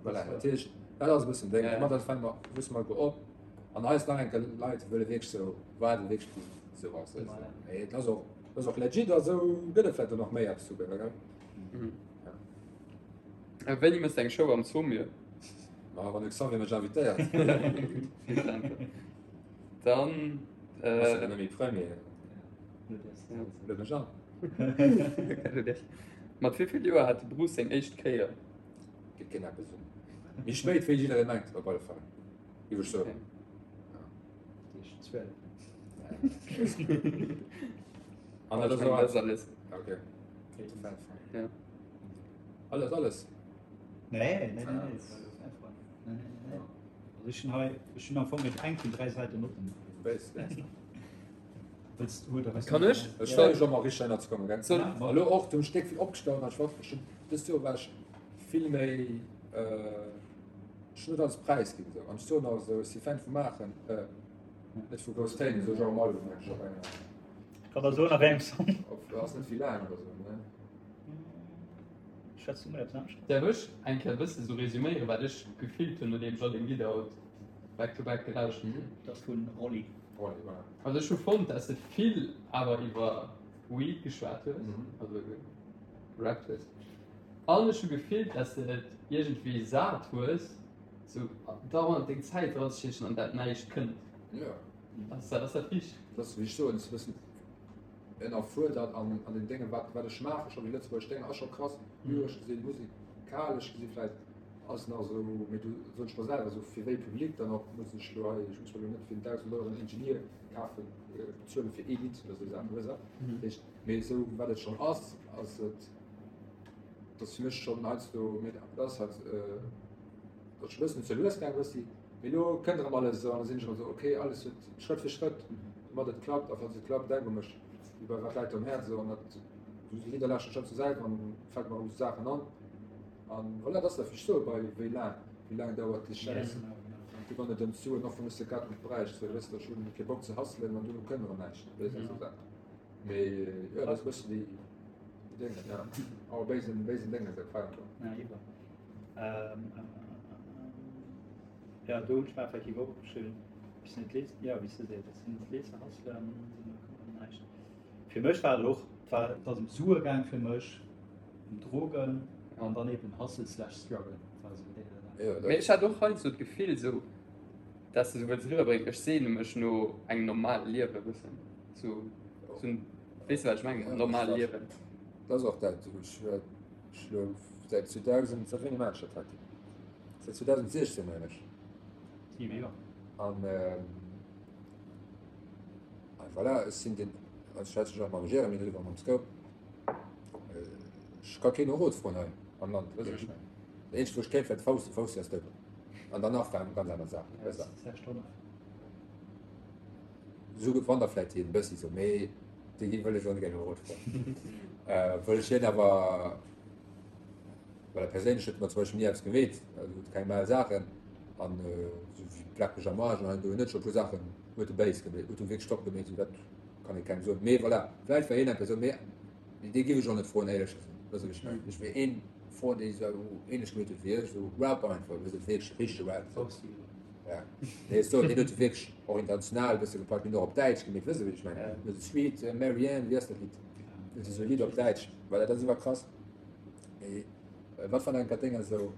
voilà, dat heescht dat ass e bëssen Déng, domat dat fänke mer, wësse mer elo op an eis nach eng Kéier Leit wëlle wierklech sou waarde wierklech bis et sou ass, weess de, mee et ass och, et ass och legit a sou gëtt et vläicht och nach méi eppes souguer, gell. Wéini mëss de eng Show am Saumur? Ma wann de Xavier mech invitéiert. Dann. Ass ja net méi Premier. Lued mech an. Mat wéi vill Joer hat de Bruce seng éischt Kéier? Geet keen eppes un. Méi spéit wéi jiddereen mengt, op alle Fall. Géif ech soen. 12. An dat ass och alles. Okay. Ja. Alles, alles. Nee, nee, nee, nee. Nee, nee, nee. Also ech hunn hei, ech hunn am Fong net eng vun 3 Säiten Notten. Wéis, wéis. Wëlls du oder Kann ech? Ech war jo mol richteg ënner ze kommen, gell? Soll. Ma elo och, du hunn ech déck vill opgestaut an ech war, ech hunn, dëst Joer war ech vill méi, ech hunn net alles präisginn esou. An ech soen och esou, ech si Fan vu maachen, net vu grouss Téin, esou genre Album mengen ech op enger. Kann der soen a wéi engem Song. Op, ass net vill laang oder esou, ne? Schwätz du mol eppes anescht? Däerf ech eng Kéier e bësse sou resüméieren, wat ech gefillt hunn, nodeem ech all deng Lidder haut back to back gelauschtert hunn? Dat ass vun Rolli. Rolli, voilà. Also ech hu fonnt, dass de vill awer iwwer Weed geschwat hues, also gerappt hues. An ech hu gefillt, dass de et iergendwéi sat hues, sou dauernd deng Zäit dranzestiechen an dat näischt kënnt. Jo. Ass dat, ass dat richteg? Dat ass, wéi ech soen, e bëssen ënnerfuerdert an an den Déngen, wat wat ech maachen, scho déi lëtzebuergesch Dénger ass scho krass, lyresch gesinn, musikalesch gesinn vläicht ass nach esou, mee do soen ech mer selwer esou, fir wéi Public dann och, muss ech elo hei, ech muss mer elo net fir 1.000 Euro en Ingenieur kafen, bezuelen fir ee Lidd oder esou Saachen, weess de? Dat heescht, mee esou wat et schonn ass, ass et, dat ass fir mech schonn heiansdo, mee dat ass halt, dat ass scho e bëssen ze lues gaang e bëssi. Mee elo kënnt erëm alles esou an da sinn ech erëm esou, ok, alles huet Schrëtt fir Schrëtt, domat et klappt a falls et klappt, denk u mech, wéi bei Wat läit dir um Häerz esou an dat, esou déi Lidder lauschteren ech schonn zur Säit an fält mer erëm esou Saachen an an voilà, dat ass dat, wéi ech soe bei wéi laang, wéi laang dauert déi Schäiss an du wann et ëm d'Suen och wann ech se grad net bräicht, sou weess de, ech hunn kee Bock ze hustlen an duerno kënnt erëm näischt, weess de, esou Saachen. Mee jo, dat ass e bëssen déi déi Déngen, ja, awer béisen, béisen Déngen, dat feiert jo. Ja, iwwer. Ja, do hunn ech mer effektiv och opgeschriwwen, bis net lees, ja, wéi s de sees, dass si net lees hustlen, näischt. Fir mech war et och, et war, et ass ëm Sue gaang fir mech, ëm Drogen an dann eben Hustle slash Struggle. War esou déi Saach. Mee ech hat och heiansdo d'Gefill esou, dass de sou wëlls eriwwerbréngen, ech sehne mech no engem normale Liewe e bëssen, sou, sou, weess de wat ech mengen, normal Liewen. Dat ass och dat, ech Ech elo säit 2000, säit wéini maachen ech dat heiten? Säit 2016 mengen ech. 7 Joer. An a voilà, ech sinn den, ech schwätze ech och mam Jeremy driwwer, mam Scope, ech ka keen no Rot froen hei am Land, weess de wat ech mengen? Dat eenzegt wou ech kéint wär de Fausti, Fausti ass dout. An danach waren ganz aner Saachen, weess de. Esou wann da vläit hien e bëssi sou, mee dee gi wëll ech och net gär no Rot froen. Wëll ech hien awer, well perséinlech huet e mer zum Beispill ni eppes gemeet, also huet keng mal Saachen an esou wéi Black Mech am Arsch an hei an do, hien huet scho e puer Saachen huet e béis gemeet, huet e wierklech top gemeet, esou dat kann ee kengem soen. Mee voilà, vläicht war hien eng Persoun, mee dee giff ech och net froen éierlech gesot, weess de wéi ech mengen. Ech wéi een froen dee esou ähnlech gemeet huet wéi ech, esou Rap einfach, weess de wierklech richtege Rap. Ja. Nee, ech soen, hien huet wierklech och international e bësse gepackt, hien huet och op Däitsch gemeet, weess de wéi ech mengen? Sweet Marianne, wéi ass dat Lidd? Dat ass esou e Lidd op Däitsch, well dat ass iwwer krass. Mee wat wann enker Dénger esou.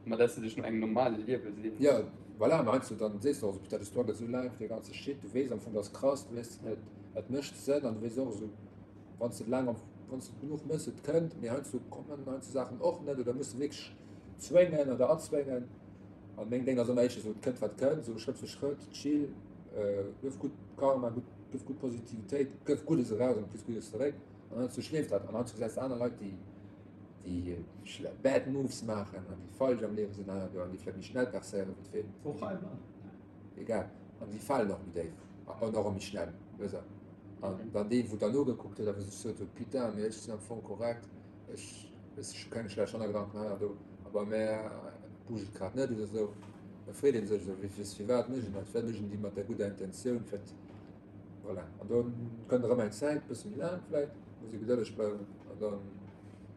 Ma dass de dech no engem normale Liewe seens. Jo, voilà, mä heiansdo dann sees de och esou, putain, de Struggle esou laang fir dee ganze Shit, du weess am Fong, dat ass krass, du weess, et mécht Sënn an du weess och esou, wann s de et laang am, wann s de et genuch méchs, et kënnt, mee heiansdo kommen heiansdo Saachen och net oder muss de wierklech zwéngen oder erzwéngen. An meng Déng ass ëmmer éischter esou, et kënnt wat kënnt, esou Schrëtt fir Schrëtt, chill, gëff gutt Karma, gutt, gëff gutt Positivitéit, gëff Guddes eraus an du kriss Guddes zeréck. An heiansdo schleeft dat an heiansdo gesäis de aner Leit, déi, déi bad moves maachen an déi falsch am Liewe sinn hei an do an déi vläicht méi schnell percéieren wéi d'Fee. Och hei am Land. Egal. An déi falen och méi déif an och méi schnell, weess de. An dann deen, wou dann nogekuckt huet a wou sech sot huet, putain, mee ech sinn am Fong korrekt, ech, weess ech hu keng schlecht Hannergedanken hei an do, a bei mär bouget et grad net oder esou, da freet ee sech esou, wéi, firwat mécht een dat, firwat mécht een déi mat der gudder Intentioun, firwat, voilà. An do kënnt erëm eng Zäit, bësse méi laang vläicht, muss ee gedëlleg bleiwen an da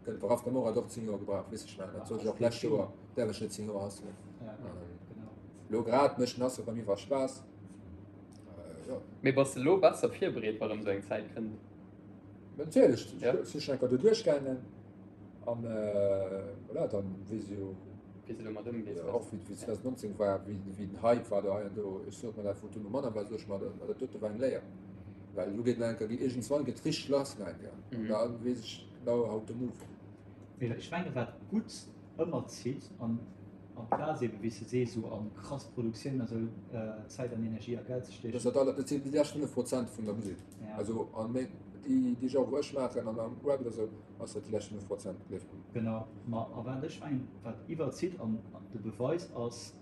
kënnt worauf der Morat och 10 Joer gebraucht, weess ech net, dat sot ech och d'lescht Joer, däerf ech net 10 Joer hustlen. Elo grad mécht den Hustle bei mir iwwer Spaass. Mee bass de lo besser virbereet wa rëm sou eng Zäit kënnt? Natierlech, ech si schon enker do duerchgaangen an voilà, dann weess ech jo wéi s de domat ëmgees. Och wéi 2019 war, wéi den Hype war do hei an do, ech sot mer dat wou duerno manner war, sot ech mer dat dote war eng Léier, well elo geet nach enker, iergendswann geet richteg lass nach enker an da weess ech genau how to move. Mee ech menge wat gutt ëmmer zitt an amplaz eben wéi s de sees esou an krass Produktioun a sou Zäit an Energie a Geld ze stiechen. Dat ass dat sinn déi lescht 5 Prozent vun der Musek. Also an meng déi déi Genre wou ech maachen an am Rap oder sou ass dat déi lescht 5 Prozent, gleef mer. Genau, ma a wat ech mengen wat iwwerzitt an de Beweis ass,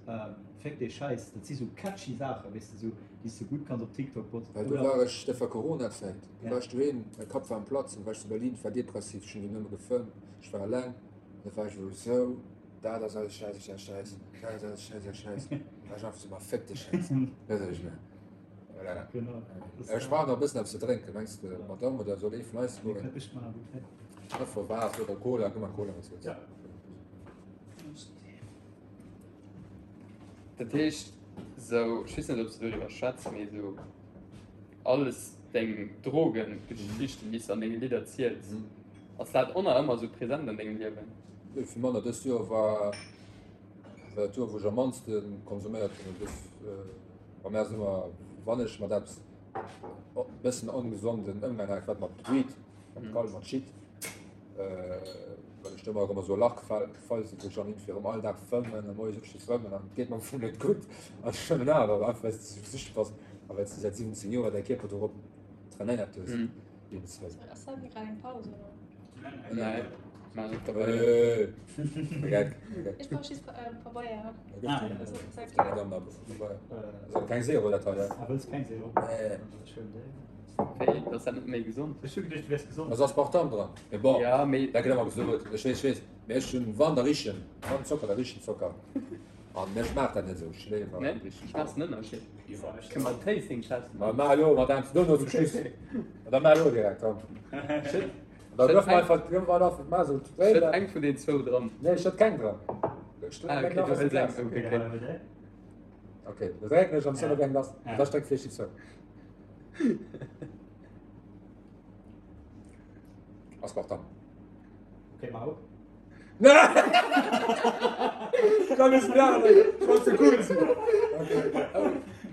Féck dee Schäiss, dat si sou catchy Saachen, weess de, sou déi s de gutt kanns op TikTok posten Well do war ech, dat war Coronazäit, do war ech doheem, mäi Kapp war am Platzen, war ech zu Berlin, war depressiv, ech hunn do nëmme gefëmmt, ech war eleng an da war ech esou. Dat ass alles Schäiss, Schäiss, Schäiss. Dat ass alles Schäiss, Schäiss, Schäiss. Da war ech einfach so, ma féck de Schäiss. Weess wat ech mengen? Voilà. Genau. Ech brauch nach e bëssen eppes ze drénken. Mengs de, Madame, oder soll ee vun eis goen? Mir kënnt nach gutt hin. Einfach Waasser oder Cola, gëmm mer Cola, wann s du wëlls. Ja. Dat heescht, sou, ech weess net, ob s de doriwwer schwätz, mee sou alles deng Drogengeschichten, déi s de an denge Lidder ziels, ass dat och nach ëmmer sou present an dengem Liewen? Nee, vill manner. Dëst Joer war dat Joer, wou ech am mannste konsuméiert hunn. Dës, bei mär ass ëmmer, wann ech mat eppes e bëssen ongesonden Ëmgang hat, war et mat Weed, mat Gall, mat Shit, well ech do ëmmer erëm a sou e Lach gefall sinn, wou ech dann iergendwéi erëm all Dag fëmmen a moies opsti fëmmen an et geet mer am Fong net gutt an ech fëmmen awer, einfach well s de sou süchteg bass a well s de säit 17 Joer däi Kierper dorop trainéiert hues. Ass dat grad eng Paus oder? Nee. Ech brauch just Pabeier. Keng Zero dat hei. Ah, wëlls keng Zero? Nee. Wéi, dat ass dat net méi gesond? Ech hu geduecht, du wäers gesond. Ass Aspartam dran. Mee bon, Ja, mee. dat gëtt ëmmer gesot. Ech weess, ech weess. Mee ech hunn, wann da richen, wann Zocker, da richen Zocker. An ech maach dat net esou, ech léiwer Nee, schmaass den Ënnerscheed? Kënne mer en Tasting Test Ma maachen? maach elo mat engem dono zum Schluss. Da maach elo direkt, komm. Schëtt Da duerf mer einfach, duerf mer einfach, maach esou schëtt eng vun den zwou dran. Nee, ech schëtt keng dran. Ah, okay, du hëls eng, okay, okay. Okay, da drécken ech an zénn op eng lass. Da streckt fir déi zou. Aspartam. Okay, mach op.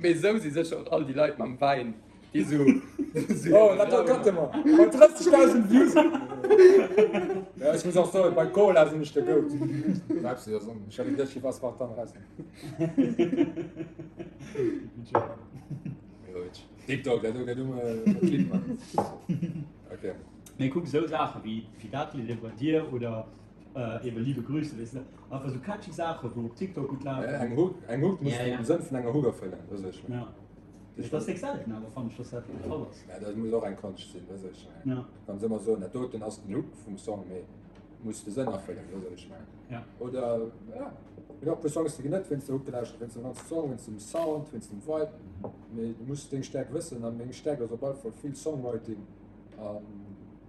Mee esou si sécher och all déi Leit mam Wäin, déi esou. Oh, dat do cutte mer. Bei 30.000 Views. Ja, ech muss och soen, bei Cola sinn ech de Goat. Pepsi ass on. Ech hat geduecht, ech Aspartam raus. TikTok, dat do gëtt um Clip man. Okay. Mee kuck, esou Saache wéi dat Lidd ebe bei dir oder eben Liebe Grüße, weess de, einfach esou catchy Saache wou op TikTok gutt lafen. Eng Hook, eng Hook muss den Sënn vun enger Hook erfëllen, weess ech. Ja. Dat ass déck selten awer fannen ech, dass dat de Fall ass. Ja, dat muss och eng Konscht sinn, weess ech. Ja. Du kanns ëmmer soen, dat doten ass den Hook vum Song, mee muss de Sënn erfëllen, weess wat ech mengen. Ja. Oder, ja, et ginn och e puer Songs, déi ginn net wéinst der Hook gelauschtert, wéinst dem ganze Song, wéinst dem Sound, wéinst dem Vibe, mee du muss deng Stäerkt wëssen a meng Stäerkt ass op alle Fall vill Songwriting. An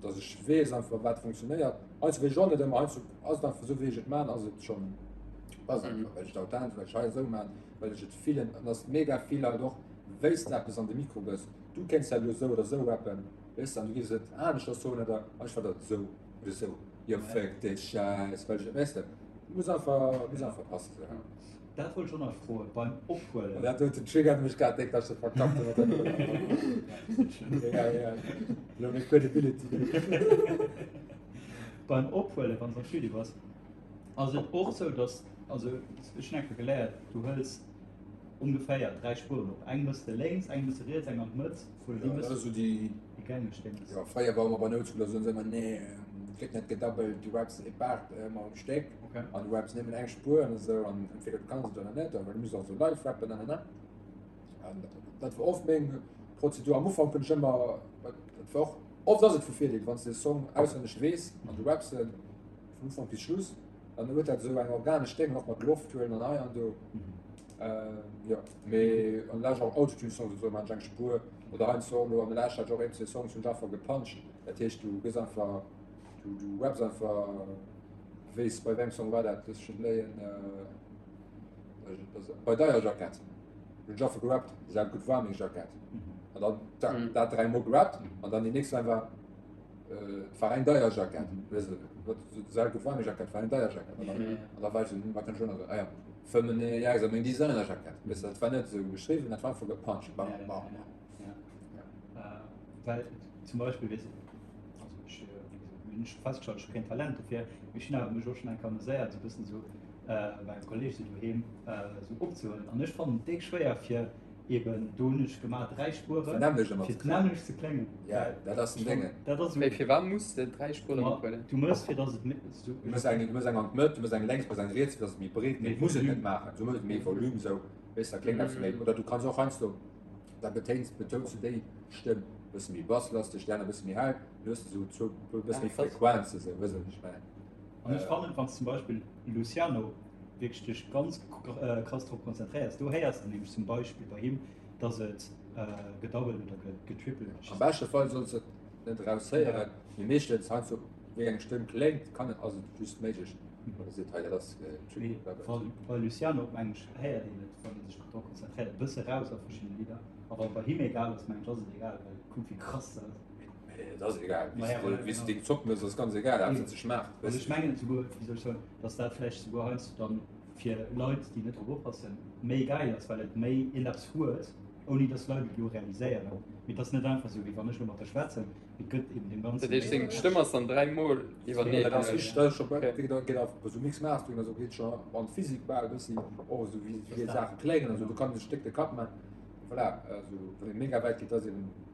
dass ech weess einfach wat funktionéiert. Heiansdo weess ech och net ëmmer, heiansdo ass et einfach esou wéi ech et man, ass et schonn passt einfach, well ech et authentesch, well ech hei esou man, well ech et fillen. An dass mega vill Leit och wéis de eppes an de Mikro gëss, du kéints dat elo esou oder esou rappen. Weess de, an du giffs et aneschters soen oder ech war dat esou oder esou, jo fuck dee Schäiss, well ech, weess de, muss einfach, muss einfach passen esou. Dat wollt ech och nach froen, beim Ophuelen. Dat doten triggert mech grad déck, dass ech dat verkackt hunn mat der Brëll. Egal, egal, elo meng Credibility. Beim Ophuelen, wann s am Studio bass, ass et och esou, dass, also ech hunn eng Kéier geléiert, du hëls ongeféier 3 Spueren op, eng mëss de lénks, eng mëss de riets, eng an d'Mëtt. Ja, dat ass esou déi. Déi gängeg Déngs. Jo, fréier war ëmmer bei Noutschooler soen se ëmmer, nee, et gëtt net gedabbelt, du raps e Part ëmmer um Stéck Okay. an du raps nëmmen eng Spuer an esou an entweder du kanns et oder net, well du muss och esou live rappen an an an. An dat war oft meng Prozedur. Am Ufank hunn ech ëmmer, dat war och, oft ass et vu Virdeel, wann s de e Song auswenneg weess an du raps en vun Ufank bis Schluss, dann huet dat esou eng organesch Déng, och mat Loft huelen an hei an do. Jo, mee an der Lescht och Autotune Songs esou man ech eng Spuer oder heiansdo och elo an der Lescht hat ech och een zwee Songs hunn ech einfach gepuncht. Dat heescht du gëss einfach du du raps einfach weess bei wéi engem Song war dat looss ech net léien bei deier Jackett hunn ech einfach gerappt esou gutt war meng Jackett an dann dat dat dräi mol gerappt an dann déi nächst Line war Et war eng deier Jackett. Weess de, wat sou gutt war meng Jackett, war eng deier Jackett. An dann, an da war ech sou, hm, wat kann ech elo nach soen? Ah ja, 5 ja, meng Designer-Jackett. Weess de, dat war net sou geschriwwen, dat war einfach gepuncht. Bam, bam, bam. Ja. Ja. Well zum Beispill, weess also ech, wéi gesot, hunn ech festgestallt, ech hu keen Talent dofir, mee ech hunn awer mech och schonn eng Kéier ameséiert, sou e bëssen sou bei engem Kolleeg sou doheem sou opzehuelen. An ech fannen et déck schwéier fir Eben, do hunn ech gemaach 3 Spueren, fir d'nämmlecht ze kléngen. Ja, dat ass den Déngen. Dat ass Mee firwat muss de 3 Spueren ophuelen? Du mëss fir dass et méi. Du mëss eng, du mëss eng an d'Mëtt, du mëss eng lénks, du mëss eng riets, fir dass et méi breet gëtt. Muss et net maachen, sou méi Volume, sou weess da kléngt eppes méi. Oder du kanns och heiansdo, da betéins, betouns du déi Stëmm e bësse méi basslasteg, déi aner e bësse méi hell, dann hues de sou zwou, e bësse méi Frequenze sou, weess de wat ech mengen? An ech fannen, wann s zum Beispill Luciano wierklech dech ganz krass drop konzentréiers, do héiers de nämlech zum Beispill bei him, dass et gedoubled oder getripled ass. Am beschte Fall solls de et net eraushéieren, mee meeschtens heiansdo wéi eng Stëmm kléngt, kann et, ass et just méiglech, wann e seet, hei dat ass getripled, doubled. Bei Luciano mengen ech héiert een et, wann ee sech drop konzentréiert, e bësse raus a verschiddene Lidder. A wann et bei him egal ass, mengen ech ass et egal, well kuck wéi krass dat ass. Et ass egal, wéi s de deng Zopp mëss, ass ganz egal, haaptsaach se schmaacht. Also ech mengen souguer, wéi soll ech soen, dass dat vläicht souguer heiansdo dann fir Leit, déi net drop oppassen, méi gäil ass, well et méi iergendeppes huet, ouni dass d'Leit et elo realiséieren. Mee et ass net einfach esou, wéi wann ech elo mat der schwätzen, mee et gëtt eben deem Ganzen. Dat heescht, seng Stëmm ass dann dräimol iwwerneen. Dat ass richteg, dat ass scho bal, wéi geet geet och esou Mix Mastering a sou geet scho an d'Physik bal e bëssi, och esou wéi wéi Saache kléngen a sou, do kann ee sech déck de Kapp man. Voilà, also wann ee mega wäit geet, dat ass eben esou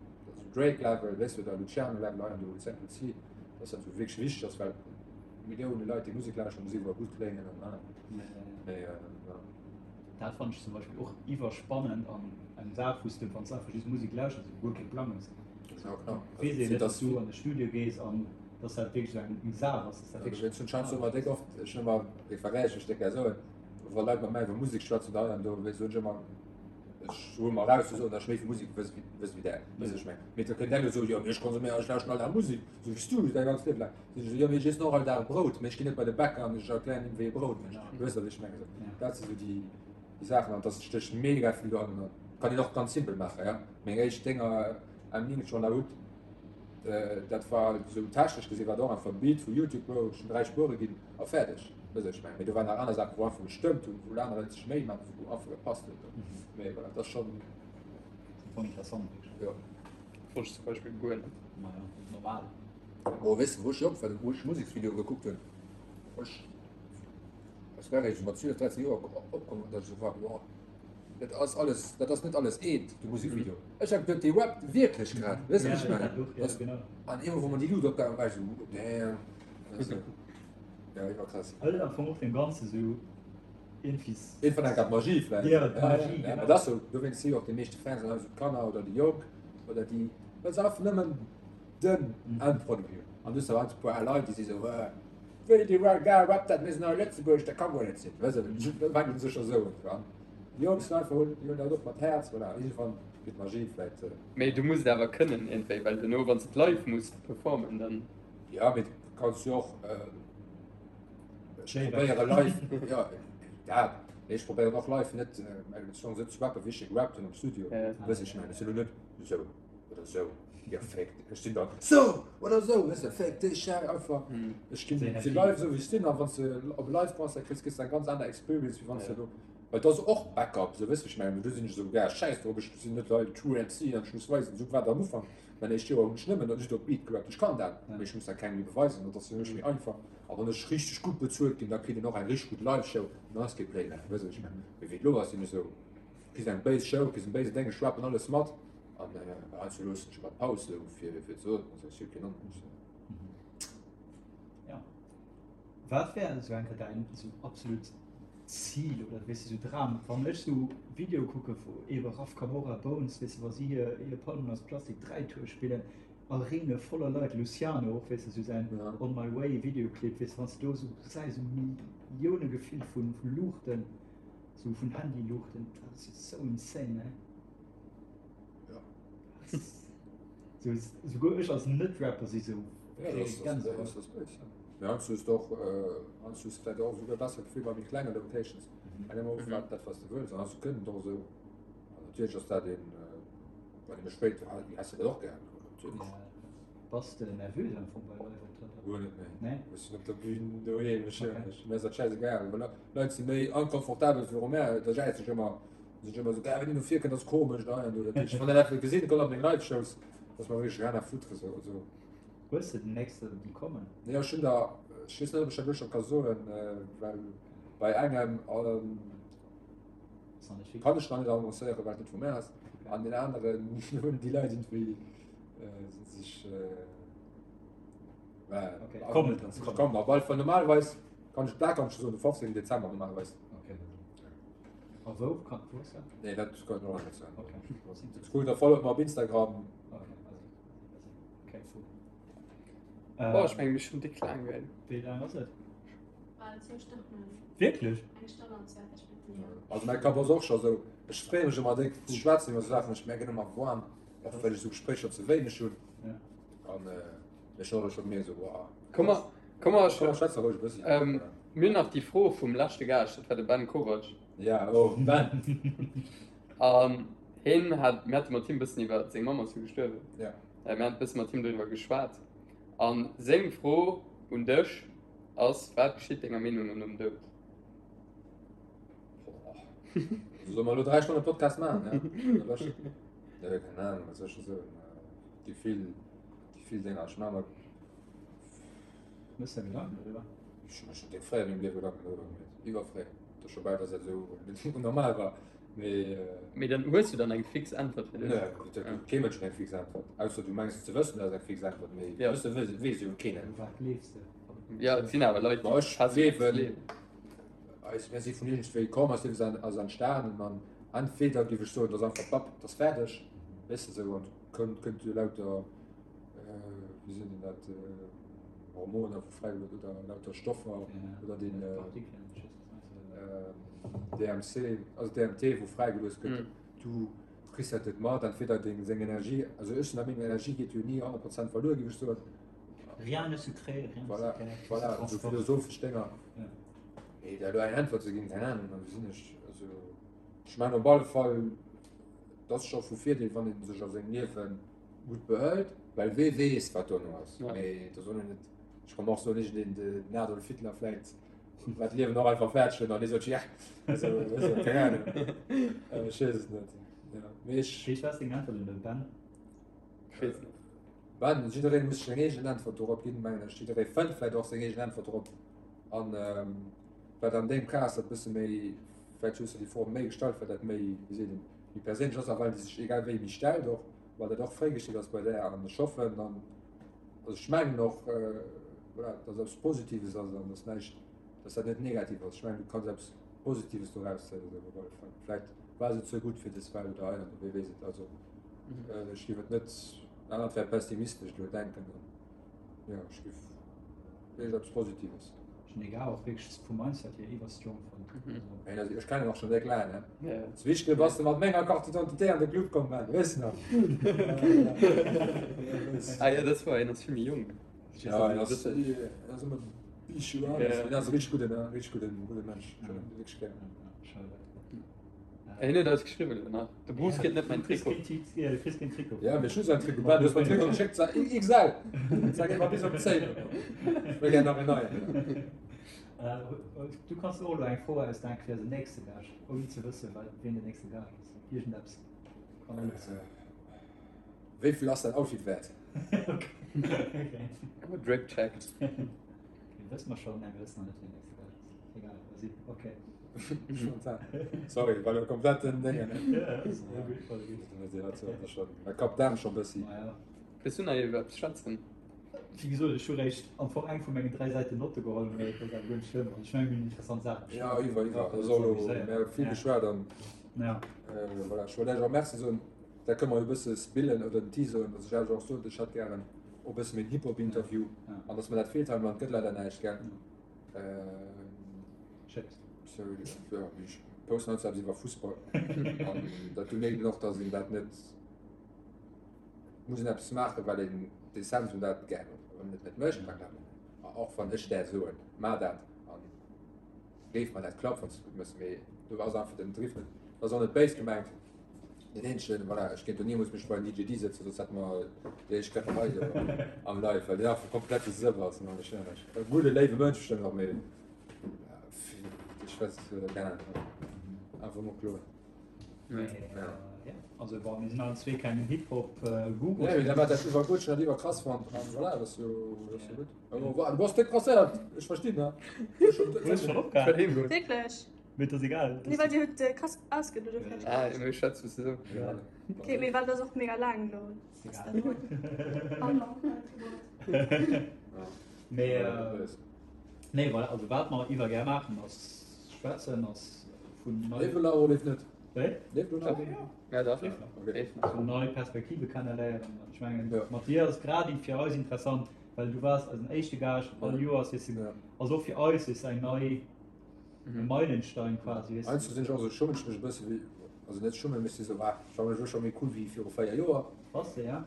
Drake Level, weess de, oder Luciano Level hei an do, Central Cee, dass dat esou wierklech wichteg ass, well Millioune Leit déi Musek lauschteren, muss iwwerall gutt kléngen an ah. Mee ja. Dat fannen ech zum Beispill och iwwerspannend an eng Saach wou s de wann s einfach just Musek lauschters esou guer kee Plang hues. Ja genau. Weess een net dass du an de Studio gees an dass dat wierklech esou eng Saach ass, dass dat wierklech. Ech hunn schonns ëmmer déck oft, ech hunn ëmmer, ech vergläiche ech déck gär soen, wa Leit mat mär iwwer Musek schwätzen oder hei an do, soen ech ëmmer, ech huele mer eraus ze soen, datt ech méi vu Musek wëss wéi wéi där, weess ech meng. Mee da kënnt eng a soen, jo mee ech konsuméieren, ech lauschten all Dag Musek, esou wéi s du däi ganzt Liewe laang. Sinn ech esou, jo mee ech iessen och all Dag Brout, mee ech ginn net bei de Bäcker an ech erklären him wéi ee Brout mécht. Du weess wat ech mengen. Esou, dat si sou déi déi Saachen an dass stécht mega vill dohannen. Kann een och ganz simpel maachen, ja. Meng éischt Dénger M9 schon der Hut, dat war sou technesch gesinn war dat och einfach e Beat vu Youtube, wou ech 3 Spuere ginn a fäerdeg. Weess wat ech mengen. Mee do waren nach aner Saachen wou einfach gestëmmt hunn, wou aner Leit sech Méi maachen, wou einfach gepasst huet. Mee voilà, dat ass schonn. Voll interessant wierklech. Jo. Wosst ech zum Beispill guer net. Maja, normal. Oh, weess de wou ech jonk war, wou ech Museksvideoe gekuckt hunn? Ech, ech war eréischt mat 12, 13 Joer opkomm, datt ech esou war, wow, dat ass alles, dat ass net alles eent, de Musekvideo. Ech hat geduet, dee rappt wierklech grad, weess de wat ech mengen? Ja, genau. An eemol wou mer déi Luut opgaangen, war ech esou, damn, weess de. Ja, iwwerkrass. Hëlt am Fong och deem Ganze sou iergendwéi. Iergendwann enk d'Magie vläicht. Ja, d'Magie, genau. Ja, dat ass sou, dowéinst si jo och déi meeschte Fans an eis d'Kanner oder déi Jonk oder déi, well se einfach nëmmen Den Endproduit hunn. An du hues awer e puer Leit, déi si sou, Hä, wéi dee Gars rappt dat, mir sinn hei a Lëtzebuerg, dat ka guer net sinn. Weess de, da fänken se scho sou un. An déi Jonk sinn einfach, hunn, déi hunn dat och mat Häerz, voilà, iergendwann gëtt d'Magie vläit. Mee du muss et awer kënnen iergendwéi, well duerno, wann s de et live muss performen, dann. Jo, mee du kanns jo och, ech probéiere live, jo, dat, mee ech probéieren och live net meng Songs esou ze rappen, wéi ech se gerappt hunn am Studio. Weess ech mengen, ech sinn elo net esou oder esou. Jo, féck, ech sinn dann sou oder sou, weess de, féck dech, ja, einfach. Ech ginn si live esou wéi ech sinn, a wann s de op e Live-Concert kriss, kriss de eng ganz aner Experience, wéi wann s de do, well et ass och Backup, sou, weess de, wéi ech mengen, do sinn ech esou, ja, schäiss drop, ech sinn net hei True MC an ech muss weisen, esou war et am Ufank, mäin éischt Joer hunn ech nëmmen just op Beat gerappt, ech kann dat, mee ech muss dat kengem méi beweisen, dat ass fir mech méi einfach. A wann ech richteg gutt bezuelt ginn, da kritt een och eng richteg gutt Live-Show, an dann ass kee Playback, weess de, wéi ech mengen. Mee wéi et elo ass, sinn ech esou, kriss eng béis Show, kriss en béise Déng, ech rappen alles mat. An heiansdo loossen ech ëmmer d'Paus sou fir fir ze soen, also ech hu keen Anruf. Ja. Wat wär esou eng Kéier däin esou absolut Zil oder weess de sou Dram? Wann ech sou Videoe kucke vu ebe Raf Camora, Bones, weess de wa si hir hir Palmen aus Plastik 3 Tour spillen, Arenae voller Leit, Luciano och, weess de sou säin On My Way Videoclip, weess de wann s de do sou gesäis, sou Millioune gefill vu vu Luuchten, sou vun Handyluuchten, dat ass jo sou insane, ne? Ja. So, souguer ech als Net-Rapper si sou. Ja, das, das, das, das, das, ja. Ja, du hast doch, äh, hast du vielleicht auch sogar besser Gefühl bei méi klenge Locations. Mhm. Eng immer mhm. dat was du wëlls, an hast du kënnen doch so. An natürlich ass dat een, äh, bei dem spéit, ah, die hast du dat och gern. Natürlich. Ja. Bass de nervös am Fong bei Live-Optrëtter? Guer net, nee. Nee? Ech sinn op der Bühn doheem, ech, Okay. ech, mir ass dat schäisegal. Well Leit si méi inconfortabel viru mär, da jäiz ech ëmmer. Sinn ech ëmmer esou, ah, wenn een no vir kënnt, ass komesch, da an do. Dat heescht, wann een dat gesinn kommt op meng Live-Shows, ass mer wierklech rien à foutre, esou, also. Hues de den nächste déi kommen? Nee, ech hunn der, ech weess net, ob ech dat elo scho ka soen, well bei engem Ass nach net fix. kann ech nach net annoncéieren, well et net vu mär ass, an deen aneren hunn déi Leit iergendwéi si sech, well, Okay, kommen, kommen, kommen, op alle Fall, normalerweis kann ech, dat kann ech scho soen, de 15. Dezember normalerweis. Okay. A wou kann wou ass dat? Nee, dat kann ich noch net soen. Okay. Dat cool, da followt mer op Instagram. Okay, also, okay, cool. Boah, ech mengen, mir schon dick laang gell. Wéi laang ass et? Bal zwou Stonnen. Wierklech? Eng Stonn an 20 Minutten, jo. Also mäi Kapp ass och scho sou, ech freeë mech ëmmer déck ze schwätzen iwwer sou Saachen, ech mierken ëmmer warm, och well ech sou Gespréicher ze wéineg hunn. Ja. An ech hunn och scho gemierkt sou, wow. Komm mer, komm mer, Komm mer schwätze roueg e bëssi. Ähm, mir hunn nach déi Fro vum leschte Gaascht, dat war de Ben Kovac. Ja, oh, Ben. An hien hat, mir hate mat him e bëssen iwwer, seng Mamm ass jo gestuerwen. Ja. Äh, mir haten e bësse mat him doriwwer geschwat. An seng Fro un dech ass, Wat geschitt denger Meenung no nom Doud? Solle mer elo 3 Stonne Podcast maachen, ja? Ja, keng Ahnung, wat soll ech scho soen? Déi vill, déi vill Dénger. Ech maache mer. Mëss der Gedanken doriwwer? Ech hu mer schonn déck fréi a mengem Liewe Gedanken doriwwer gemeet. Iwwerfréi. Et ass scho bal, dass dat esou net normal war. Mee. Mee dann hues du dann eng fix Äntwert fir dech? Nee, et gëtt kee Mënsch eng fix Äntwert. Ausser du mengs ze wëssen, dat ass eng fix Äntwert. Mee Ja. wësse weess jo keen. U wat gleefs de? Ja, et sinn awer Leit, Ma déi ech fest gleewen, gleewen. eis, mir si vun iergendwéi komm, eist Liewe ass entstanen an entweder géif ech soen, et ass einfach bapp, et ass fäerdeg, weess de esou, an kënnt, kënnt jo lauter, wéi seet een dat, Hormoner wou fräigelooss oder lauter Stoffer oder den DMC, also DMT wou fräigelooss gëtt, du kriss dat net mat, entweder deng seng Energie, also ech sinn der Meenung, Energie geet jo ni 100 Prozent verluer, géif ech soen. Rien ne se crée, rien ne Voilà, se perd, tout se voilà, esou transforme. philosophesch Dénger. Ja. Mee der elo eng Äntwert ze ginn, keng Ahnung, wéi sinn ech, also ech mengen op alle Fall, et ass scho vu Virdeel, wann ee sech a sengem Liewe gutt behëlt, well wee weess, wat dono ass. Ja. Mee da soll een net, ech kann och soen, iergendeen, den Adolf Hitler vläicht war d'Liewen och einfach fäerdeg huet an dee sot, ja, also, weess de, keng Ahnung, ech weess et net, ja, mee ech. Wéi war deng Äntwert un de Ben? Ech weess net. Ben, jiddereen muss seng eegen Äntwert dorop ginn, mengen ech. Jidderee fënnt vläicht och seng eegen Äntwert dorop. An wat an deem Cas dat bësse méi, vläicht hues de déi Fro méi gestallt, well dat méi, wéi seet een, méi perséinlech ass a well déi sech egal wéi méi stellt och, well dat och fréi geschitt ass bei där. An ech hoffen dann, also ech mengen och, voilà, dass eppes Positives ass an dass näischt, dass dat net negativ ass. Ech mengen, du kanns eppes Positives doraus zéien op alle Fall. Vläicht war se ze gutt fir des Welt oder hei an do, wee weess et. Also ech géif et net, anert wär pessimistesch elo denken. Jo, ech géif wierklech eppes Positives. Ech hunn egal och wierklech vum Mindset hier iwwer strong fonnt. Ey, also ech kennen och schon déck laang, ne? Ja. Zu Wichtel bass de mat menger Carte d'identité an de Club komm, Ben, weess de nach? Ah ja, das war, en ass vill méi jonk. Ja, en ass, en ass ëmmer Bichou an, en ass e richteg gudden, richteg gudden, gudde Mensch. Ech hunn en wierklech gär. Schade. Hien huet eis geschriwwen elo nach, de Bruce kritt net mäin Trikot. Ja, du kriss keen Trikot. Ja, mee ech hu säin Trikot. Ben, du hues mer den Trikot geschéckt, sa XL. Sag ëmmer bis op d'Zéin. Ech wëll gär nach en neien. Du kanns och elo eng Fro ausdenken fir eisen nächste Gaascht, ouni ze wëssen, wien den nächste Gaascht ass. Iergendeppes kann alles sinn. Wéi vill ass däin Outfit wäert? Okay. Drip check. Wësse mer schonn? Nee, mir wëssen nach net, wien den nächste Gaascht ass. Egal, vas-y, okay. Sorry, war lo komplett den Déngen. Ja, ja, gutt, voll gutt. Mä Kap Daarm scho bëssi. Ma ja. Wëlls du nach iwwer eppes schwätzen? Wéi gesot, ech hu réischt am Fong eng vu mengen 3 Säiten Notte geholl, mee dat ass awer guer net schlëmm. Also ech mengen, mir hunn interessant Saache beschwat. Ja, iwwer, iwwer. Also elo, mir hu vill geschwat an voilà, ech wollt lech och Merci soen. Da kënne mer jo e bësse spillen oder den teaseren, datt ech lech och sot, ech hätt gären och e bësse méi en Hip-Hop-Interview an datt mer dat feelt hei am Land, gëtt leider näischt, gell? Schéckt. Sorry, ja, ech posten heiansdo eppes iwwer Fussball an dat do mierkt een och, datt een dat net muss een eppes maachen, well een d'Essenz un dat gär huet. Wann een et net mécht, dann klappt et net. A och wann ech där soen, maach dat an géif mer dat klappen, wann s de et gutt méchs, mee do ass einfach den Driff net, dat ass och net béis gemengt. Den eenzegen, voilà, ech kéint do nimools mech bei den DJ D sëtzen, soss hätte mer déi éischt Kläpperei do am Live, well deen einfach komplett de Sëff ass. An ech, e gudde léiwe Mënsch bestëmmt och, mee ech weess, keng Ahnung, einfach mol kloen. Ja. Also bon, mir sinn allen zwee keng Hip-Hop-Gurus. Nee, mee dat war dat iwwer gutt, ech hunn dat iwwer krass fonnt an voilà, dat ass jo, dat ass jo gutt. Du bass déck presséiert, ech verstinn, ne? Du hues schonn opgehalen. Wierklech? Mee et ass egal. Nee, well dir hutt äh, krass ausgeluede oder vielleicht. Ah, mir schwätzen zusammen. Ja. Okay, mee well das och mega laang lo. Ass egal. Mee äh, nee, voilà, also wat mer iwwer gär maachen ass schwätzen ass vun nei Leeft lo oder leeft net? Wéi? Leeft lo nach? Ja, dach. Leeft nach. Okay. Leeft nach. Vun nei Perspektive kenneléieren. Ech mengen, Ja. mat dir ass grad fir eis interessant, well du waars eisen éischte Gaascht all Joers, weess du, Ja. also och fir eis ist eng nei E Meilenstein quasi, weess de. Heiansdo sinn ech och esou, schummen ech mech e bësse wéi, also net schummen, mee ech si sou, ah, ech fannen mech elo scho méi cool wéi viru 4 Joer. Bass de, ja?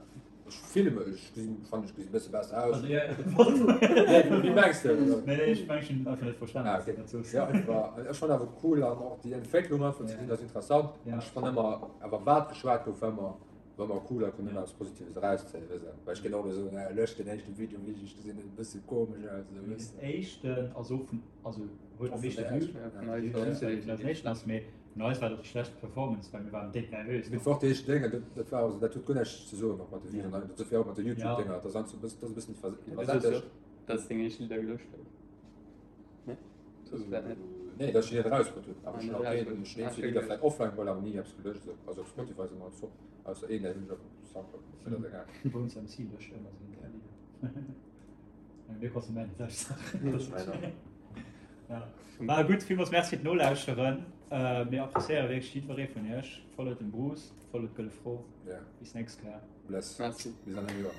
Ech fille mech, ech gesinn, fannen ech gesinn e bësse besser aus. Also, ja, Nee, wéi mengs de? Nee, nee, ech mengen, ech hunn einfach net verstanen, Ah, wat du okay. dat soos. Ja, einfach, ech fannen awer cool an och déi Entwécklung einfach ze gesinn ass interessant. Ja. An ech fannen ëmmer, awer wat geschwat gouf, war ëmmer, war ëmmer cool a konnt ëmmer eppes Positives erauszéien, weess de. Well ech kéint och elo soen, ah, lëscht den éischte Video, wéi ech gesinn, e bësse komesch aus, esou, weess Den de. éischten ass och vun, also huet am meeschte Vue, mee vun eis war dat déi schlechtst Performance, well mir waren déck nervös. Mee fort déi éischt Dénger, dat war also, dat huet guer näischt ze soen och mat de Vuen, dat huet och mat de Youtube-Dénger, dat ass e bëssen iwwersättegt. Dass deng éischt Lidder gelöscht gouf? Nee? Soss vläit net. Nee, dass ech déi net erausbrutt hunn, awer ech hunn och keen, ech hunn eenzel Lidder vläit offline geholl, awer ni eppes gelöscht esou. Also op Spotify si mer alles op, ausser een, dat hunn ech op Soundcloud, mee dat ass egal. Bones MC löscht ëmmer seng Lidder. Mir konsumenten sech Saachen. Ja. War gutt, villmools Merci fir d'Nolauschteren. Äh, mir appréciéiere wierklech jiddweree vun iech. Followt dem Bruce, followt d'Gëlle Fro. Ja. Bis nächst Kéier. Bless. Merci. Bis an engem Joer.